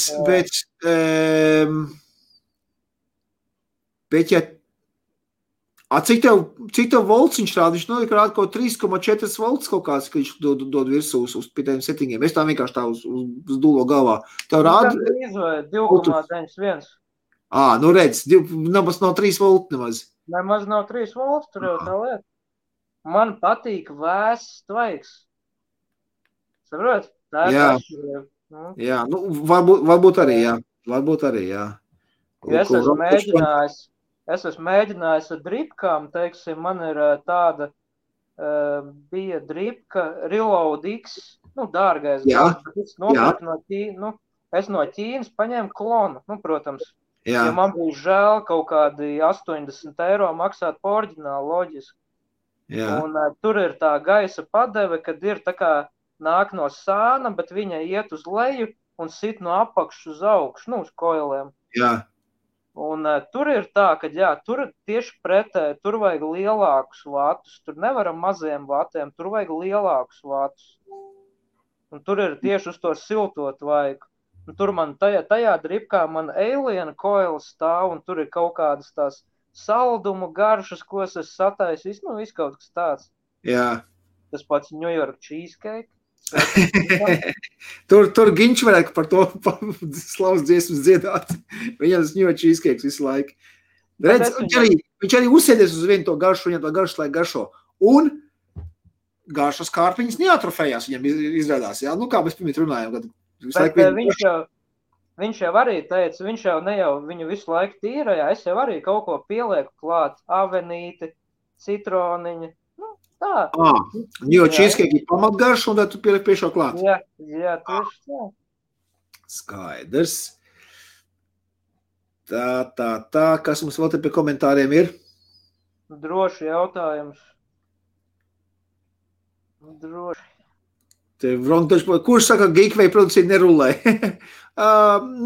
S1: ja cik tev volts viņš rāda? Viņš rāda kaut 3,4 volts kaut kāds, ka viņš dod virsū uz pitējiem settingiem. Es tā vienkārši tā uz dūlo galvā. Tev rāda?
S2: 2,91.
S1: Redz, nemaz nav 3 volti nemaz.
S2: Nemaz nav 3 volti, tur jau tā lieta. Man patīk vēss tvaiks. Saprot? Tā ir atšķirība.
S1: Jā, varbūt arī, jā. Varbūt arī, jā.
S2: Es esmu mēģinājis ar dripkām, teiksim, man ir tāda, bija dripka Reload X, dārgais. Es no Ķīnas paņēmu klonu, protams,
S1: Jā.
S2: Ja man bija žēl kaut kādi 80 eiro maksāt par oriģinālu loģiski.
S1: Jā.
S2: Un tur ir tā gaisa padeve, kad ir tā kā nāk no sāna, bet viņa iet uz leju un sit no apakšas uz augšu, nu, uz koiliem.
S1: Jā.
S2: Un tur ir tā, ka jā, tur tieši pretēji, tur vajag lielākus vatus, tur nevaram maziem vatiem, tur vajag lielākus vatus. Un tur ir tieši uz to siltot vajag. Un tur man tajā dripkā man alien coils stāv, un tur ir kaut kādas tās saldumu garšas, ko es esmu sataisījis, nu, viss kaut kas tāds.
S1: Jā.
S2: Tas pats New York cheesecake.
S1: tur Ginč varētu par to slavas dziesmas dziedāt. Viņam tas New York cheesecake visu laiku. Redz, viņš arī uzsēdies uz vienu to garšu, viņam to garšu laik garšo. Un garšas kārpiņas neatrofējās, viņam izrādās. Jā? Nu, kā mēs pirmīt runājam.
S2: Bet viņš jau arī teica, viņš jau ne jau viņu visu laiku tīrajā, es jau arī kaut ko pielieku klāt, avenīti, citroniņi. Tā.
S1: Jo cheesecake ir pamatgarš, un tad tu pieliek pie šo klāt.
S2: Jā, tieši tā.
S1: Skaidrs. Tā. Kas mums vēl te pie komentāriem ir?
S2: Droši jautājums. Droši.
S1: Kurš saka, ka Geekway produkcija nerulē?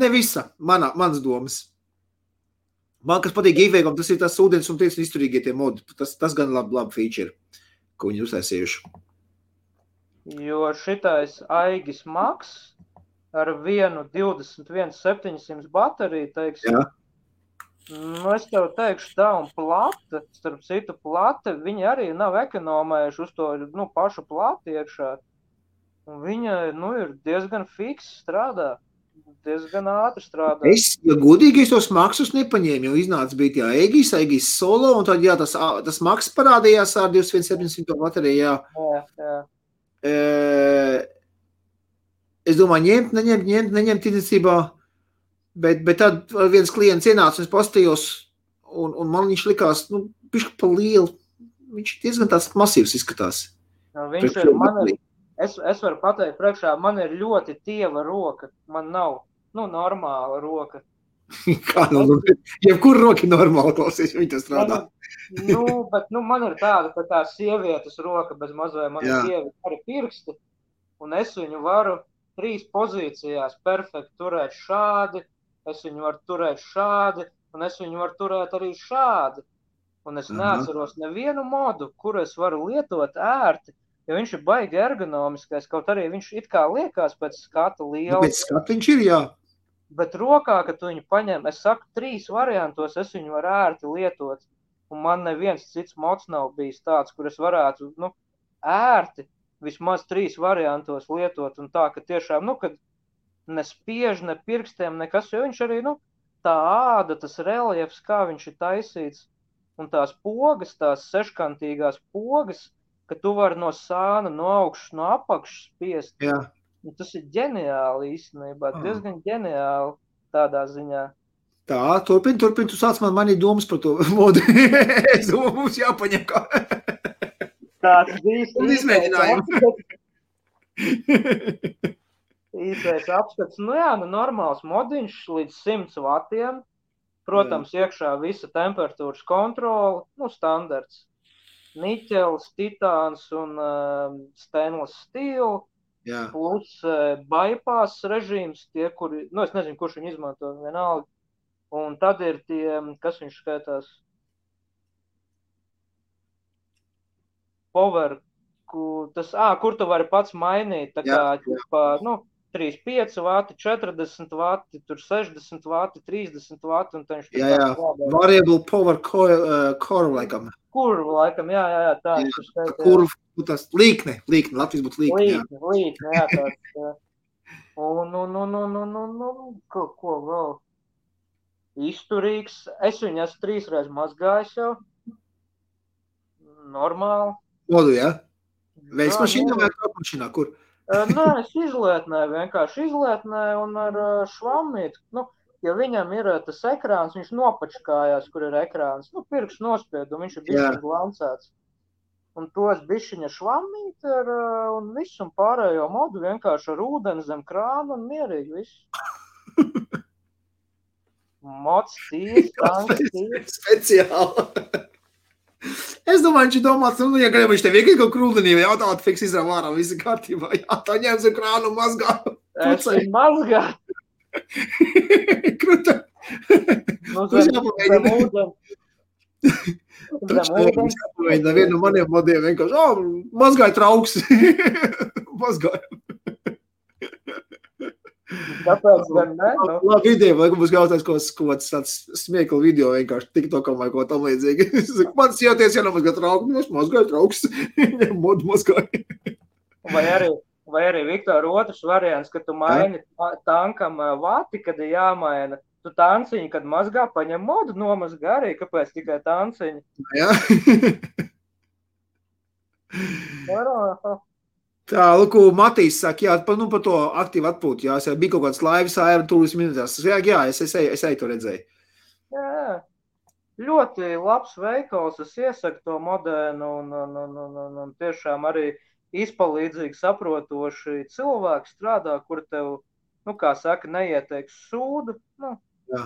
S1: Ne visa, mans domas. Man, kas patīk Geekwayam, tas ir tas ūdens un tiecas izturīgie tie modi. Tas gan labi feature, ko viņi uztaisījuši.
S2: Jo šitais Aigis Maks ar vienu 21.700 bateriju, teiksim,
S1: jā.
S2: Nu, es tev teikšu tā, un plata, starp citu plata, viņi arī nav ekonomējuši uz to, nu, pašu plati iekšā. Un viņa, nu, ir diezgan fiks strādā, diezgan ātri strādā.
S1: Ja godīgi, es tos maksus nepaņēmu, jo iznāca bija tie Aegis Solo, un tad, jā, tas maks parādījās ar 2700 bateriju,
S2: jā.
S1: Es domāju, neņemt tirdzniecībā, bet tad viens klients ienāca un es pastījos, un man viņš likās, nu, bišķi pa lielu. Viņš diezgan tās masīvs izskatās.
S2: No, viņš ir, es varu pateikt priekšā, man ir ļoti tieva roka, man nav, nu, normāla roka.
S1: Kā, nu, jebkur roka normāli klausies, viņi tas strādā.
S2: Bet man ir tāda, ka tā sievietes roka bez mazvai, man ir tievi arī pirksti, un es viņu varu 3 pozīcijās perfekti turēt šādi, es viņu varu turēt šādi, un es viņu varu turēt arī šādi. Un es neatceros nevienu modu, kuru es varu lietot ērti, jo viņš ir baigi ergonomiskais, kaut arī viņš it kā liekas pēc skata liela.
S1: Pēc skata viņš ir, jā.
S2: Bet rokā, kad tu viņu paņem, es saku, 3 variantos es viņu varu ērti lietot. Un man neviens cits mods nav bijis tāds, kur es varētu, nu, ērti vismaz 3 variantos lietot. Un tā, ka tiešām, nu, kad nespiež, ne pirkstiem, nekas, jo viņš arī, nu, tā āda, tas reliefs, kā viņš ir taisīts. Un tās pogas, tās seškantīgās pogas, ka tu vari no sāna, no augšas, no apakšas spiest.
S1: Jā.
S2: Un tas ir ģeniāli īstenībā, diezgan ģeniāli tādā ziņā.
S1: Tā, turpin, tu sāc man manī domas par to modu. Es domāju, mums jāpaņem kā.
S2: Tāds īstais
S1: izmēģinājumu.
S2: Īstais apskats, nu jā, nu normāls modiņš līdz 100 vatiem. Protams, iekšā visa temperatūras kontrola, nu, standarts. Niķels, titāns un stainless steel, plus bypass režīms, tie, kuri, nu, es nezinu, kurš viņu izmanto, vienalga. Un tad ir tie, kas viņš skaitās, power, kur tu vari pats mainīt, tā kā, nu, 35 vati, 40 vati, tur 60 vati, 30 vati, un tad viņš
S1: variable power core, laikam.
S2: Kurva, laikam, jā, tā.
S1: Kurva, tas līkne, Latvijas būtu līkne,
S2: Līkne, jā, tāds, jā. Un, ko vēl? Izturīgs, es viņu esmu 3 reizes mazgājis jau. Normāli.
S1: Modu, jā? Veids mašīnā vai kāpmašīnā, kur?
S2: Nē, es vienkārši izlietnēju un ar švammīti. Nu, ja viņam ir tas ekrāns, viņš nopačkājās, kur ir ekrāns. Nu, pirksts nospied, un viņš ir bišķiņ glancēts. Un to es bišķiņa švammīti un visu un pārējo modu vienkārši ar ūdeni zem krāna un mierīgi visu. Mots ties, tanks ties.
S1: Speciāli. Es domāju, viņš domāts, ja grib, viņš tev vienkārši kaut krūdenī vai jautāt, fiks izrāv ārā, visi kārtībā. Jā, tā ņems un krānu mazgā.
S2: Es viņu mazgā.
S1: Kruta.
S2: Nu, zem ūdeni.
S1: Vienu no maniem modiem vienkārši, mazgāja trauks. Mazgāja.
S2: Tāpēc gan ne?
S1: Labi ideja, lai mums gautās kaut tāds smiekla video vienkārši TikTokam vai ko tam līdzīgi. Man sieties, ja nemazgā trauku, es mazgāju trauks. Modu mazgāju.
S2: Vai arī, Viktor, otrs variants, ka tu maini tankam vati, kad ir jāmaina. Tu tanciņi, kad mazgā, paņem modu, nomazgā arī, kāpēc tikai tanciņi?
S1: Jā. Tā, lūk, Matīs saka, jā, par to aktīvu atpūtu, jā, bija kaut kāds laivas āra tūlis minūtās. Jā, es eju to redzēju.
S2: Jā, ļoti labs veikals, es iesaku to modēnu un tiešām arī izpalīdzīgi saprotoši cilvēki strādā, kur tev, kā saka, neieteiks sūdu,
S1: Jā.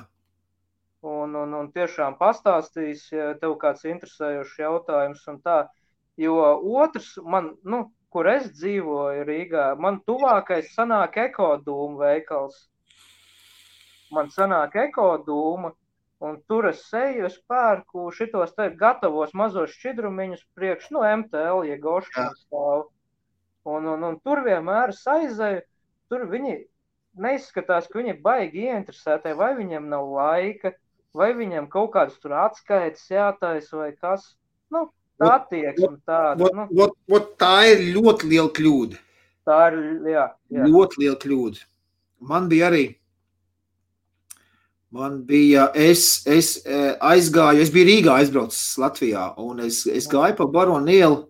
S2: Un tiešām pastāstīs, ja tev kāds interesējošs jautājums un tā, jo otrs man, kur es dzīvoju Rīgā, man tuvākais sanāk Ekodūma veikals. Man sanāk Ekodūma, un tur es eju, es pērku šitos te gatavos mazos šķidrumiņus priekš, MTL, ja goškā stāv. Un tur vienmēr es aizēju, tur viņi neizskatās, ka viņi ir baigi ieinteresēti, vai viņiem nav laika, vai viņiem kaut kādas tur atskaites jātais vai kas. Tā attieksme tāda.
S1: Tā ir ļoti liela kļūda.
S2: Tā ir, jā.
S1: Ļoti liela kļūda. Es aizgāju, es biju Rīgā aizbraucis Latvijā, un es gāju pa Baronu ielu.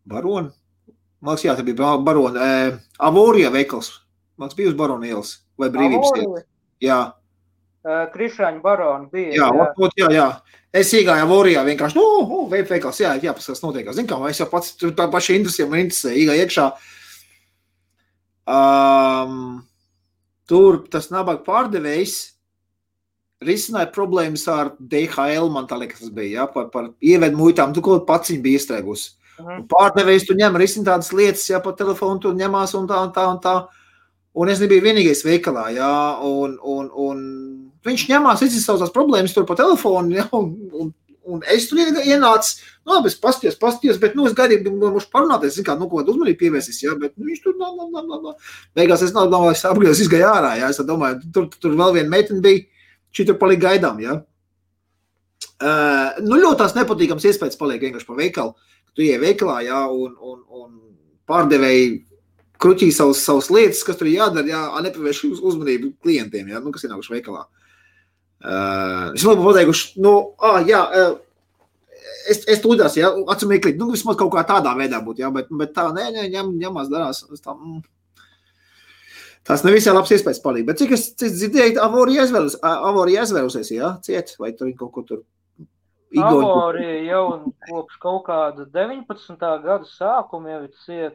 S1: Baronu? Man liekas, jā, tā bija Baronu. Avorija veikals. Man bija uz Baronu ielas vai Brīvības ielas. Jā.
S2: Krišāņu Baronu bija.
S1: Jā. Es iegāju Avorijā vienkārši, veikals, jā, paskatās notiekās. Zin kā, es jau pats tā paša interesē, iegāju iekšā. Tur tas nabaga pārdevējs risināja problēmas ar DHL, man tā liekas tas bija, jā, par ievedu muitām, tu kaut paciņu bija iestrēgusi. Pārdevējs tu ņem, risina tādas lietas, jā, pa telefonu tu ņemās un tā. Un es nebiju vienīgais veikalā, jā, un viņš ņemās, izsaucās problēmas tur pa telefonu, jā, un es tur ienācu, es pastījos, bet, es gaidīju, mums parunāties, zin kā, kaut kādu uzmanību pievērsīs, jā, bet viņš tur, beigās es domāju, es apgājos, izgāju ārā, jā, es domāju, tur vēl viena meitene bija, šī tur palika gaidām, jā. Ļoti tās nepatīkams iespējas paliek vienkārši pa veikalu, tu ieej veikalā, jā, un pārdevēji kruķī savas lietas, kas tur jādara, jā, nepavērš uzmanību klientiem, jā, kas ienākuši veikalā. Es labi pateikuši, es tūdās, jā, acumīklīt, vismaz kaut kā tādā veidā būtu, jā, bet tā, ņemās darās, tās nevisai labs iespējas palīk, bet cik es dzirdēju, Avorija aizvērusies, jā, ciet, vai tur kaut ko tur
S2: Avorija jau kopš kaut kāda 19. gada sākuma jau ir ciet.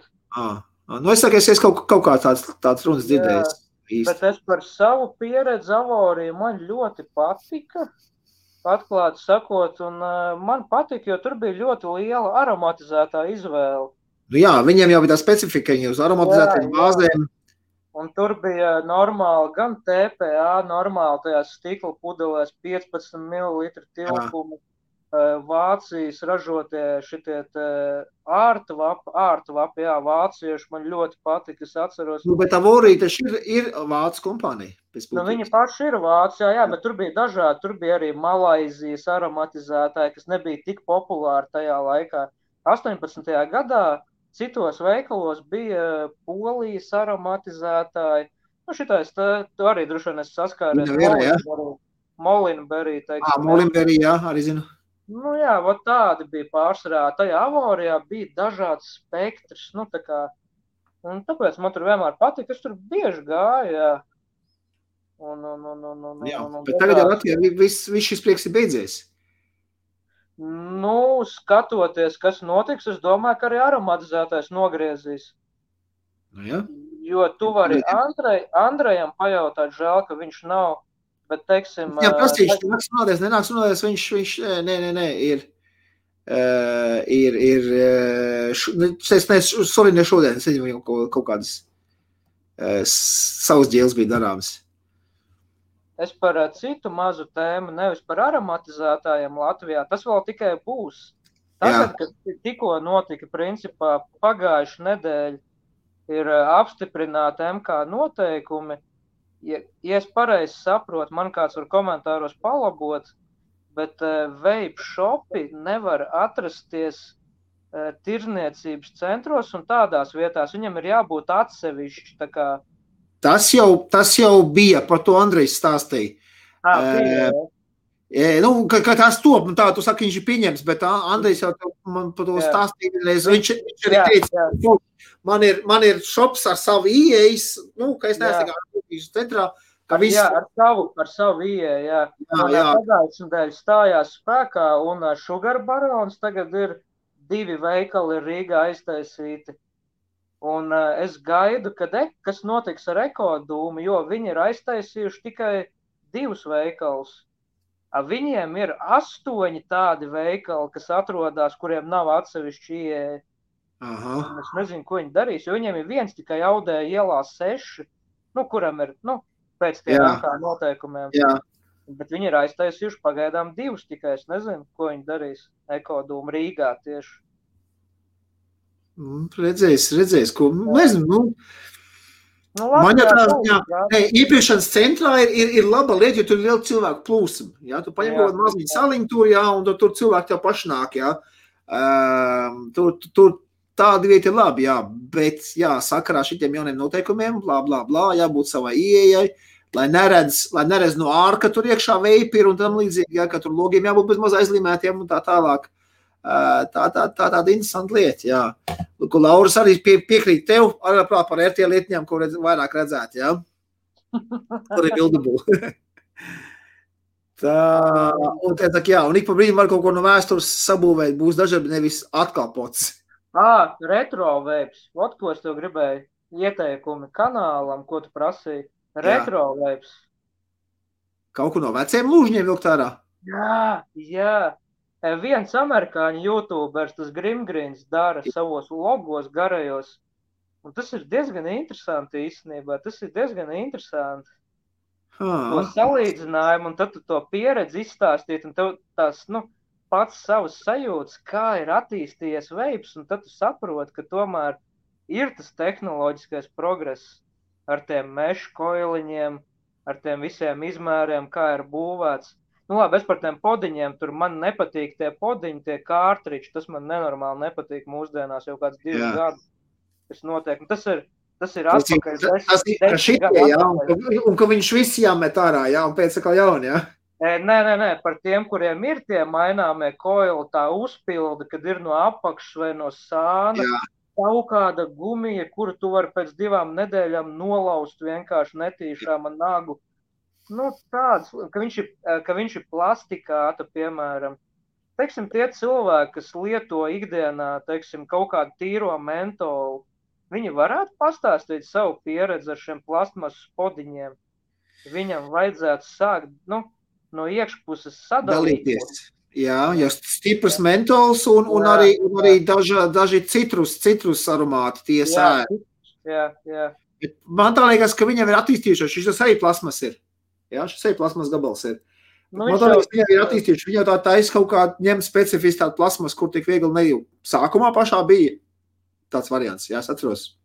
S1: Es saku, es kaut kā tāds runas dzirdējis.
S2: Bet es par savu pieredzi Avoriju man ļoti patika, atklāti sakot, un man patika, jo tur bija ļoti liela aromatizētā izvēle.
S1: Jā, viņiem jau bija tā specifika, viņi uz aromatizētām bāzēm.
S2: Un tur bija normāli gan TPA, normāli tajās stikla pudelēs 15 ml tilpumu. Vācijas ražotie šitie ārtvapi, jā, vācieši man ļoti patika, es atceros.
S1: Bet Avorija taču ir vācu kompānija.
S2: Viņi paši ir Vācijā, jā, bet tur bija dažādi, tur bija arī Malaizijas aromatizētāji, kas nebija tik populāri tajā laikā. 18. gadā citos veikalos bija Polijas aromatizētāji. Šitais, tu arī droši vien esi saskāries. Molinberry, teiksim.
S1: Molinberry, jā, arī zinu.
S2: Jā, tādi bija pārsvarā. Tajā Avorijā bija dažāds spektrs, tā kā, un tāpēc man tur vienmēr patika, es tur bieži gāju, jā.
S1: Bet tagad jau Latvijā viss šis prieks ir beidzies.
S2: Skatoties, kas notiks, es domāju, ka arī aromatizētais nogriezīs.
S1: Jā.
S2: Jo tu vari Andrejam pajautāt, žēl, ka viņš nav Bet, teiksim,
S1: Jā, prasīšu, nenāks runāties, viņš, nē, ne šodien, es nezinu, kaut kādas savas ģēles bija darāmas.
S2: Es par citu mazu tēmu, nevis par aromatizētājiem Latvijā, tas vēl tikai būs. Tagad, kad tikko notika, principā, pagājuši nedēļa, ir apstiprināti MK noteikumi. Ja es pareizi saprotu, man kāds var komentāros palabot, bet vape shopi nevar atrasties tirniecības centros un tādās vietās. Viņam ir jābūt atsevišķi, tā kā.
S1: Tas jau bija, par to Andrejs stāstīja. Ka tas top, tā tu saki, viņš ir pieņems, bet Andrejs jau man par to stāstīja. Viņš arī teica, man ir shops ar savu ieejas, ka es neesmu centrā.
S2: Ar savu ieeju, jā. Pagājušajā nedēļā stājās spēkā un Sugar Barons tagad ir 2 veikali Rīgā aiztaisīti. Un es gaidu, kas notiks ar Ekodūmu, jo viņi ir aiztaisījuši tikai 2 veikalus. Viņiem ir 8 tādi veikali, kas atrodas, kuriem nav atsevišķi ieeja. Es nezinu, ko viņi darīs, jo viņiem ir viens tikai Audēja ielā 6, kuram ir, pēc tiem noteikumiem. Jā. Bet viņi ir aiztaisījuši pagaidām 2 tikai, es nezinu, ko viņi darīs Ekodūmu Rīgā tieši.
S1: Redzēs, ko, nezinu, man jau tā, iepiešanas centrā ir laba lieta, jo tur ir liela cilvēku plūsma, jā, tu paņem kaut maziņu saliņu tur, jā, un tur cilvēki tev paši nāk, jā, tur tāda vieta ir labi, jā, bet, jā, sakarā šitiem jauniem noteikumiem, blā, jābūt savai ieejai, lai neredz no ārka tur iekšā veipi ir un tam līdzīgi, jā, ka tur logiem jābūt bez maz aizlīmētiem un tā tālāk. Tāda interesanta lieta, jā. Ko Lauras arī piekrīt tev, arī par RT lietņām, ko vairāk redzēt, jā. Tur ir bildabū. Un ik pa brīdim var kaut ko no vēstures sabūvēt, būs dažādi nevis atkal pots.
S2: Retro vapes. Ot, ko es tev gribēju ieteikumi kanālam, ko tu prasīji. Retro vapes.
S1: Kaut ko no veciem lūžņiem vilkt ārā?
S2: Jā. Viens amerikāņu YouTubers, tas Grimgrins, dara savos logos garajos. Un tas ir diezgan interesanti īstenībā. Tas ir diezgan interesanti. To salīdzinājumu un tad tu to pieredzi izstāstīt un tev tās, pats savas sajūtas, kā ir attīstījies vapes, un tad tu saproti, ka tomēr ir tas tehnoloģiskais progress ar tiem mešu koiliņiem, ar tiem visiem izmēriem, kā ir būvēts. Labi, es par tiem podiņiem, tur man nepatīk tie podiņi, tie kārtriči, tas man nenormāli nepatīk mūsdienās jau kāds 2 gadu. Tas notiek, un tas ir atpakaļ.
S1: Un ka viņš visi jāmet ārā, jā, un pēc atkal jauni, jā?
S2: Nē, par tiem, kuriem ir tie maināmie koili, tā uzpilda, kad ir no apakšas vai no sāna, kaut kāda gumija, kuru tu vari pēc 2 nedēļām nolaust vienkārši netīšām ar nagu. Tāds, ka viņš ir plastikāta, piemēram. Teiksim, tie cilvēki, kas lieto ikdienā, teiksim, kaut kādu tīro mentolu, viņi varētu pastāstīt savu pieredzi ar šiem plastmasas podiņiem. Viņam vajadzētu sākt, no iekšpuses sadalīties.
S1: Jā, stiprs mentols un arī daži citrus aromāti tie sēri.
S2: Jā.
S1: Man tā liekas, ka viņam ir attīstījušies, šis arī plasmas ir. Jā, šis arī plasmas gabals ir. Man tā liekas, viņam ir attīstījuši. Viņa tā taisa kaut kā ņem specifiski tādu plasmas, kur tik viegli nejū. Sākumā pašā bija tāds variants, jā, es atceros.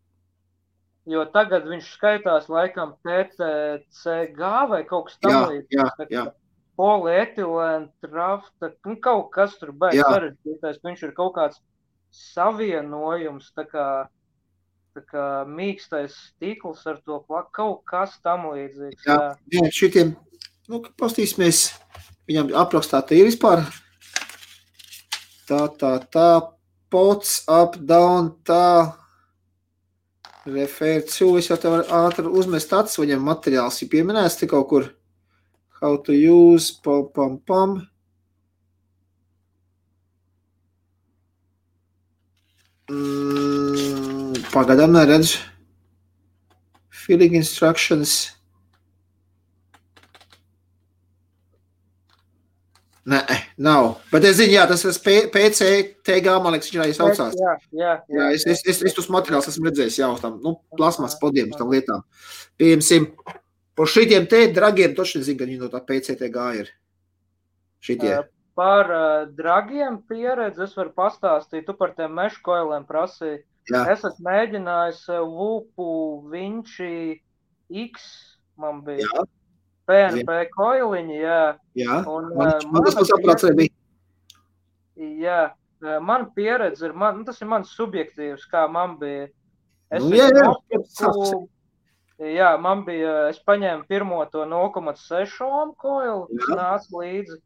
S2: Jo tagad viņš skaitās laikam PTCG vai kaut kas tam līdzīgs.
S1: Jā.
S2: Polietilēna, trafta, kaut kas tur beigas sarežģītais. Viņš ir kaut kāds savienojums, tā kā mīkstais stikls ar to kaut kas tam līdzīgs.
S1: Jā, šitiem, pastīsimies, viņam aprakstā te ir vispār tā, pots, up, down, tā, refer to, es jau te varu ātri uzmest acis, viņam materiāls ir pieminēts te kaut kur, how to use, pam. Pagaidām neredzu. Filling instructions. Nē, nav. Bet es zinu, jā, tas ir PCTG, man liekas, viņš arī saucās.
S2: Jā.
S1: Es tos materiālus esmu redzējis jau tam, plasmas podiem, tam lietām. Pieņemsim, par šitiem te dragiem toši nezinu, ka viņi no tā PCTG ir. Šitie.
S2: Par dragiem pieredzi es varu pastāstīt, tu par tiem mešu koiliem prasīji.
S1: Jā.
S2: Es esmu mēģinājis Vupu Vinci X, man bija.
S1: Jā.
S2: PNP koiliņi, jā.
S1: Jā,
S2: Un,
S1: man tas saprāts arī bija.
S2: Jā, man pieredze ir, tas ir mans subjektīvs, kā man bija. Jā, man bija, es paņēmu pirmo to 0,6 ohm koilu, kas nāca līdzi.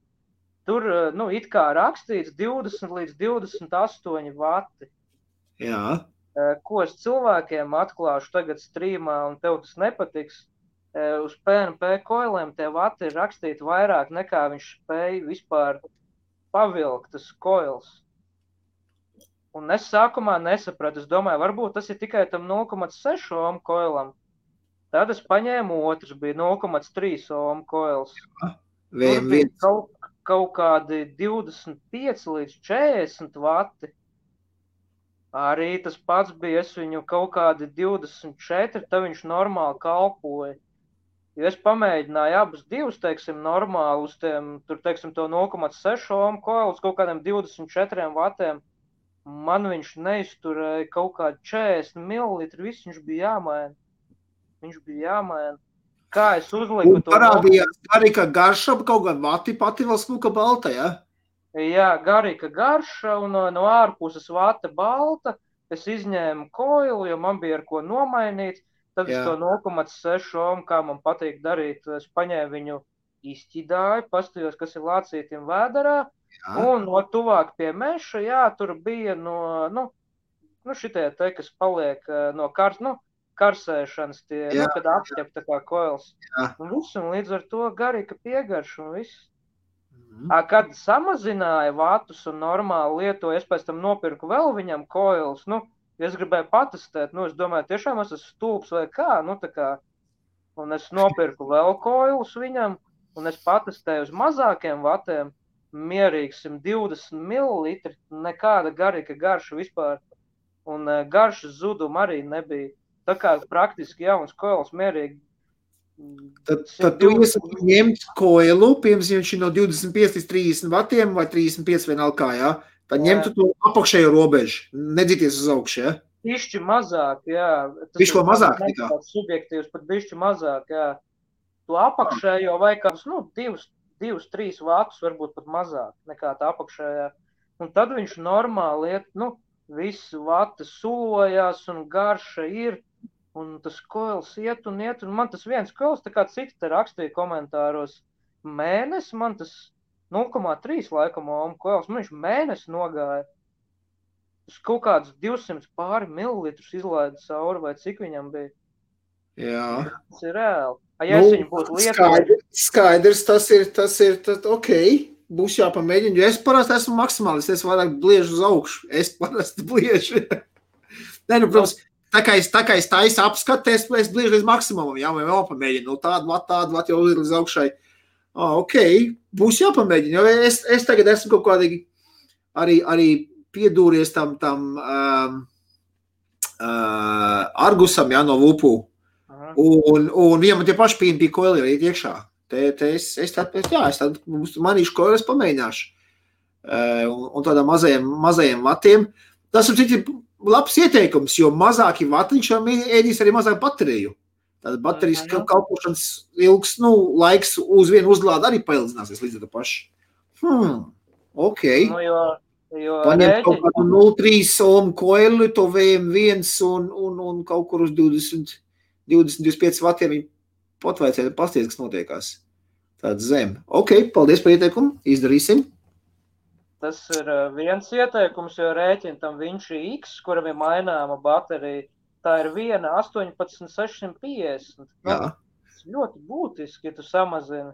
S2: Tur, it kā rakstīts 20 līdz 28 vati.
S1: Jā.
S2: Ko es cilvēkiem atklāšu tagad streamā, un tev tas nepatiks. Uz PNP koiliem tie vati ir rakstīti vairāk nekā viņš spēja vispār pavilkt tas koils. Un es sākumā nesapratu, es domāju, varbūt tas ir tikai tam 0,6 ohm koilam. Tad es paņēmu otrs, bija 0,3 ohm koils. Tur bija kaut kādi 25 līdz 40 vati. Arī tas pats bija, es viņu kaut kādi 24, tad viņš normāli kalpoja. Jo es pamēģināju abus divus, teiksim, normāli uz tiem, tur, teiksim, to 0,6 ohm koilus, kaut kādiem 24 vatiem. Man viņš neizturēja kaut kādi 40 millilitri, viss viņš bija jāmaina. Kā es uzliku to...
S1: Un parādījās garīga garša, kaut gan vati pati vēl smuka balta, ja?
S2: Jā, garīga garša un no ārpuses vata balta. Es izņēmu koilu, jo man bija ar ko nomainīt. Tad es to 0,6 ohm, kā man patīk darīt, es paņēmu viņu izķidāju, pastījos, kas ir lācītim vēderā. Un no tuvāk pie meša, jā, tur bija šitie te, kas paliek no karsēšanas, kad apķep tā kā koils. Un līdz ar to garīga piegarša un viss. Kad samazināja vatus un normāli lietoja, es pēc tam nopirku vēl viņam koils, es gribēju patestēt, es domāju, tiešām es esmu stulbs vai kā, tā kā, un es nopirku vēl koilus viņam, un es patestēju uz mazākiem vatiem, mierīgi 120 millilitri, nekāda garīga garša vispār, un garšas zuduma arī nebija. Tā kā praktiski jauns koils mierīgi.
S1: Tad tu ņemt koilu, piemēram, viņš ir no 25 līdz 30 vatiem vai 35 vienalga, jā? Tad ņemtu to apakšējo robežu, nedzīties uz augšu, jā?
S2: Bišķi mazāk, jā.
S1: Bišķi ko mazāk tikā?
S2: Subjektīvs, pat bišķi mazāk, jā. To apakšējo vai kādus, 2-3 vatus, varbūt pat mazāk nekā tā apakšējā. Un tad viņš normāli iet, viss vata sulojās un garša ir. Un tas koils iet, un man tas viens koils, tā kā citi te rakstīja komentāros, mēnesi, man tas 0,3 laikam ohm koils, man viņš mēnesi nogāja. Tas kaut kāds 200 pāri mililitrus izlaida cauri, vai cik viņam bija.
S1: Jā.
S2: Tas ir reāli. Ja es viņu būtu lietojis.
S1: Skaidrs, tas ir, ok, būs jāpamēģina, jo es parasti esmu maksimālists, es vairāk bliežu uz augšu, es parasti bliežu. Protams, Tā kā es taisu apskatu, es bliežu līdz maksimumam, jā, vai vēl pamēģinu, tādu vat jau līdz augšai. Ok, būs jāpamēģina, jo es tagad esmu kaut kādīgi arī piedūries tam Argusam, jā, no Vupu. Un viņam tie paši PNP koili ir iekšā. Es manīšu koili, es pamēģināšu. Un tādām mazajiem vatiem. Tas ir citi labs ieteikums, jo mazāki vatiņš ēdīs arī mazāk bateriju. Tāda baterijas kalpošanas ilgs, laiks uz vienu uzlādi arī paildzināsies līdz ar to pašu. Ok. Paņem kaut kādu 0,3 ohm koilu, to VM1 un kaut kur uz 20-25 vatiem viņi potvaicēja pasties, kas notiekās. Tāds zem. Ok, paldies par ieteikumu, izdarīsim.
S2: Tas ir viens ieteikums, jo rēķina tam Vinci X, kuram ir maināma baterija, tā ir viena 18,650. Tas ļoti būtiski, ja tu samazini.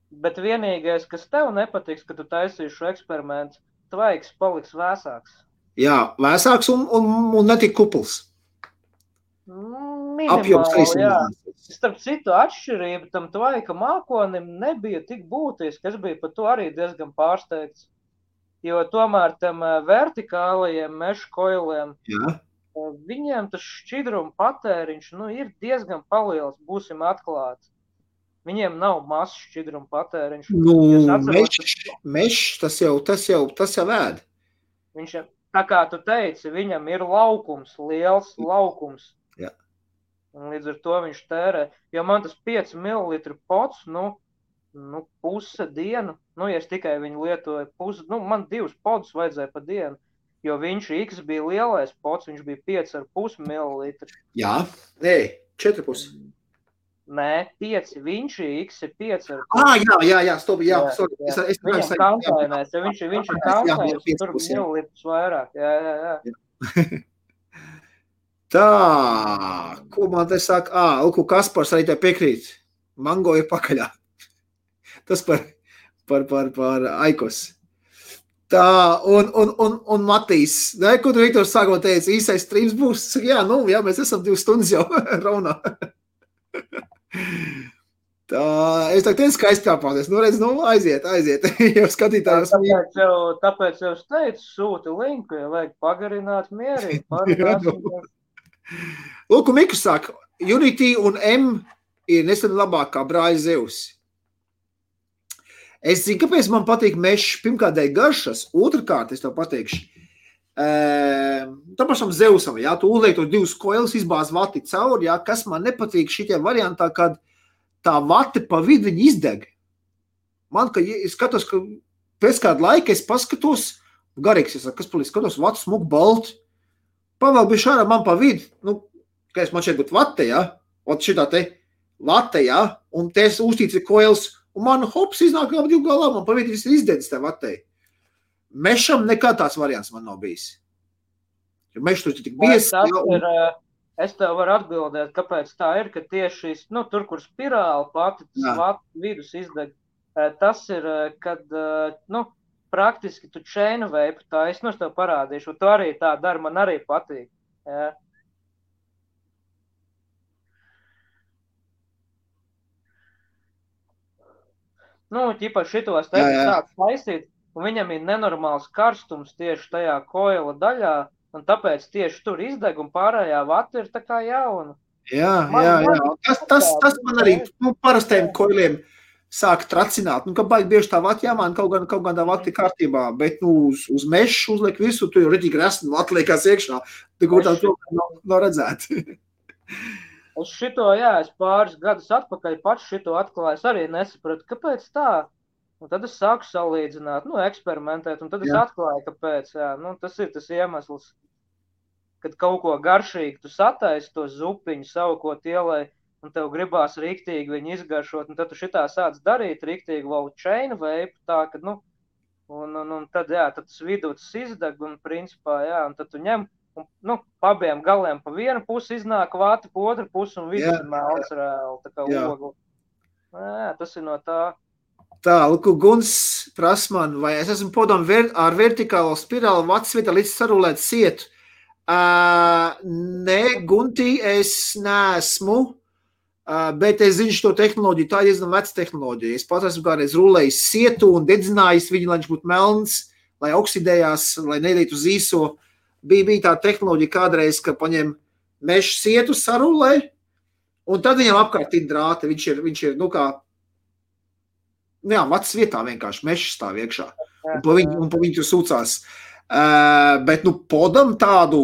S2: Bet vienīgais, kas tev nepatiks, ka tu taisīši šo eksperimentu, tvaiks paliks vēsāks. Jā,
S1: vēsāks un netik kupls.
S2: Minimāli, jā. starp citu atšķirība tam tvaika mākonim nebija tik būtiski. Es biju par to arī diezgan pārsteigts. Jo tomēr tam vertikālajiem meža koiliem, viņiem tas šķidruma patēriņš ir diezgan paliels, būsim atklāti. Viņiem nav mazs šķidruma patēriņš.
S1: Mešs, tas jau ēd.
S2: Viņš, tā kā tu teici, viņam ir laukums, liels laukums.
S1: Jā.
S2: Un līdz ar to viņš tērē. Jo man tas 5 ml pots, puse dienu, ja es tikai viņu lietoju man 2 podus vajadzēja pa dienu, jo viņš X bija lielais pots, viņš bija 5,5 ml.
S1: Jā, 4,5.
S2: Nē, 5, viņš X ir 5.
S1: Jā, stop, jā.
S2: Viņam kantainēs, ja viņš ir kantainēs, tur millilitrus vairāk, jā.
S1: Tā, ko man te saka? Lūk, Kaspars arī te piekrīt. Mango ir pakaļā. Tas par Aikos. Tā, un Matīs, ko tu Viktors sākumā teici, īsais streams būs? Jā, mēs esam 2 stundas jau raunā. Tā, es tā teicu, skaisti kāpāties. Aiziet. Jau skatītājos.
S2: Tāpēc jau es teicu, sūti linku, ja vajag pagarināt mierīgi.
S1: Lūk, Miku saka, Unity un M ir nesen labākā brāļa Zeus. Es zinu, kāpēc man patīk mešs, pirmkārt dēļ garšas, otrkārt, es tev pateikšu, tā pašam Zeusam, tu uzliek tos 2 koilus, izbāz vati cauri, kas man nepatīk šitie variantā, kad tā vati pa vidu viņi izdeg. Man, ka es skatos, ka pēc kāda laika es paskatos, garīgs, kas palīdz, skatos, vati smuk balt, pavēl bija šādā man pa vidu, ka es man šeit būtu vate, ot šitā te vate, un te es uztīts ir koils, un man hops iznāk ap 2 galā, man pa vidu viss ir izdedis te vatei. Mešam nekā tāds variants man nav bijis. Jo mešs tur tik bies.
S2: Es tev varu atbildēt, kāpēc tā ir, ka tieši tur, kur spirāli pati, tas vidus izdeg, tas ir, kad, praktiski tu chain vape, tā es tev parādīšu, un tu arī tā dari, man arī patīk. Jā. Ķipa šitos sāk taisīt, un viņam ir nenormāls karstums tieši tajā koila daļā, un tāpēc tieši tur izdeg, un pārējā vata ir tā kā jauna.
S1: Jā. Tas man arī parastajiem koiliem sāk tracināt. Ka baigi bieži tā vata jāmāna, kaut gan tā vata ir kārtībā, bet uz mešu uzliek visu, tu jau redīgi resni vata liekās iekšā, kur tā nav redzēt.
S2: Es es pāris gadus atpakaļ pats šito atklāju, es arī nesapratu, kāpēc tā. Un tad es sāku salīdzināt, eksperimentēt, un tad es atklāju, kāpēc. Tas ir tas iemesls, kad kaut ko garšīgi tu sataisi to zupiņu savu, ko tielai, un tev gribās riktīgi viņu izgaršot, un tad tu šitā sāc darīt riktīgi vēl chain vape, tā, kad, un tad, tad tas vidūts izdeg, un principā, un tad tu ņem, un, pabiem galiem pa vienu pusi iznāk vāti, pa otru pusi, un vidus ir melns reāli, tā kā ogli. Tas ir no tā.
S1: Tā, lūk, Guns prasa man, vai es esmu podam ar vertikālo spirāli vatsvietā līdz sarulēt sietu. Nē, Gunti, es neesmu, bet es zinu šo tehnoloģiju, tā ir diezgan veca tehnoloģija. Es pats esmu kādreiz rulējis sietu un dedzinājis viņu, lai viņš būtu melns, lai oksidējās, lai nedītu uz īso. Bija tā tehnoloģija kādreiz, ka paņem mešu sietu sarulē, un tad viņam apkārt ir drāti. Viņš ir kā, vats vietā vienkārši mešs stāv iekšā, un pa viņu tur sūcās. Bet, podam tādu,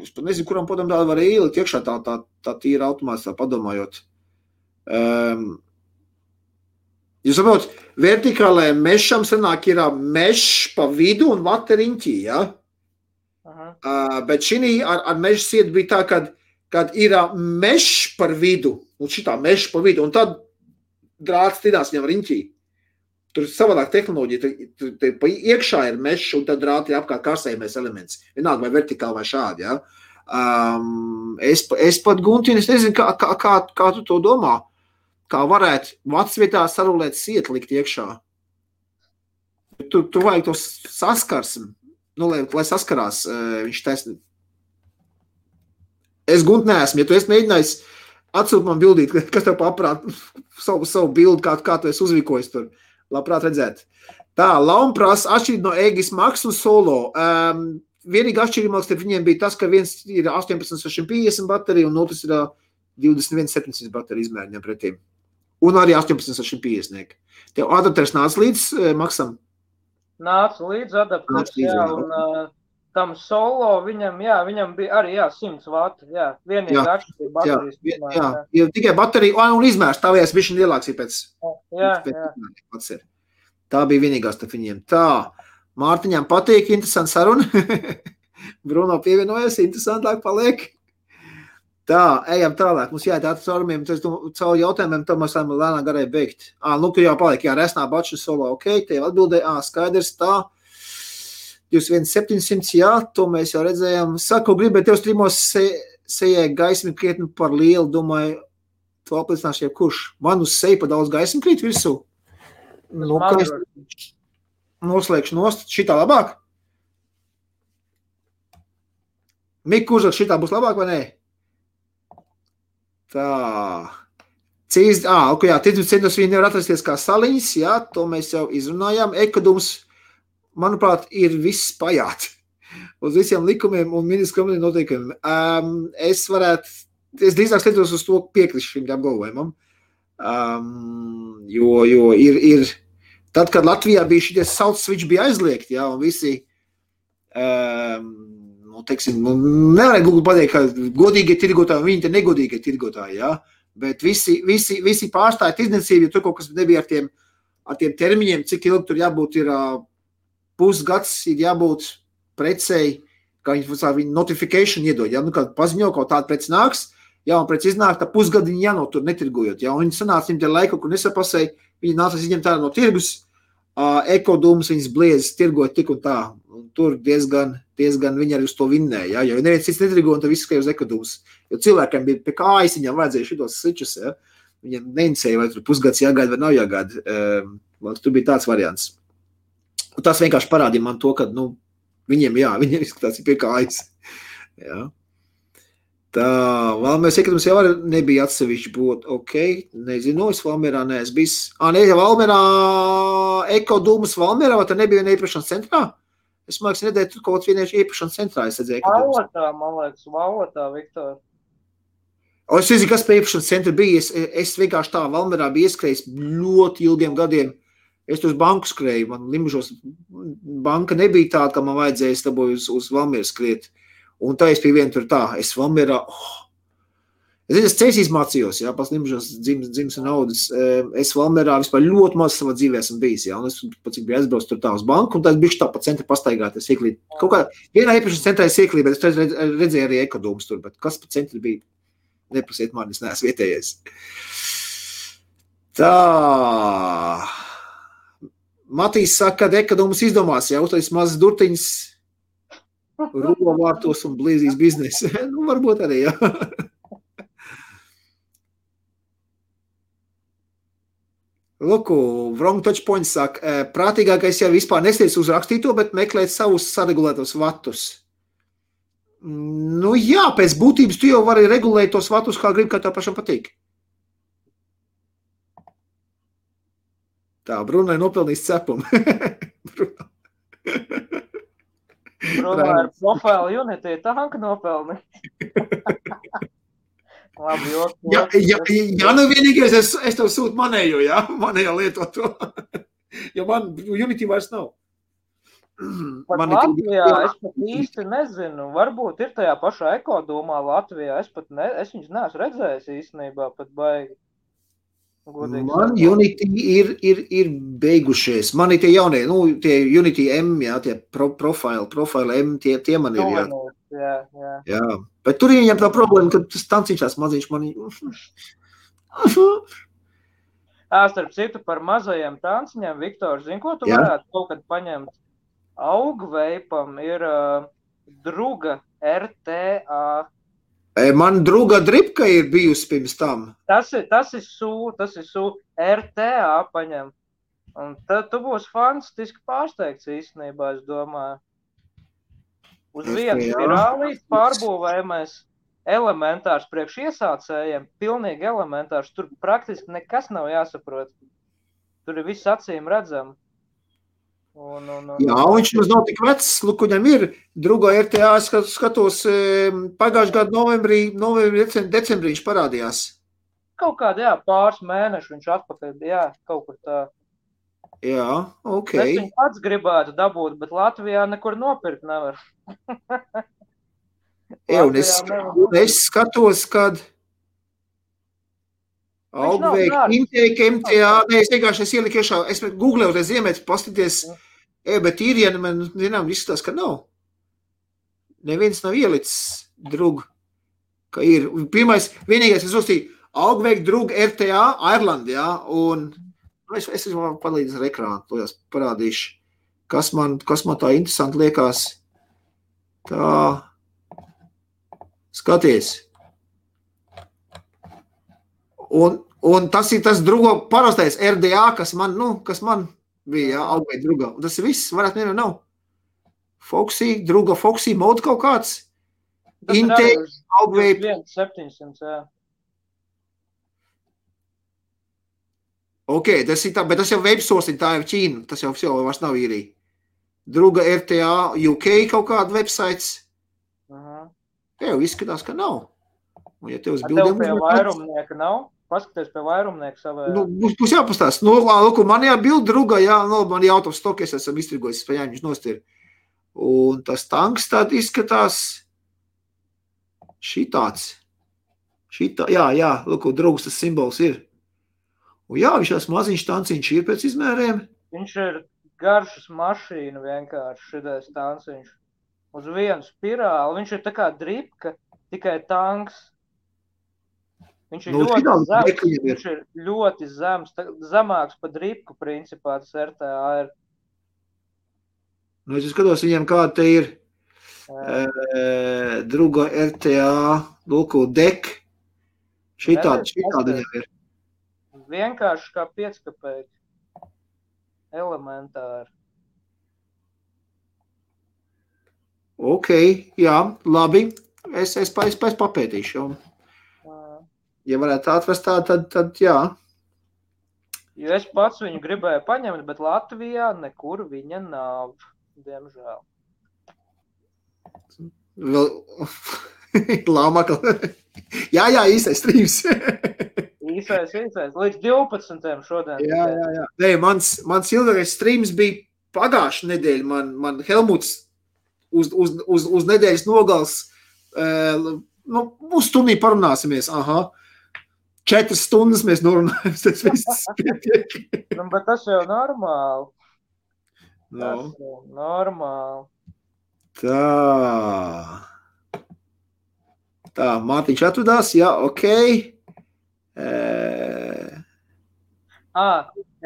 S1: es pat nezinu, kuram podam tādu var ielikt iekšā, tā tīra automāts, tā padomājot. Jūs saprot, vertikālajiem mešam sanāk ir mešs pa vidu un vata riņķī, bet šī ar meža sietu bija tā, kad ir mešs par vidu, un šitā mešs par vidu, un tad drāts tidās viņam riņķī. Tur ir savādāk tehnoloģija, tur iekšā ir mešs, un tad drāti ir apkārt karsējumais elements. Vienalga vai vertikāli vai šādi, Es pat, Gunti, es nezinu, kā tu to domā, kā varētu vatsvietā sarulēt sietu likt iekšā. Tu vajag to saskarsmi. Lai saskarās, viņš taisni. Es, Gunt, neesmu. Ja tu esi mēģinājis Atsūt man bildīt, kas tev paprāt savu bildi, kā tu esi uzvikojis tur. Labprāt redzēt. Tā, Lauma prasa atšķirīt no Egis Max un Solo. Vienīgi atšķirīgāks starp viņiem bija tas, ka viens ir 18,650 baterija un otrs ir 21,700 baterija izmēriņiem pretīm. Un arī 18,650. Tev adapters nāca līdz Maxam?
S2: Nāca līdz adapters, jā, un tam Solo viņam bija arī, 100 vati, vienīgi atšķirība baterijas.
S1: Jā, tikai baterija un izmērs, tavējās bišķiņ lielāks ir pēc.
S2: Jā.
S1: Tā bija vienīgās starp viņiem. Tā, Mārtiņām patīk, interesanti saruna. Bruno pievienojas, interesantāk paliek. Tā, ejam tālāk. Mums jāiet caurumiem, caur jautājumiem, tad mēs varam lēnāk garai beigt. Tu jau paliek, resnā baču Solo, ok, tev atbildēja, skaidrs, tā. 21,700, to mēs jau redzējām. Saku, gribēju tev streamos sejai gaismi krietni par lielu, domāju, tu apliecināšu jau kurš. Man uz seju pa daudz gaismi krīt virsū. Kā es noslēgšu nost, šitā labāk? Mika uzrak, šitā būs labāk vai nē? Tā. Ticības centros viņi nevar atrasties kā saliņas, to mēs jau izrunājām. Ekodums, manuprāt, ir viss pajāt uz visiem likumiem un ministru noteikumiem. Es drīzāk skatos uz to piekrišu šim apgalvojumam, jo ir tad, kad Latvijā bija šitie salt switch bija aizliegti, un visi, nevarēja gluži pateikt, ka godīgie tirgotāji un viņi te negodīgie tirgotāji, bet visi pārstāja tirdzniecību, jo tur kaut kas nebija ar tiem termiņiem, cik ilgi tur jābūt ir pusgads, ir jābūt precei, kā viņi notification iedod, kad paziņo, kaut tāda preci nāks, un preci iznāk, tā pusgadu viņi jānotur netirgojot, un viņi sanāca viņiem te laiku, kur nesapasēja, viņi nāca izņemt tā no tirgus, Ekodūmus viņas bliezas tirgot tik un tā, un tur diezgan viņi arī uz to vinnēja, jo neviens cits netirgo, un tad viss skai uz Ekodūmus, jo cilvēkiem bija pie kājas, viņam vajadzēja šitos switchus, viņiem neinicēja, vai tur pusgads jāgaida vai nav jāgaida, tur bija tāds variants. Un tas vienkārši parādīja man to, ka, viņiem izskatās pie kājas. Jā. Tā, Valmieras iekritums jau arī nebija atsevišķi būt, ok, nezinu, es Valmierā neesmu bijis. Valmierā, Ekodūmas Valmierā, vai tā nebija viena iepašanas centrā? Es māks nedēļu tur kaut vienieši iepašanas centrā, es redzēju Ekodūmas.
S2: Valotā, Viktor.
S1: Es nezinu, kas pie iepašanas centra bija, es vienkārši tā Valmierā bija ieskrējis ļoti ilgiem gadiem. Es tur uz banku skrēju, man Limžos banka nebija tāda, ka man vajadzēja, es dabūju uz Valmieru skriet. Un tā es pie vienu tur tā, es Valmierā, es ceļs mācījos, pats Limžos dzims un audas, es Valmierā vispār ļoti maz savā dzīvē esmu bijis, un es pats biju aizbraucis tur tā uz banku, un tad bišķi tā pa centru pastaigāties ieklīt. Kaut kā vienā iepašanas centrā es ieklīt, bet es redzēju arī Ekodūmus tur, bet kas pa centru bija? Neprasiet man, es neesmu vietējais. Tā... Matīs saka, ka Ekodūmus izdomās, uztais mazas durtiņas rolovārtos un blīzīs biznesu. Varbūt arī, Luku, wrong touch point saka, prātīgākais jau vispār nestiec uz rakstīto, bet meklēt savus saregulētos vatus. Pēc būtības tu jau vari regulēt tos vatus, kā grib, kā tev pašam patīk. Tā, Brunai nopelnīs cepumu.
S2: Brunai ar profilu Unity tanka nopelni. Labi,
S1: vienīgais, es tev sūtu manējo, manējo lietot to. Jo man Unity vairs nav.
S2: Pat Latvijā es pat īsti nezinu. Varbūt ir tajā pašā Ekodūmā Latvijā. Es viņus neesmu redzējis īstenībā pat baigi.
S1: Man Unity ir beigušies. Man ir tie jaunie, tie Unity M, tie profile M, tie man ir,
S2: Jā.
S1: Bet tur viņam tā problēma, ka tas tanciņšās maziņš man
S2: Starp citu par mazajiem tanciņiem, Viktor, zini, ko tu varētu kaut kad paņemt? Augveipam ir druga RTA.
S1: Man druga dripka ir bijusi pirms tam.
S2: Tas ir SU RTA paņem. Un tad tu būsi fantastiski pārsteigts īstenībā, es domāju. Uz vienu spirālīt pārbūvējamies elementārs priekš iesācējiem, pilnīgi elementārs. Tur praktiski nekas nav jāsaprot. Tur ir viss acīm redzam.
S1: Jā, viņš mums nav tik vecs, lūk, viņam ir Drugo RTA, skatos, pagājušajā gadu novembrī, decembrī viņš parādījās.
S2: Kaut kādā, jā, pāris mēneši viņš atpakaļ, jā, kaut kur tā.
S1: Jā, ok.
S2: Es viņu pats gribētu dabūt, bet Latvijā nekur nopirkt nevar.
S1: Jā, un es skatos, kad Augveik, Intēka, MTA, es vienkārši ieliku iešā, es googlēju, reiz iemēt, paskaties, bet īrieni man, zinām, izskatās, ka nav. Neviens nav ielicis Drugu, ka ir. Pirmais, vienīgais, es uzstīju, Augveik, Drugu, RTA, Ireland, jā, un es varu palīdz ar ekrānu, to jās parādīšu, kas man tā interesanti liekas. Tā, skaties. Un tas ir tas Drugo parastais RDA, kas man bija, jā, Augveik Drugo. Un tas ir viss, varētu nevienam nav. Drugo Foxy mode kaut kāds. Intēka, Augveik.
S2: 700, jā.
S1: Ok, tas ir tā, bet tas jau websourcing, tā ir Ķīna, tas jau vairs nav īrija. Druga RTA, UK kaut kāda websites. Jā, izskatās, ka nav. Un ja tev uz bildēm...
S2: Tev pie vairumnieka nav? Paskaties pie vairumnieka savā...
S1: Būs jāpastās. Lūk, man jābild Druga, jā, man out of stock, es esam izstrigojis, spējām viņš nostir. Un tas tanks tād izskatās šitāds. Jā, lūk, Drugas tas simbols ir. Un jā, viņš tās maziņš tanciņš ir pēc izmēriem.
S2: Viņš ir garšas mašīna vienkārši šitais tanciņš. Uz vienu spirāli. Viņš ir tā kā dripka, tikai tanks. Viņš ir ļoti zems, zemāks pa dripku principā, tas RTA ir.
S1: Es skatos viņiem, kāda te ir Druga RTA, lūko dek. Šitāda viņam ir.
S2: Vienkārši kā 5 kapēki. Elementāri.
S1: Ok, jā, labi. Es papētīšu. Ja varētu atrast tā, tad jā.
S2: Jo es pats viņu gribēju paņemt, bet Latvijā nekur viņa nav, diemžēl.
S1: Lāmakla. Jā, īstais streams.
S2: Īsais. Līdz 12. šodien.
S1: Jā. Nē, mans ilgākais streams bija pagājušā nedēļa. Man Helmuts uz nedēļas nogals, uz stundī parunāsimies. Aha. 4 stundas mēs norunājam, tas viss pietiek.
S2: Bet tas jau normāli.
S1: No.
S2: Tas jau normāli.
S1: Tā, Mārtiņš atvadās, jā, ok.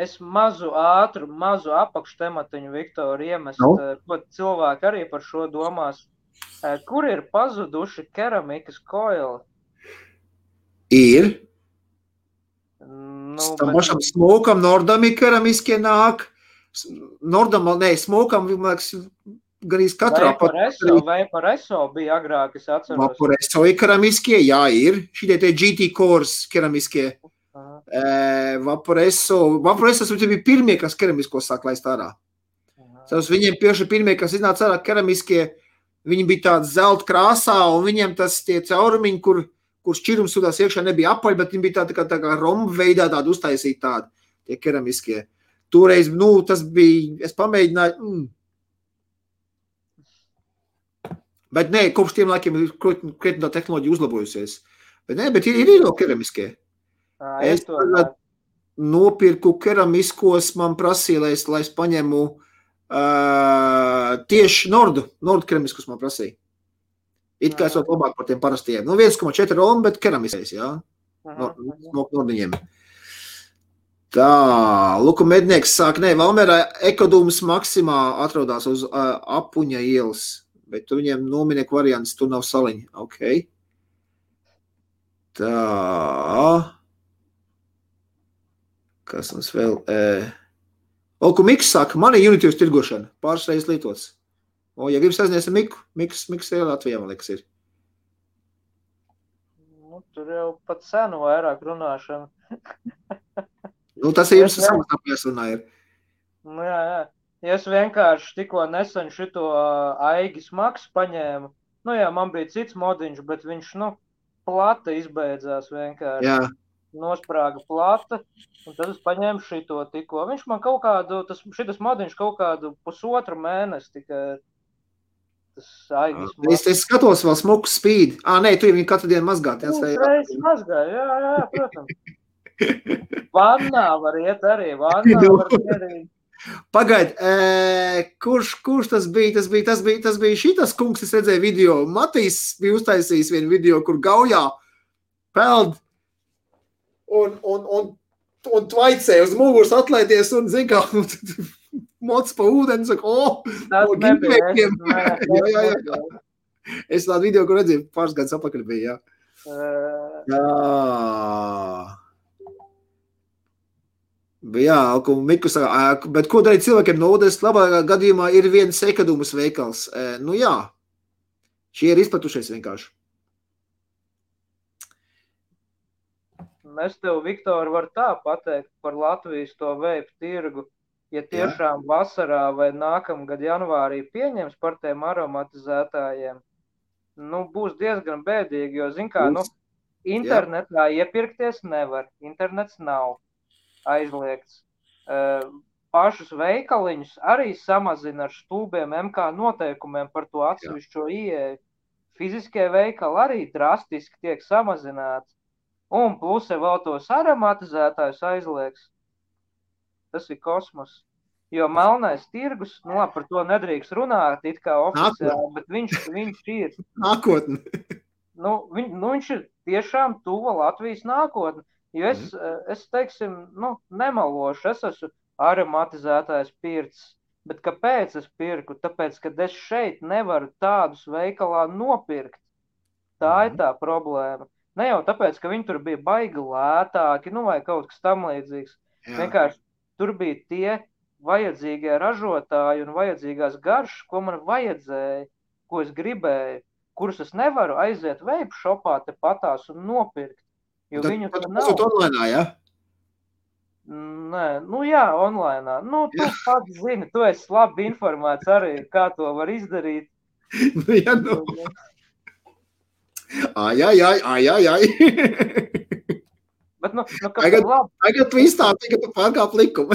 S2: Es mazu apakštematiņu, Viktor, iemest, ko cilvēki arī par šo domās. Kur ir pazuduši keramikas koili?
S1: Ir. Tam pašam smokam, Nordami keramiskie nāk. Smokam, gan katrā
S2: Vaporesso bija agrāk, es atceros.
S1: Vaporesso ir keramiskie, jā, ir. Šitie te GT Cores keramiskie. Vaporesso bija pirmie, kas keramisko sāk laist ārā. Tas viņiem pieši pirmie, kas iznāca ārā keramiskie, viņi bija tāds zelta krāsā, un viņiem tas tie caurumiņi, kur šķirums sudās iekšā nebija apaļ, bet viņi bija tā kā romba veidā tādi uztaisīti tādi, tie keramiskie. Toreiz, tas bija, es pamēģināju, Bet nē, kopš tiem laikiem ir krietni tā tehnoloģija uzlabojusies. Bet ir vēl keramiskie. Es nopirku keramiskos, man prasīja, lai es paņemu tieši Nordu keramiskus man prasīja. It kā es vēl labāk par tiem parastiem. 1,4 Romu, bet keramiskais, jā. Nordiņiem. Tā, Luku Mednieks sāk, Valmērā Ekodūmas Maksimā atrodās uz Apuņa ielas, bet tu viņiem nominieku variants, tur nav saliņa. Ok. Tā. Kas mums vēl? Luku Miks saka, man ir Unity tirgošana, pāris reizes lietots. Ja gribas aiznies ar Miku, Miks ir Latvijā, man liekas, ir.
S2: tur jau pat senu vairāk runāšana.
S1: Nu, tas ir jums samazinājums runā ir.
S2: Nu, jā. Ja es vienkārši tikko nesen šito Aigis Maks paņēmu, nu jā, man bija cits modiņš, bet viņš, plata izbeidzās vienkārši.
S1: Jā.
S2: Nosprāga plata, un tad es paņēmu šito tikko. Viņš man kaut kādu, šitas modiņš kaut kādu pusotru mēnesi tikai tas Aigis Maks.
S1: Es skatos vēl smuku spīd. Nē, tu viņu katru dienu mazgāt.
S2: Reiz mazgāju, jā, protams. Vannā var iet arī, var ierīt.
S1: Pagaid, kurš tas bija? Tas bija šitas kungs, es redzēju video. Matīs bija uztaisījis vienu video, kur gaujā peld un tvaicē uz muguras atlaities un zin kā moc pa ūdeni, saka,
S2: Tas nebija.
S1: Jā. Es tādu video, kur redzēju, pāris gadus apakaļ bija, jā. Jā, un Miku saka, bet ko darīt cilvēkiem no ūdens? Labā gadījumā ir viens ekadumas veikals. Nu jā, šie ir izplatušies vienkārši.
S2: Es tev, Viktor, varu tā pateikt par Latvijas to veipu tirgu. Ja tiešām vasarā vai nākamgad janvārī pieņems par tiem aromatizētājiem, būs diezgan bēdīgi, jo, zin kā, internetā iepirkties nevar, internets nav aizliegts. Pašus veikaliņus arī samazina ar stulbiem MK noteikumiem par to atsevišķo ieeju. Fiziskie veikali arī drastiski tiek samazināti. Un plus vēl tos aromatizētājus aizliegs. Tas ir kosmos. Jo melnais tirgus, par to nedrīkst runāt, it kā oficiāli, bet viņš ir.
S1: Nākotne.
S2: Viņš ir tiešām tuva Latvijas nākotne. Jo es teiksim, nemalošu, es esmu aromatizētājs pircis, bet kāpēc es pirku? Tāpēc, ka es šeit nevaru tādus veikalā nopirkt. Tā ir tā problēma. Ne jau tāpēc, ka viņi tur bija baigi lētāki, vai kaut kas tam līdzīgs. Vienkārši tur bija tie vajadzīgie ražotāji un vajadzīgās garšas, ko man vajadzēja, ko es gribēju, kurus es nevaru aiziet veipu šopā te patās un nopirkt. Jo viņu tur nav.
S1: Tas online, jā?
S2: Nē, jā, online. Tu pats zini, tu esi labi informēts arī, kā to var izdarīt.
S1: Ai.
S2: Bet,
S1: tagad tu izstāti, ka tu pārkāp likumu.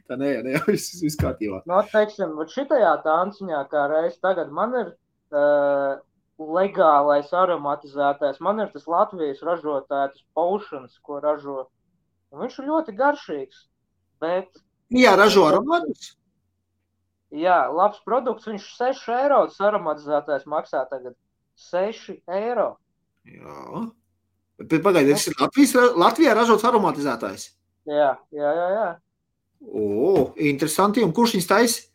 S1: Tā nē, viss kārtībā.
S2: Teiksim, šitajā tanciņā kā reiz tagad man ir legālais aromatizētājs. Man ir tas Latvijas ražotājs Potions, ko ražo. Un viņš ir ļoti garšīgs. Bet...
S1: Jā, ražo aromatus?
S2: Jā, labs produkts. Viņš 6 eiro tas aromatizētājs maksā tagad. 6 eiro.
S1: Jā. Bet pagaidi, tas ir Latvijā ražots aromatizētājs?
S2: Jā.
S1: Interesanti. Un kurš viņus taisa?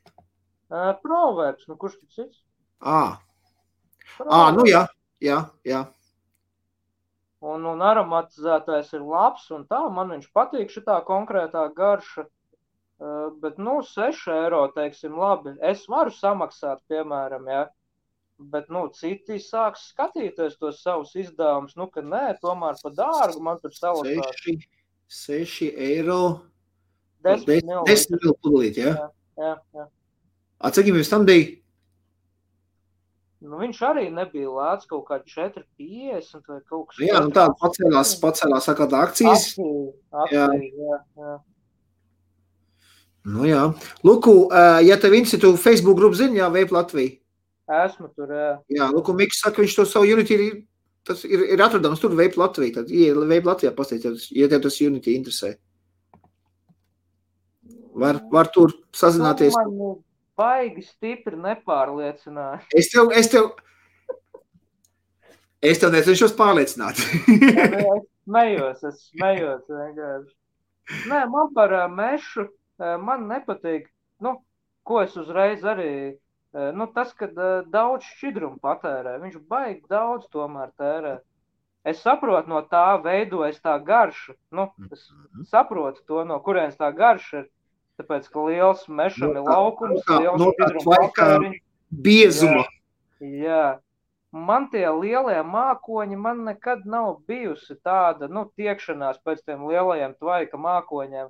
S2: Proverbs. Kurš tas cits?
S1: Jā.
S2: Un aromatizētājs ir labs, un tā, man viņš patīk šitā konkrētā garša, bet, 6 eiro, teiksim, labi, es varu samaksāt, piemēram, jā, bet, citi sāks skatīties tos savus izdevumus, ka nē, tomēr pa dārgu man tur salasās.
S1: 6 eiro,
S2: 10
S1: ml pudelīt, jā?
S2: Jā.
S1: Cik jums tam bija?
S2: Viņš arī nebija lēts kaut kā 4,50 vai kaut kas.
S1: Jā, tāda pacēlās sakāt akcijas.
S2: Akcijas, jā.
S1: Jā. Luku, ja tev tu Facebook grupu zini, jā, Vape Latvija?
S2: Esmu tur, jā.
S1: Jā, Luku Miks saka, viņš to savu Unity, tas ir atradams tur Vape Latvija. Tad, ja Vape Latvijā pastāstīt, ja tev tas Unity interesē. Var tur sazināties.
S2: Baigi stipri nepārliecināju.
S1: Es tev necenšos pārliecināt.
S2: Es smējos vienkārši. Nē, man par mešu, man nepatīk, ko es uzreiz arī, tas, kad daudz šķidrumu patērē, viņš baigi daudz tomēr tērē. Es saprotu, no tā veidojas tā garša, es saprotu to, no kurienes tā garša ir. Tāpēc, ka liels mešam ir laukums, liels šķidrums patēriņš.
S1: Biezuma.
S2: Jā, man tie lielie mākoņi, man nekad nav bijusi tāda, tiekšanās pēc tiem lielajiem tvaika mākoņiem.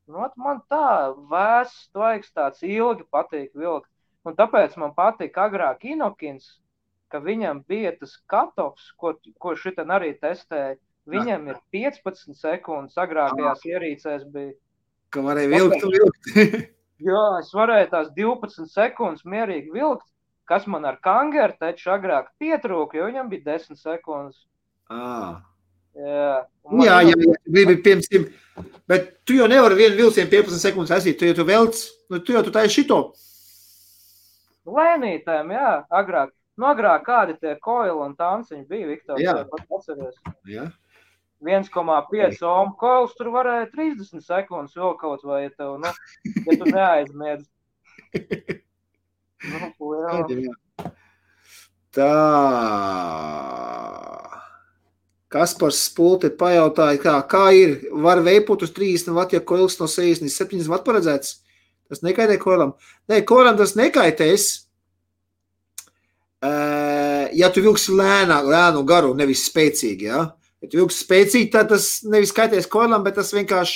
S2: Man tā vēss tvaiks tāds ilgi patīk vilkt. Un tāpēc man patīk agrāk Inokins, ka viņam bija tas katofs, ko šitien arī testēja. Viņam ir 15 sekundes, agrākajās ierīcēs bija.
S1: Ka varēja vilkt.
S2: Jā, es varēju tās 12 sekundes mierīgi vilkt, kas man ar kangeru taču agrāk pietrūka, jo viņam bija 10 sekundes. Jā,
S1: gribi piemēram, bet tu jau nevari vienu vilcienu 15 sekundes aizīt, tu velc, tu taisi šito.
S2: Lēnītēm, jā, agrāk. Agrāk kādi tie koili un tanciņi bija, Viktor, pat atceries.
S1: Jā.
S2: 1,5 ohm koils tur varēja 30 sekundes vēl kaut vai, ja tu neaizmiedz.
S1: Tā. Kaspars Spulti pajautāja, kā ir, var veipot uz 30 vat, ja koils no 67 vat paredzēts? Tas nekaitē koilam? Nē, koilam tas nekaitēs. Ja tu vilksi lēnu garu, nevis spēcīgi, ja? Ja tu vilksi spēcīgi, tad tas nevis kaitēs koilam, bet tas vienkārši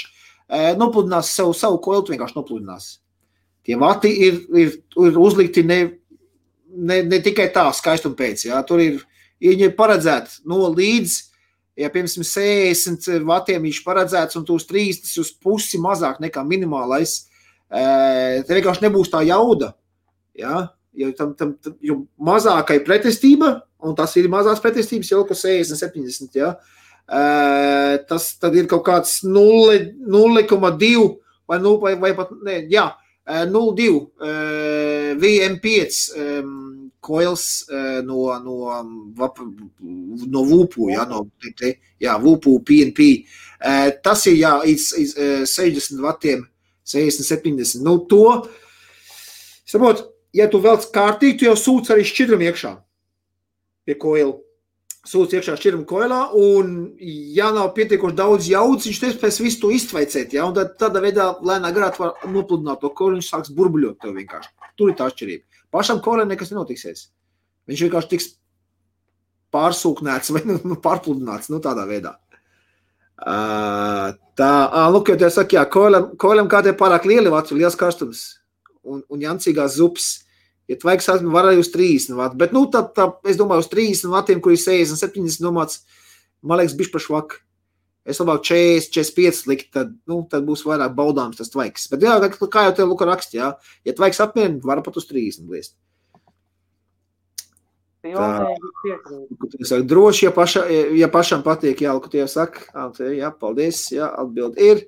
S1: nopludinās savu koilu, vienkārši nopludinās. Tie vati ir uzlikti ne tikai tā skaistuma pēc, ja? Tur viņi ir paredzēti līdz, ja piemēram 60 vatiem viņš paredzēts un tu uz 30 uz pusi mazāk nekā minimālais, te vienkārši nebūs tā jauda, ja? Jo mazākai pretestība, un tas ir mazās pretestības jau, ka 60-70, ja? Tas tad ir kaut kāds 0,2 vai pat, ne, jā, 0,2 VM5 koils no VUPU, ja, VUPU PNP. Tas ir, jā, 60 vatiem, 60-70. To, saprot, ja tu velc kārtīgi, tu jau sūc arī šķidrumu iekšā pie koila. Sūc iekšā šķidrumu koilā, un ja nav pietiekoši daudz jaudas, viņš nespēs visu to iztveicēt, ja, un tādā veidā lēnā garā var nopludināt to koilu, viņš sāks burbuļot tev vienkārši. Tur ir tā atšķirība. Pašam koilam nekas nenotiksies. Viņš vienkārši tiks pārsūknēts vai pārpludināts, tādā veidā. Lūk, jau te saka, jā, koilam kādiem pārāk lieli vats, liels karstums. Un jancīgās zupas, ja tvaiks var arī uz 30 vati, bet, es domāju, uz 30 vatiem, kur ir 60-70 domāts, man liekas, bišķi par švaku. Es labāk 40-45 likt, tad būs vairāk baudāms tas tvaiks. Bet, jā, kā jau te Luka rakst, jā, ja tvaiks apmierina, var pat uz 30 liest. Droši, ja pašam patīk, jā, Luka tie saka, jā, paldies, jā, atbild ir.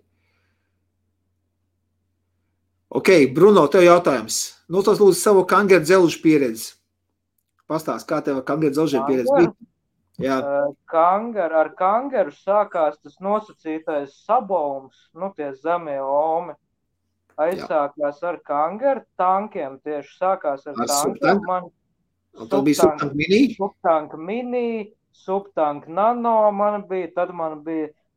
S1: Ok, Bruno, tev jautājums. Tas lūdzu savu kangeru dzelžu pieredzi. Pastāst, kā tev kangeru dzelžu pieredzi bija? Jā.
S2: Ar kangeru sākās tas nosacītais sabaums, tie zemie omi. Aizsākās ar kangeru tankiem, tieši sākās ar tankiem.
S1: Tad bija subtank mini?
S2: Subtank mini, subtank nano man bija,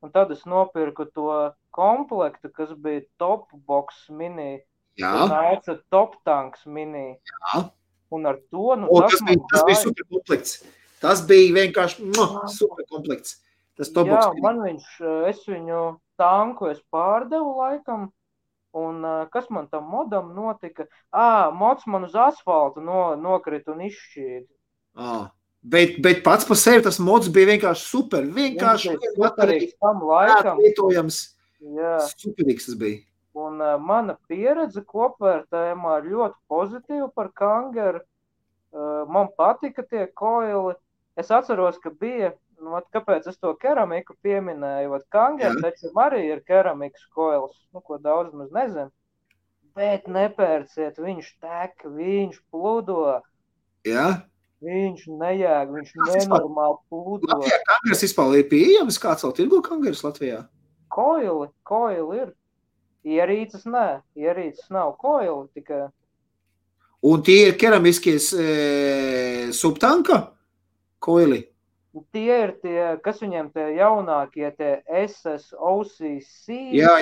S2: un tad es nopirku to komplektu, kas bija Top Box mini.
S1: Jā.
S2: Nāca Top Tanks mini.
S1: Jā.
S2: Un ar to,
S1: tas bija super komplekts. Tas bija vienkārši super komplekts. Tas Top Box mini.
S2: Es viņu tanku pārdevu laikam, un kas man tam modam notika? Mods man uz asfaltu nokrita un izšķīda.
S1: Bet pats par sevi tas mods bija vienkārši super. Vienkārši
S2: superīgs tam laikam.
S1: Superīgs tas bija.
S2: Un mana pieredze kopvērtējumā ir ļoti pozitīva par kangeru. Man patika tie koili. Es atceros, ka bija, kāpēc es to keramiku pieminēju, kangeru taču arī ir keramikas koils, ko daudz maz nezinu. Bet nepērciet, viņš tek, viņš pludo.
S1: Jā?
S2: Viņš nejēg, viņš nenormāli pludo.
S1: Latvijā kangeras vispār ir pieejams? Kāds vēl tirgo kangeras Latvijā?
S2: Koili ir. Ierīces nav koili tikai.
S1: Un tie ir keramiskies subtanka koili?
S2: Tie ir tie, kas viņiem tie jaunākie, tie SSOCC.
S1: Jā.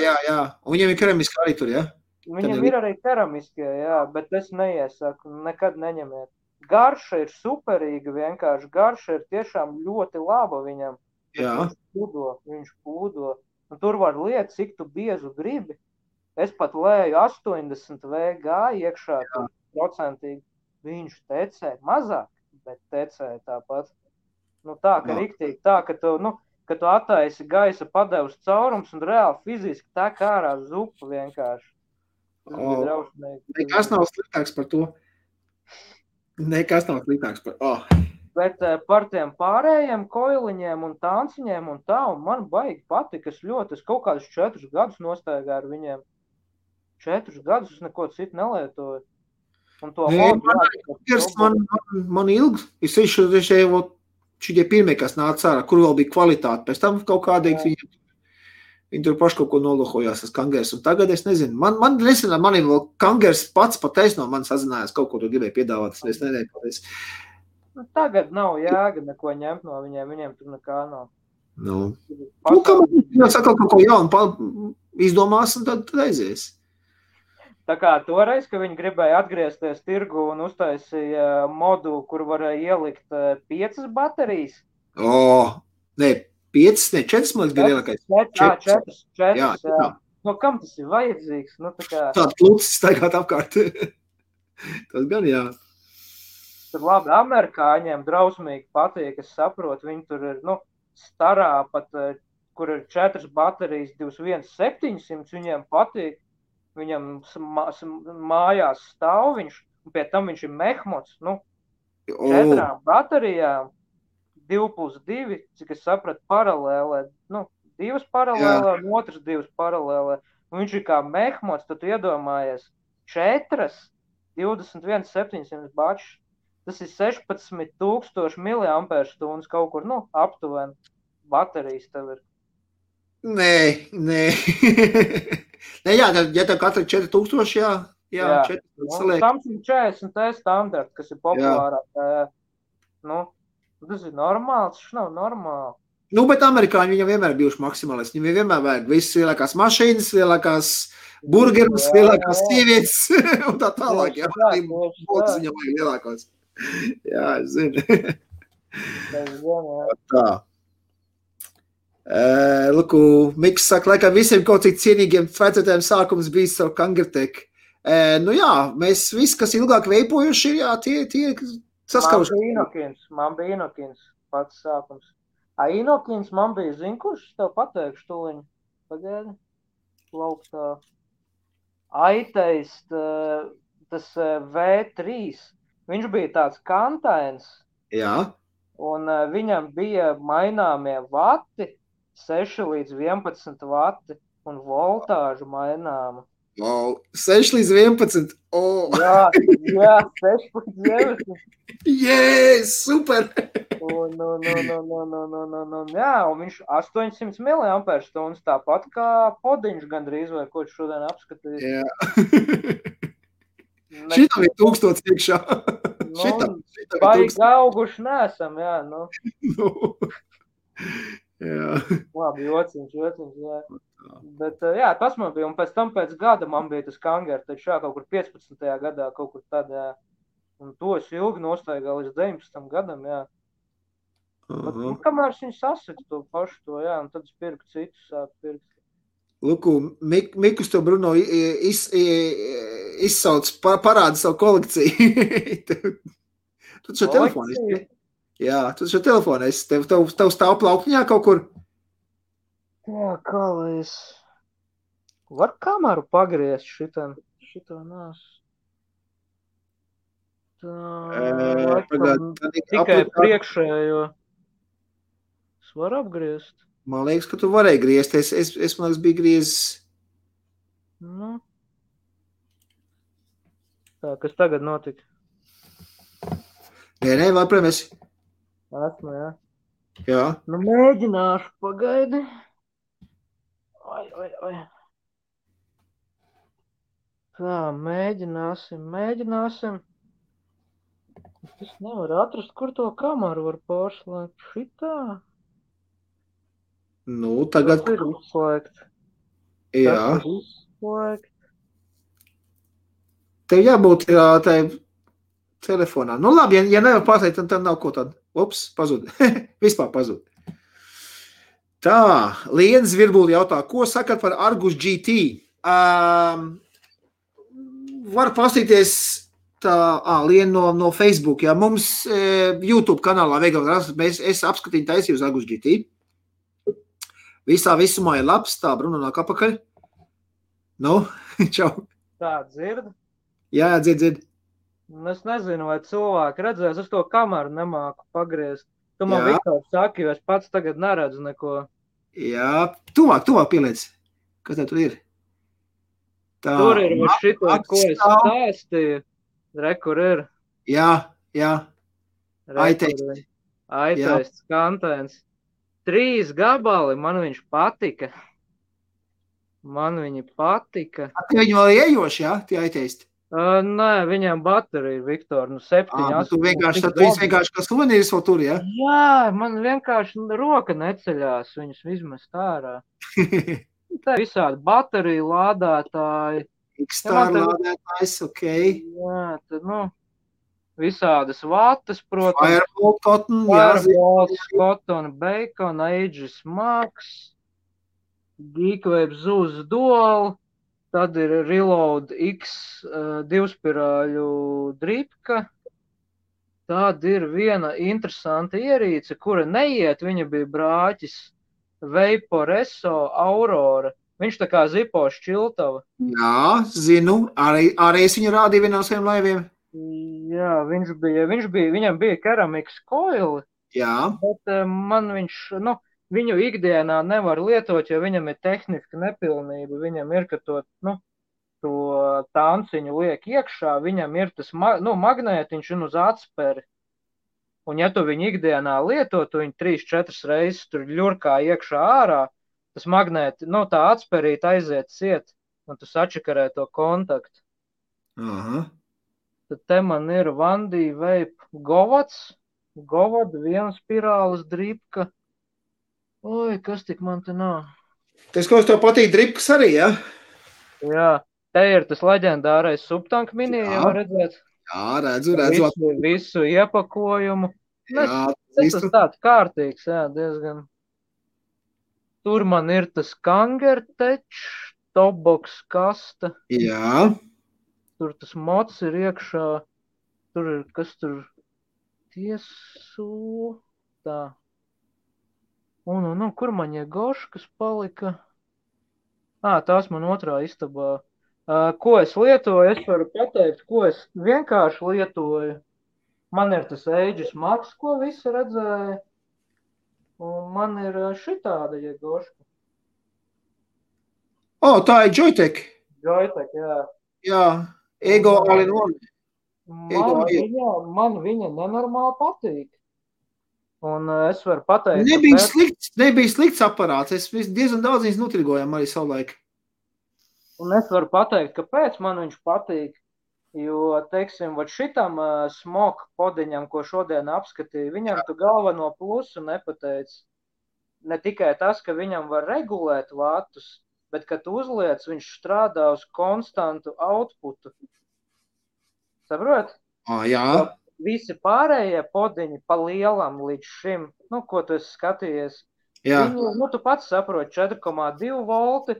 S1: Un viņiem ir keramiski arī tur, jā?
S2: Viņam ir arī keramiskie, jā, bet es neiesaku, nekad neņemiet. garša ir superīga, vienkārši garša ir tiešām ļoti laba viņam.
S1: Jā.
S2: Viņš pūdo. Un tur var liet, cik tu biezu gribi. Es pat lēju 80 VG iekšā, tur procentīgi. Viņš tecē mazāk, bet tecē tāpat. Nu tā, ka riktīgi tā, ka tu attaisi gaisa padevus caurums un reāli fiziski tā kā ārā zupa vienkārši. Tas bija drausmīgi.
S1: Nekas nav sliktāks par to. Nekas nav sliktāks par
S2: Bet par tiem pārējiem koiliņiem un tānciņiem un tā, un man baigi patika, es kaut kādus 4 gadus nostaigāju ar viņiem. 4 gadus es neko citu nelietoju. Un to
S1: man ilgi, es šitie pirmie, kas nāca ārā, kur vēl bija kvalitāte, pēc tam kaut kādīgi viņi tur paši kaut ko nolohojās tas kangers, un tagad es nezinu, man ir vēl kangers pats no man sazinājās, kaut ko tu gribēji piedāvāt, es nedēļu pateicu.
S2: Tagad nav jēga neko ņemt no viņiem tur nekā nav.
S1: Nu, kā man sakal kaut ko jaunu izdomās, un tad aizies.
S2: Tā kā toreiz, ka viņi gribēja atgriezties tirgu un uztaisīja modu, kur varēja ielikt 5 baterijas.
S1: Nē, 5, ne 4, man bija lielākais.
S2: 4. Jā. No kam tas ir vajadzīgs? Nu,
S1: Tāds lūcis staigāt apkārt. Tas gan, jā.
S2: Tur labi, amerikāņiem drausmīgi patīk, es saprotu, viņi tur ir, starā pat, kur ir 4 baterijas, 21,700, viņiem patīk, viņam mājās stāv viņš, un pie tam viņš ir mehmots, 4 baterijām, 2+2, cik es sapratu, paralēlē, 2 paralēlē, un otrs 2 paralēlē, un viņš ir kā mehmots, tad tu iedomājies 4, 21,700 bačs. Tas ir 16,000 mAh kaut kur, aptuveni baterijas tev ir.
S1: Nē. Jā, ja tev katra 4,000, jā, 4 saliek.
S2: Samsung 40T standarta, kas ir populārāk. Tas ir normāls, tas nav normāli.
S1: Bet amerikāņi viņam vienmēr bijuši maksimālisti. Viņam vienmēr vajag visas lielākās mašīnas, lielākās burgerus, lielākās sievietes un tā tālāk. Jā, botas viņam vajag lielākās. Jā, es zinu. Tā. Luku, Miks saka, laikam visiem kaut cik cienīgiem vecotēm sākums bijis savu Kangertek. Jā, mēs visi, kas ilgāk veipojuši, jā, tie saskaruši.
S2: Man bija Inokins pats sākums. Inokins man bija, zin, kurš tev pateikšu tuliņu? Pagaidi. Lauktā. Aiteist, tas V3. Viņš bija tāds kantains.
S1: Jā.
S2: Un viņam bija maināmie vati, 6 līdz 11 vati un voltāžu maināma.
S1: 6 līdz 11.
S2: Jā, 6 līdz 11.
S1: Super!
S2: Jā, un viņš 800 mAh, tāpat kā podiņš gandrīz, vai ko šodien apskatīt.
S1: Jā. Šitam ir 1000 iekšā.
S2: Baigi auguši nesam, jā.
S1: Jā.
S2: Labi, jociņš, jā. Bet, jā, tas man bija, un pēc tam pēc gada man bija tas Kanger, taču jā, kaut kur 15. gadā, kaut kur tad, jā. Un to es ilgi nostaigāju līdz 19. gadam, jā. Bet, kamēr viņi sasita to pašu to, jā, un tad es pirku citus sāku pirkt.
S1: Luku, Mikus to Bruno izsauc, parāda savu kolekciju. Tu šo telefonu esi? Jā, tu šo telefonu esi. Tev stāv plauktiņā kaut kur?
S2: Jā, kā lai es... Var kameru pagriezt šitā nās? Tikai priekšējo. Es varu apgriezt.
S1: Man liekas, ka tu varēji griezt. Es man liekas, biju griezis.
S2: Tā, kas tagad notika?
S1: Nē, varbūt esi.
S2: Esmu, jā.
S1: Jā.
S2: Mēģināšu, pagaidi. Oi. Tā, mēģināsim. Es nevaru atrast, kur to kameru var pārslēgt. Šitā?
S1: Tagad...
S2: Tas ir izslēgt.
S1: Jā.
S2: Tas ir izslēgt.
S1: Tev jābūt telefonā. Nu labi, ja nevar pateikt, tad nav ko tad. Ups, pazud. Vispār pazud. Tā, Liena Zvirbuli jautā, ko sakat par Argus GT? Var pastīties tā, Liena no Facebook, ja mums YouTube kanālā es apskatīju taisīju uz Argus GT. Visā visumā ir labs, tā, Bruno nāk apakaļ. Nu, čau.
S2: Tā, dzird?
S1: Jā, dzird.
S2: Es nezinu, vai cilvēki redzēs, es to kameru nemāku pagriezt. Tu man Viktors saki, jo es pats tagad neredzu neko.
S1: Jā, tuvāk pieliec. Kas tev tur ir? Tā,
S2: tur ir šito, ko es stāstīju. Kur ir.
S1: Jā.
S2: Aiteists kantēns. 3 gabali, man viņš patika. Viņi patika.
S1: Viņi vēl iejoši, jā, tie aiteisti?
S2: Nē, viņam baterija, Viktor, 7, 8.
S1: Tu vienkārši kā suvenīrs vēl tur, jā?
S2: Jā, man vienkārši roka neceļās viņus izmest ārā. Tā visādi bateriju lādētāji.
S1: X-Star lādētājs, ok.
S2: Jā, tad, visādas vatas, protams.
S1: Firebolt, Cotton,
S2: Firebolt, Cotton, Bacon, Aegis Max, Geekwave Zuz Dual. Tad ir Reload X 2-spirāļu dripka. Tad ir viena interesanta ierīce, kura neiet, viņa bija brāķis Vaporesso Aurora. Viņš tā kā zipo šķiltava.
S1: Jā, zinu, arī es viņu rādīju vienā no saviem laiviem.
S2: Jā, viņam bija keramikas koili.
S1: Jā.
S2: Bet man viņš, viņu ikdienā nevar lietot, jo viņam ir tehniska nepilnība. Viņam ir, ka to tanciņu liek iekšā, viņam ir tas magnētiņš un uz atsperi. Un ja tu viņu ikdienā lietot, tu viņu 3-4 reizes tur ļurkā iekšā ārā, tas magnēti, tā atspērīt aiziet ciet, un tu sačakarē to kontaktu.
S1: Aha.
S2: Tad te man ir Vandī Vape Govads, viena spirāles dripka. Oi, kas tik man te nav?
S1: Tas, ko tev patīk dripkas arī, ja?
S2: Jā, te ir tas leģendārais Subtank mini, jau redzēt.
S1: Jā, redzu.
S2: Visu iepakojumu.
S1: Jā,
S2: tas tāds kārtīgs, jā, diezgan. Tur man ir tas Kangertech, Topbox kasta.
S1: Jā.
S2: Tur tas mods ir iekšā. Tur ir, kas tur tiesu. Tā. Un, kur man Jegoškas palika? Tās man otrā istabā. Ko es lietoju? Es varu pateikt, ko es vienkārši lietoju. Man ir tas Aegis Max, ko visi redzēja. Un man ir šitāda Jegoška.
S1: Tā ir Joytech.
S2: Joytech, jā.
S1: Jā, Ego all-in-one.
S2: Man viņa nenormāli patīk. Un es varu pateikt,
S1: nebija slikts aparāts. Es diezgan daudz viņas nutirgojām arī savulaik.
S2: Un es varu pateikt, kāpēc man viņš patīk. Jo, teiksim, šitam smoke podiņam, ko šodien apskatīju, viņam tu galveno plusu nepateic. Ne tikai tas, ka viņam var regulēt vatus, bet, kad tu uzliec, viņš strādā uz konstantu outputu. Saprot?
S1: Jā.
S2: Visi pārējie podiņi pa lielam līdz šim, ko tu esi skatījies, viņu, tu pats saproti, 4,2 volti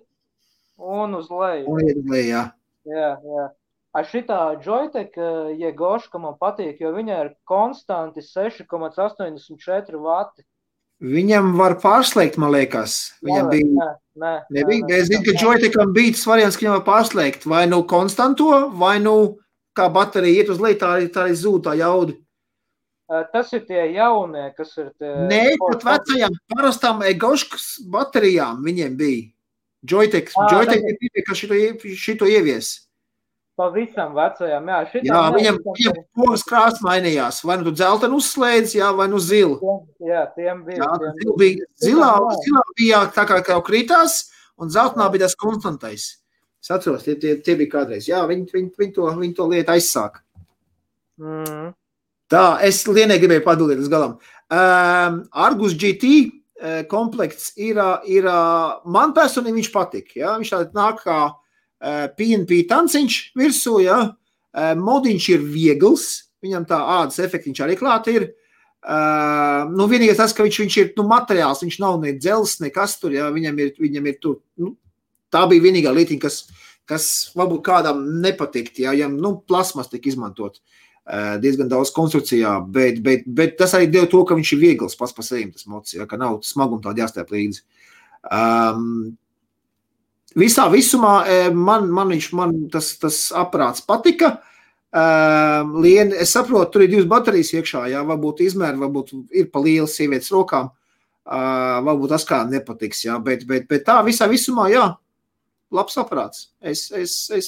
S2: un uz leju.
S1: Un uz leju, jā.
S2: Jā. Šitā Joytech Jegoška man patīk, jo viņai ir konstanti 6,84 vati.
S1: Viņam var pārslēgt, man liekas. Viņam bija. Nebija. Es zinu, ka Joytecham bija tas variants, ka viņam var pārslēgt vai nu konstanto, vai nu kā baterija iet uz leju, tā arī zūd tā jauda.
S2: Tas ir tie jaunie, kas ir tie...
S1: Nē, pat vecajām parastām Egoškas baterijām viņiem bija. Joytech ir tie, kas šito ievies.
S2: Pavisam vecajām, jā.
S1: Jā, viņam pogas krāsa mainījās. Vai nu tu dzeltenu uzslēdz, vai nu zilu.
S2: Jā, tiem bija.
S1: Zilā bija tā kā krītās, un zeltenā bija tas konstantais. Es atceros, tie bija kādreiz. Jā, viņi to lietu aizsāk. Tā, es Lienai gribēju padalīt uz galam. Argus GT komplekts ir man personīgi viņš patik. Ja? Viņš tā nāk kā PNP tanciņš virsū, ja? Modiņš ir viegls, viņam tā ādas efektiņš arī klāt ir. Nu, vienīgais tas, ka viņš ir materiāls, viņš nav ne dzels, nekas tur, jā, viņam ir tur, tā bija vienīgā lietiņa, kas varbūt kādam nepatikt, jā, plasmas tika izmantot diezgan daudz konstrukcijā, bet tas arī deva to, ka viņš ir viegls pats par sevi, tas mods, jā, ka nav smaguma tāda jāstēp līdzi. Visā visumā man tas aparāts patika. Lieni, es saprotu, tur ir 2 baterijas iekšā, jā, varbūt izmēri, varbūt ir pa lielas sievietes rokām, varbūt tas kā nepatiks, jā, bet tā visā visumā, jā, labs aparāts. Es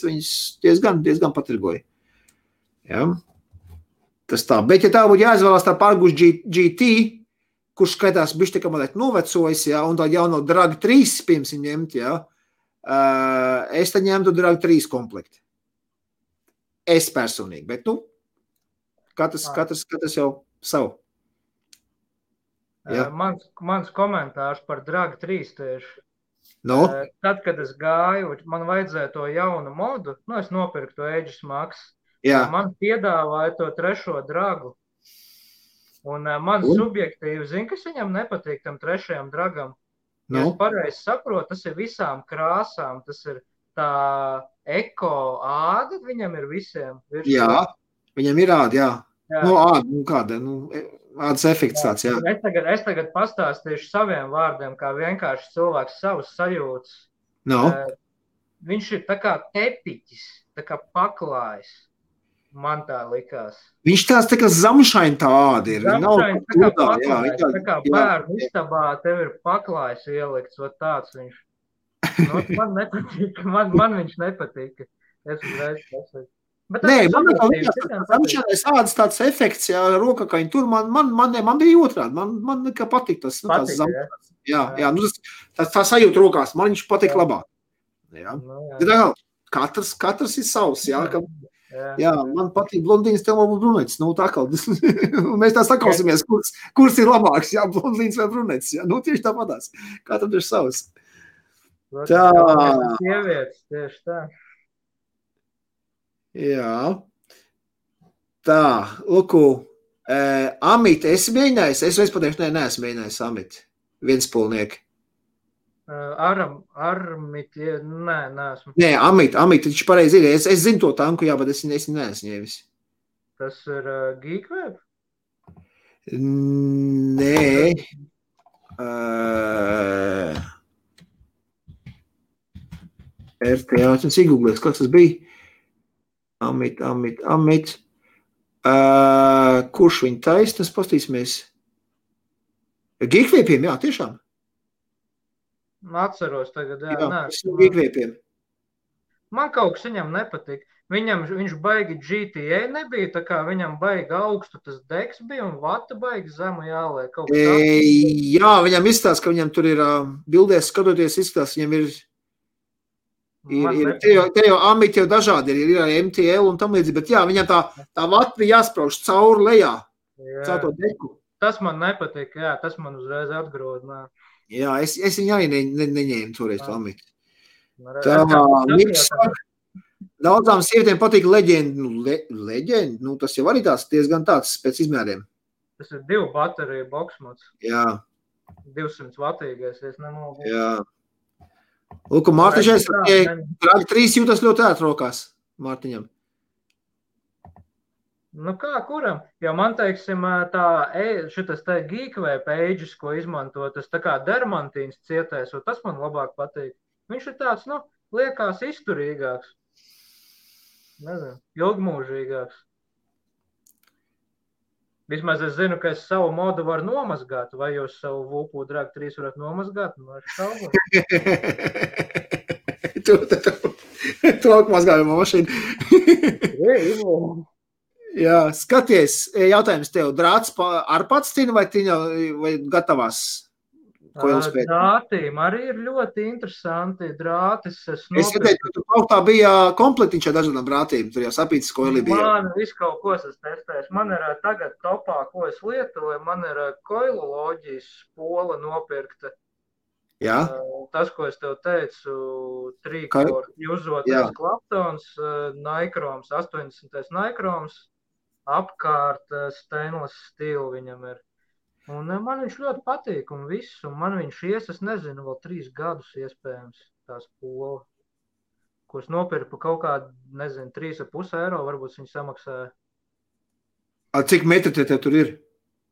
S1: viņus diezgan patirgoju. Jā. Tas tā, bet ja tā būtu jāizvēlās tā Argus GT, kurš skaitās bišķi tā kā mazliet novecojis, jā, un tā jauno Drag 3 pirms ņemt, jā, es tad ņemtu Drag 3 komplekti. Es personīgi, bet, katrs jau savu.
S2: Ja. Mans komentārs par Drag 3 tieši.
S1: No?
S2: Tad, kad es gāju, man vajadzēja to jaunu modu, es nopirku to Aegis Max.
S1: Jā.
S2: Man piedāvāja to 3. dragu. Un man subjektīvi, kas viņam nepatīk tam 3. dragam. No? Ja es pareizi saprotu, tas ir visām krāsām, tas ir tā eko āda viņam ir visiem.
S1: Jā, viņam ir āda, jā. Āda, kāda, ādas efekts tāds, jā.
S2: Es tagad pastāstīšu saviem vārdiem, kā vienkārši cilvēks savus sajūtas.
S1: No.
S2: Viņš ir tā kā tepiķis, tā kā paklājs. Man tā likās.
S1: Viņš tāds tā kā zamšaini tā āda ir.
S2: Zamšaini tā kā paklājs, tā kā bērnu istabā tev ir paklājs ielikts, tāds viņš. Man nepatīk, man viņš nepatīk. Es uzreiz pasaku.
S1: Nē, man zamšanais ādas tāds efekts, jā, rokakaņi tur, man bija otrādi, man nekā patīk tas, tās zamšanās. Jā, tā sajūta rokās, man viņš patīk labāk. Jā. Katrs ir savs, jā, jā, man patīk blondīns, tev varbūt brunetis, tā kā, mēs tā sakausimies, kurs ir labāks, jā, blondīns vai brunetis, jā, tieši tāpatās, katram ir savs. Tā.
S2: Sievietes, tieši tā.
S1: Jā. Tā, luku, Amit, esi mēģinājis? Es vairs pateikšu, neesmu mēģinājis Amit. Vienspolnieki.
S2: Armit, neesmu.
S1: Nē, Amit, viņš pareizi ir. Es zinu to tanku, jā, bet es neesmu ņēmis.
S2: Tas ir Geekweb?
S1: Nē. RTA, es iegūglēs, kas tas bija? Amit. Kurš viņa taisnas, pastīsimies? Geekwebiem, jā, tiešām.
S2: Atceros tagad, jā.
S1: Geekwebiem.
S2: Man kaut kas viņam nepatīk. Viņš baigi GTA nebija, tā kā viņam baigi augstu tas deks bija un vata baigi zemu jāliek.
S1: Jā, viņam izstāst, ka viņam tur ir bildēs skatoties izstāst, viņam ir te jau Amit jau dažādi ir arī MTL un tam līdzīgi, bet jā, viņam tā vata bija jāsprauž cauri lejā, caur to deku.
S2: Tas man nepatīk, jā, tas man uzreiz atgrod.
S1: Jā, es viņu arī neņēmu toreiz to Amit. Daudzām sievietēm patīk leģendi, tas jau arī diezgan tāds pēc izmēriem.
S2: Tas ir 2 bateriju boksmods.
S1: Jā.
S2: 200 vatīgais, es nemaldu.
S1: Jā. Lūk, Mārtiņš, Drag 3 jūtas ļoti ērt rokās Mārtiņam.
S2: Kā kuram? Jo man, teiksim, šitas te Geekweb Aegis, ko izmanto, tas tā kā dermantīns cietēs, un tas man labāk patīk. Viņš ir tāds, liekas izturīgāks. Nezinu, ilgmūžīgāks. Vismaz es zinu, ka es savu modu varu nomazgāt, vai jūs savu Vulpu Drag 3 varat nomazgāt?
S1: Tu mazgājumā mašīnu. Jā, skaties, jautājums tev, drāts ar pats tina vai gatavās?
S2: Drātīm arī ir ļoti interesanti. Drātis
S1: es skatēju, ka tu kaut bija komplektiņš ar dažādām drātīm. Tur jau sapītas koili bija.
S2: Man visu kaut ko es testēšu. Man ir tagad topā, ko es lietoju. Man ir koiloloģijas spola nopirkta.
S1: Jā.
S2: Tas, ko es tev teicu, 3-core jūzotais Claptons, Nikroms, 80. Nikroms. apkārt stainless steel viņam ir. Un man viņš ļoti patīk un viss, un man viņš es nezinu, vēl 3 gadus iespējams tā spola, ko es nopirku par kaut kādu, nezinu, 3,5 eiro, varbūt viņi samaksāja.
S1: Cik metri te tur ir?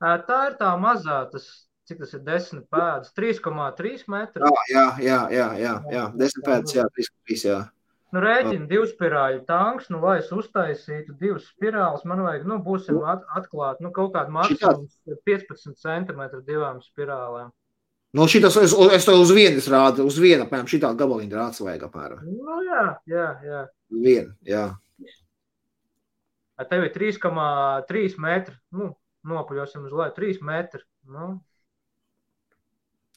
S2: Tā ir tā mazā, cik tas ir 10 pēdas, 3,3 metri.
S1: Jā, 10 pēdas, jā, 3,3, jā.
S2: Nu, rēķina 2 spirāļu tanks, nu, lai es uztaisītu 2 spirāles, man vajag, nu, būsim atklāt, nu, kaut kādu maksimums 15 centimetru 2 spirālēm.
S1: Nu, šitas, es to uz vienas rādu, uz vienu, apmēram, šitā gabaliņu rāds vajag apmēram.
S2: Nu, jā.
S1: Vienu, jā.
S2: Tev ir 3,3 metri, nu, nopaļosim uz leju, 3 metri, nu.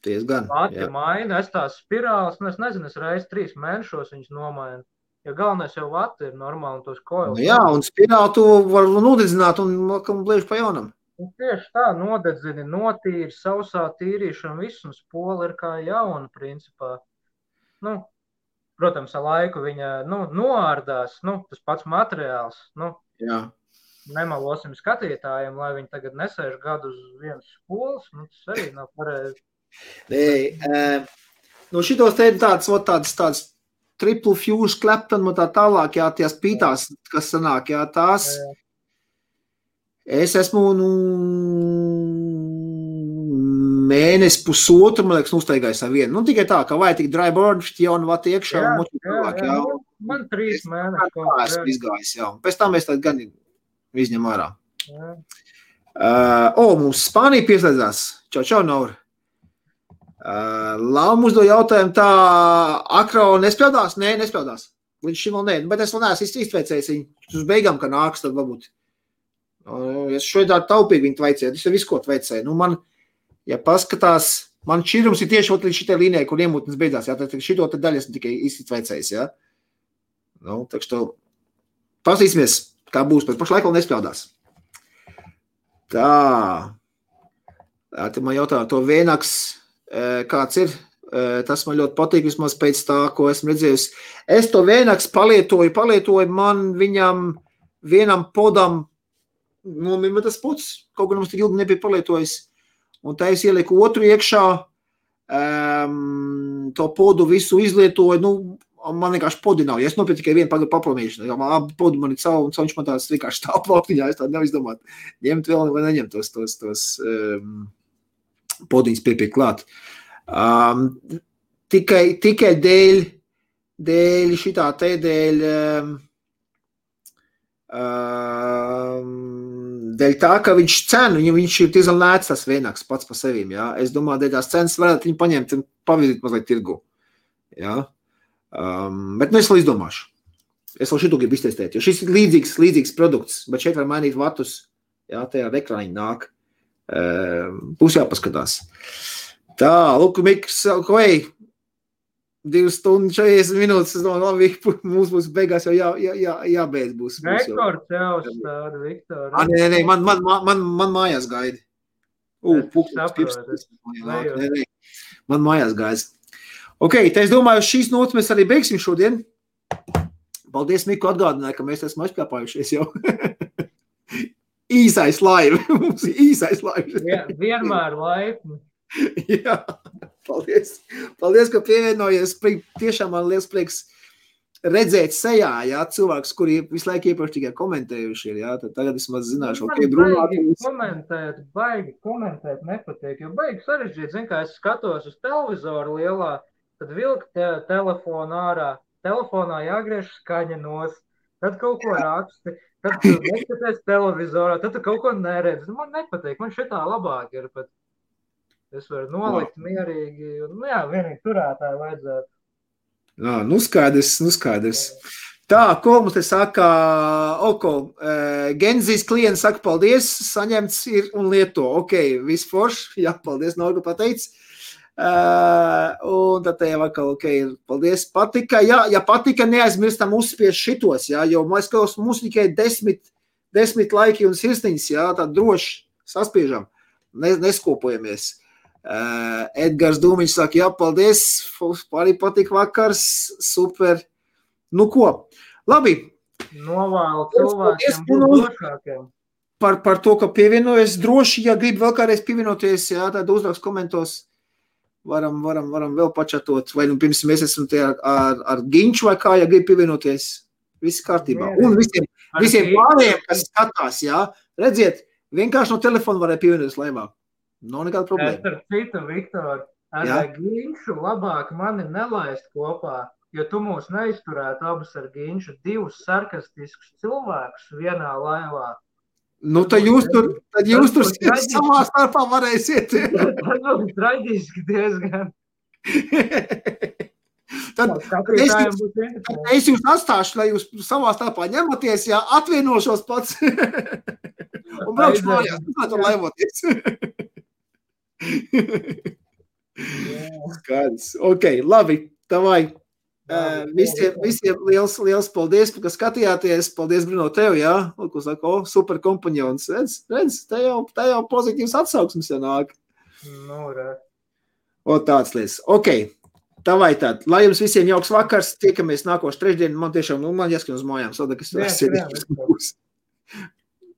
S1: Diezgan,
S2: Lati maina, es tās spirāles, nu, es nezinu, es reiz 3 mēnešos viņas nomainu. Ja galvenais jau vati ir normāli un tos koils.
S1: Nu, jā, un spirāli tu var nodedzināt un bliež pa jaunam.
S2: Un tieši tā, nodedzini, notīri, sausā tīrīšana, viss un spola ir kā jauna, principā. Nu, protams, ar laiku viņa, nu, noārdās, nu, tas pats materiāls, nu.
S1: Jā.
S2: Nemalosim skatītājiem, lai viņi tagad nesēž gadu uz vienas spolas, nu, tas arī nav pareizi.
S1: Nu, šitos te ir tāds triple fuse Clapton un tā tālāk, jā, tās pītās, kas sanāk, jā, tās. Es esmu, nu, mēnesi pusotru, man liekas, uztaigājis ar vienu. Nu, tikai tā, ka vajag tik dry burn, jaunu vati iekšā un moči tālāk, jā.
S2: Man 3 mēneši.
S1: Esmu izgājis, jā. Pēc tam mēs tad gan izņem ārā. Mums Spānija pieslēdzās. Čau, Naur. Lauma uzdo jautājumu tā, Akro nespēldās? Nē, nespēldās. Līdz šim vēl nē, bet es vēl neesmu iztveicējis viņu uz beigām, ka nāks, tad varbūt. Es šodien tā taupīgi viņu tveicēju, es jau visu ko tveicēju. Nu, man, ja paskatās, man šķirums ir tieši līdz šitai līnijai, kur iemūtnes beidzās, jā, tad šito te daļu esmu tikai iztveicējis, jā. Nu, tak što, pasīsimies, kā būs, pēc pašlaik vēl nespēldās. Tā man jautā to vienaks, kāds ir, tas man ļoti patīk, vismaz pēc tā, ko esmu redzējis. Es to vienaks palietoju, man viņam vienam podam nomima tas pods, kaut gan mums tik ilgi nebija palietojis, un tā es ieliku otru iekšā, to podu visu izlietoju, nu, man vienkārši podi nav, ja es nopirku tikai vienu paplamīšanu, jo man podi man ir caur, un viņš man tās vienkārši tā plaktiņā, es tādu nevar izdomāt, ņemt vēl vai neņemt tos podiņas piepiek klāt. Tikai dēļ šitā te, dēļ tā, ka viņš cenu, viņš ir diezgan lēts tas vienāks pats pa sevīm, jā. Es domāju, dēļ tās cenas varētu viņu paņemt un pavizīt mazliet tirgu, jā. Bet nu es vēl izdomāšu. Es vēl šitu gribu iztestēt, jo šis ir līdzīgs produkts, bet šeit var mainīt vatus, jā, tajā ekrāniņi nāk. Būs jāpaskatās. Tā, lūk, Miks, vai 2 stundas 40 minūtes, es domāju, labi, mums būs beigās jau jābeidz būs.
S2: Rekords jau stāda, Viktor.
S1: Nē, man mājās gaidi. Man mājās gaidi. Ok, te es domāju, šīs notas mēs arī beigsim šodien. Paldies, Miku, atgādināja, ka mēs esam aizpļāpājušies jau. Īsais laivi. Mums ir īsais laivi.
S2: Jā, vienmēr laipni.
S1: Jā, paldies. Paldies, ka pievienojies. Tiešām man liels prieks redzēt sejā, jā, cilvēks, kuri visu laiku iepriekš tikai komentējuši ir, jā, tad tagad es maz zināšu, ok, brunāt.
S2: Baigi komentēt nepatīk, jo baigi sarežģīt, zin, kā es skatos uz televizoru lielā, tad vilk telefonu ārā, telefonā jāgriež skaņa nost, tad kaut ko raksti. Tad tu neskaties televizorā, tad tu kaut ko neredzi. Man nepatīk, man šitā labāk ir, bet es varu nolikt mierīgi. Nu jā, vienīgi turētāji vajadzētu.
S1: Jā, nu skaidrs. Tā, ko mums te saka, Genzijas klients saka paldies, saņemts ir un lieto. Ok, viss forši, jā, paldies, Norga pateic. Un tad te jau atkal, ok, paldies, patika, ja patika, neaizmirstam uzspies šitos, jā, jo mums tikai 10 laiki un sirsniņas, jā, tā droši saspiežam, neskopojamies. Edgars Dūmiņš saka, jā, paldies, arī patika vakars, super, nu ko, labi.
S2: Novēlu cilvēkiem būt drošākiem.
S1: par to, ka pievienojas droši, ja grib vēl kādreiz pievienoties, jā, tad uzrakst komentos, varam vēl pačatot, vai nu pirms mēs esam te ar Ginču vai kā, ja grib pievienoties, viss kārtībā. Un visiem pārējiem, kas skatās, jā, redziet, vienkārši no telefona varēja pievienoties laivā. Nav nekāda problēma.
S3: Starp citu, Viktor, ar Ginču labāk mani nelaist kopā, jo tu mūs neizturētu abus ar Ginču, divus sarkastiskus cilvēkus vienā laivā.
S1: Nu, tad jūs tur savā starpā varēsiet.
S3: Tas būs traģiski diezgan.
S1: Tad es jūs atstāšu, lai jūs savā starpā ņematies, jā, atvienošos pats. Un braukšu mājās, tur laivoties. Skaidrs. Ok, labi, tavai. Visiem liels paldies, ka skatījāties. Paldies, Bruno, tev, jā. Ko saka, super kompanjons. Redz, te jau pozitīvs atsauksmes jānāk.
S3: Nu, re.
S1: Tāds lietas. Ok, tavai tād. Lai jums visiem jauks vakars. Tiekamies nākošu trešdienu. Man tiešām, man jāskan uz mājām. Sada, kas būs.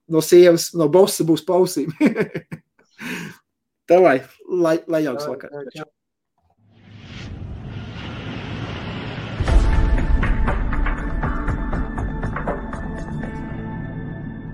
S1: No sievas, no bossa būs pausīm. Tavai, lai jauks vakars.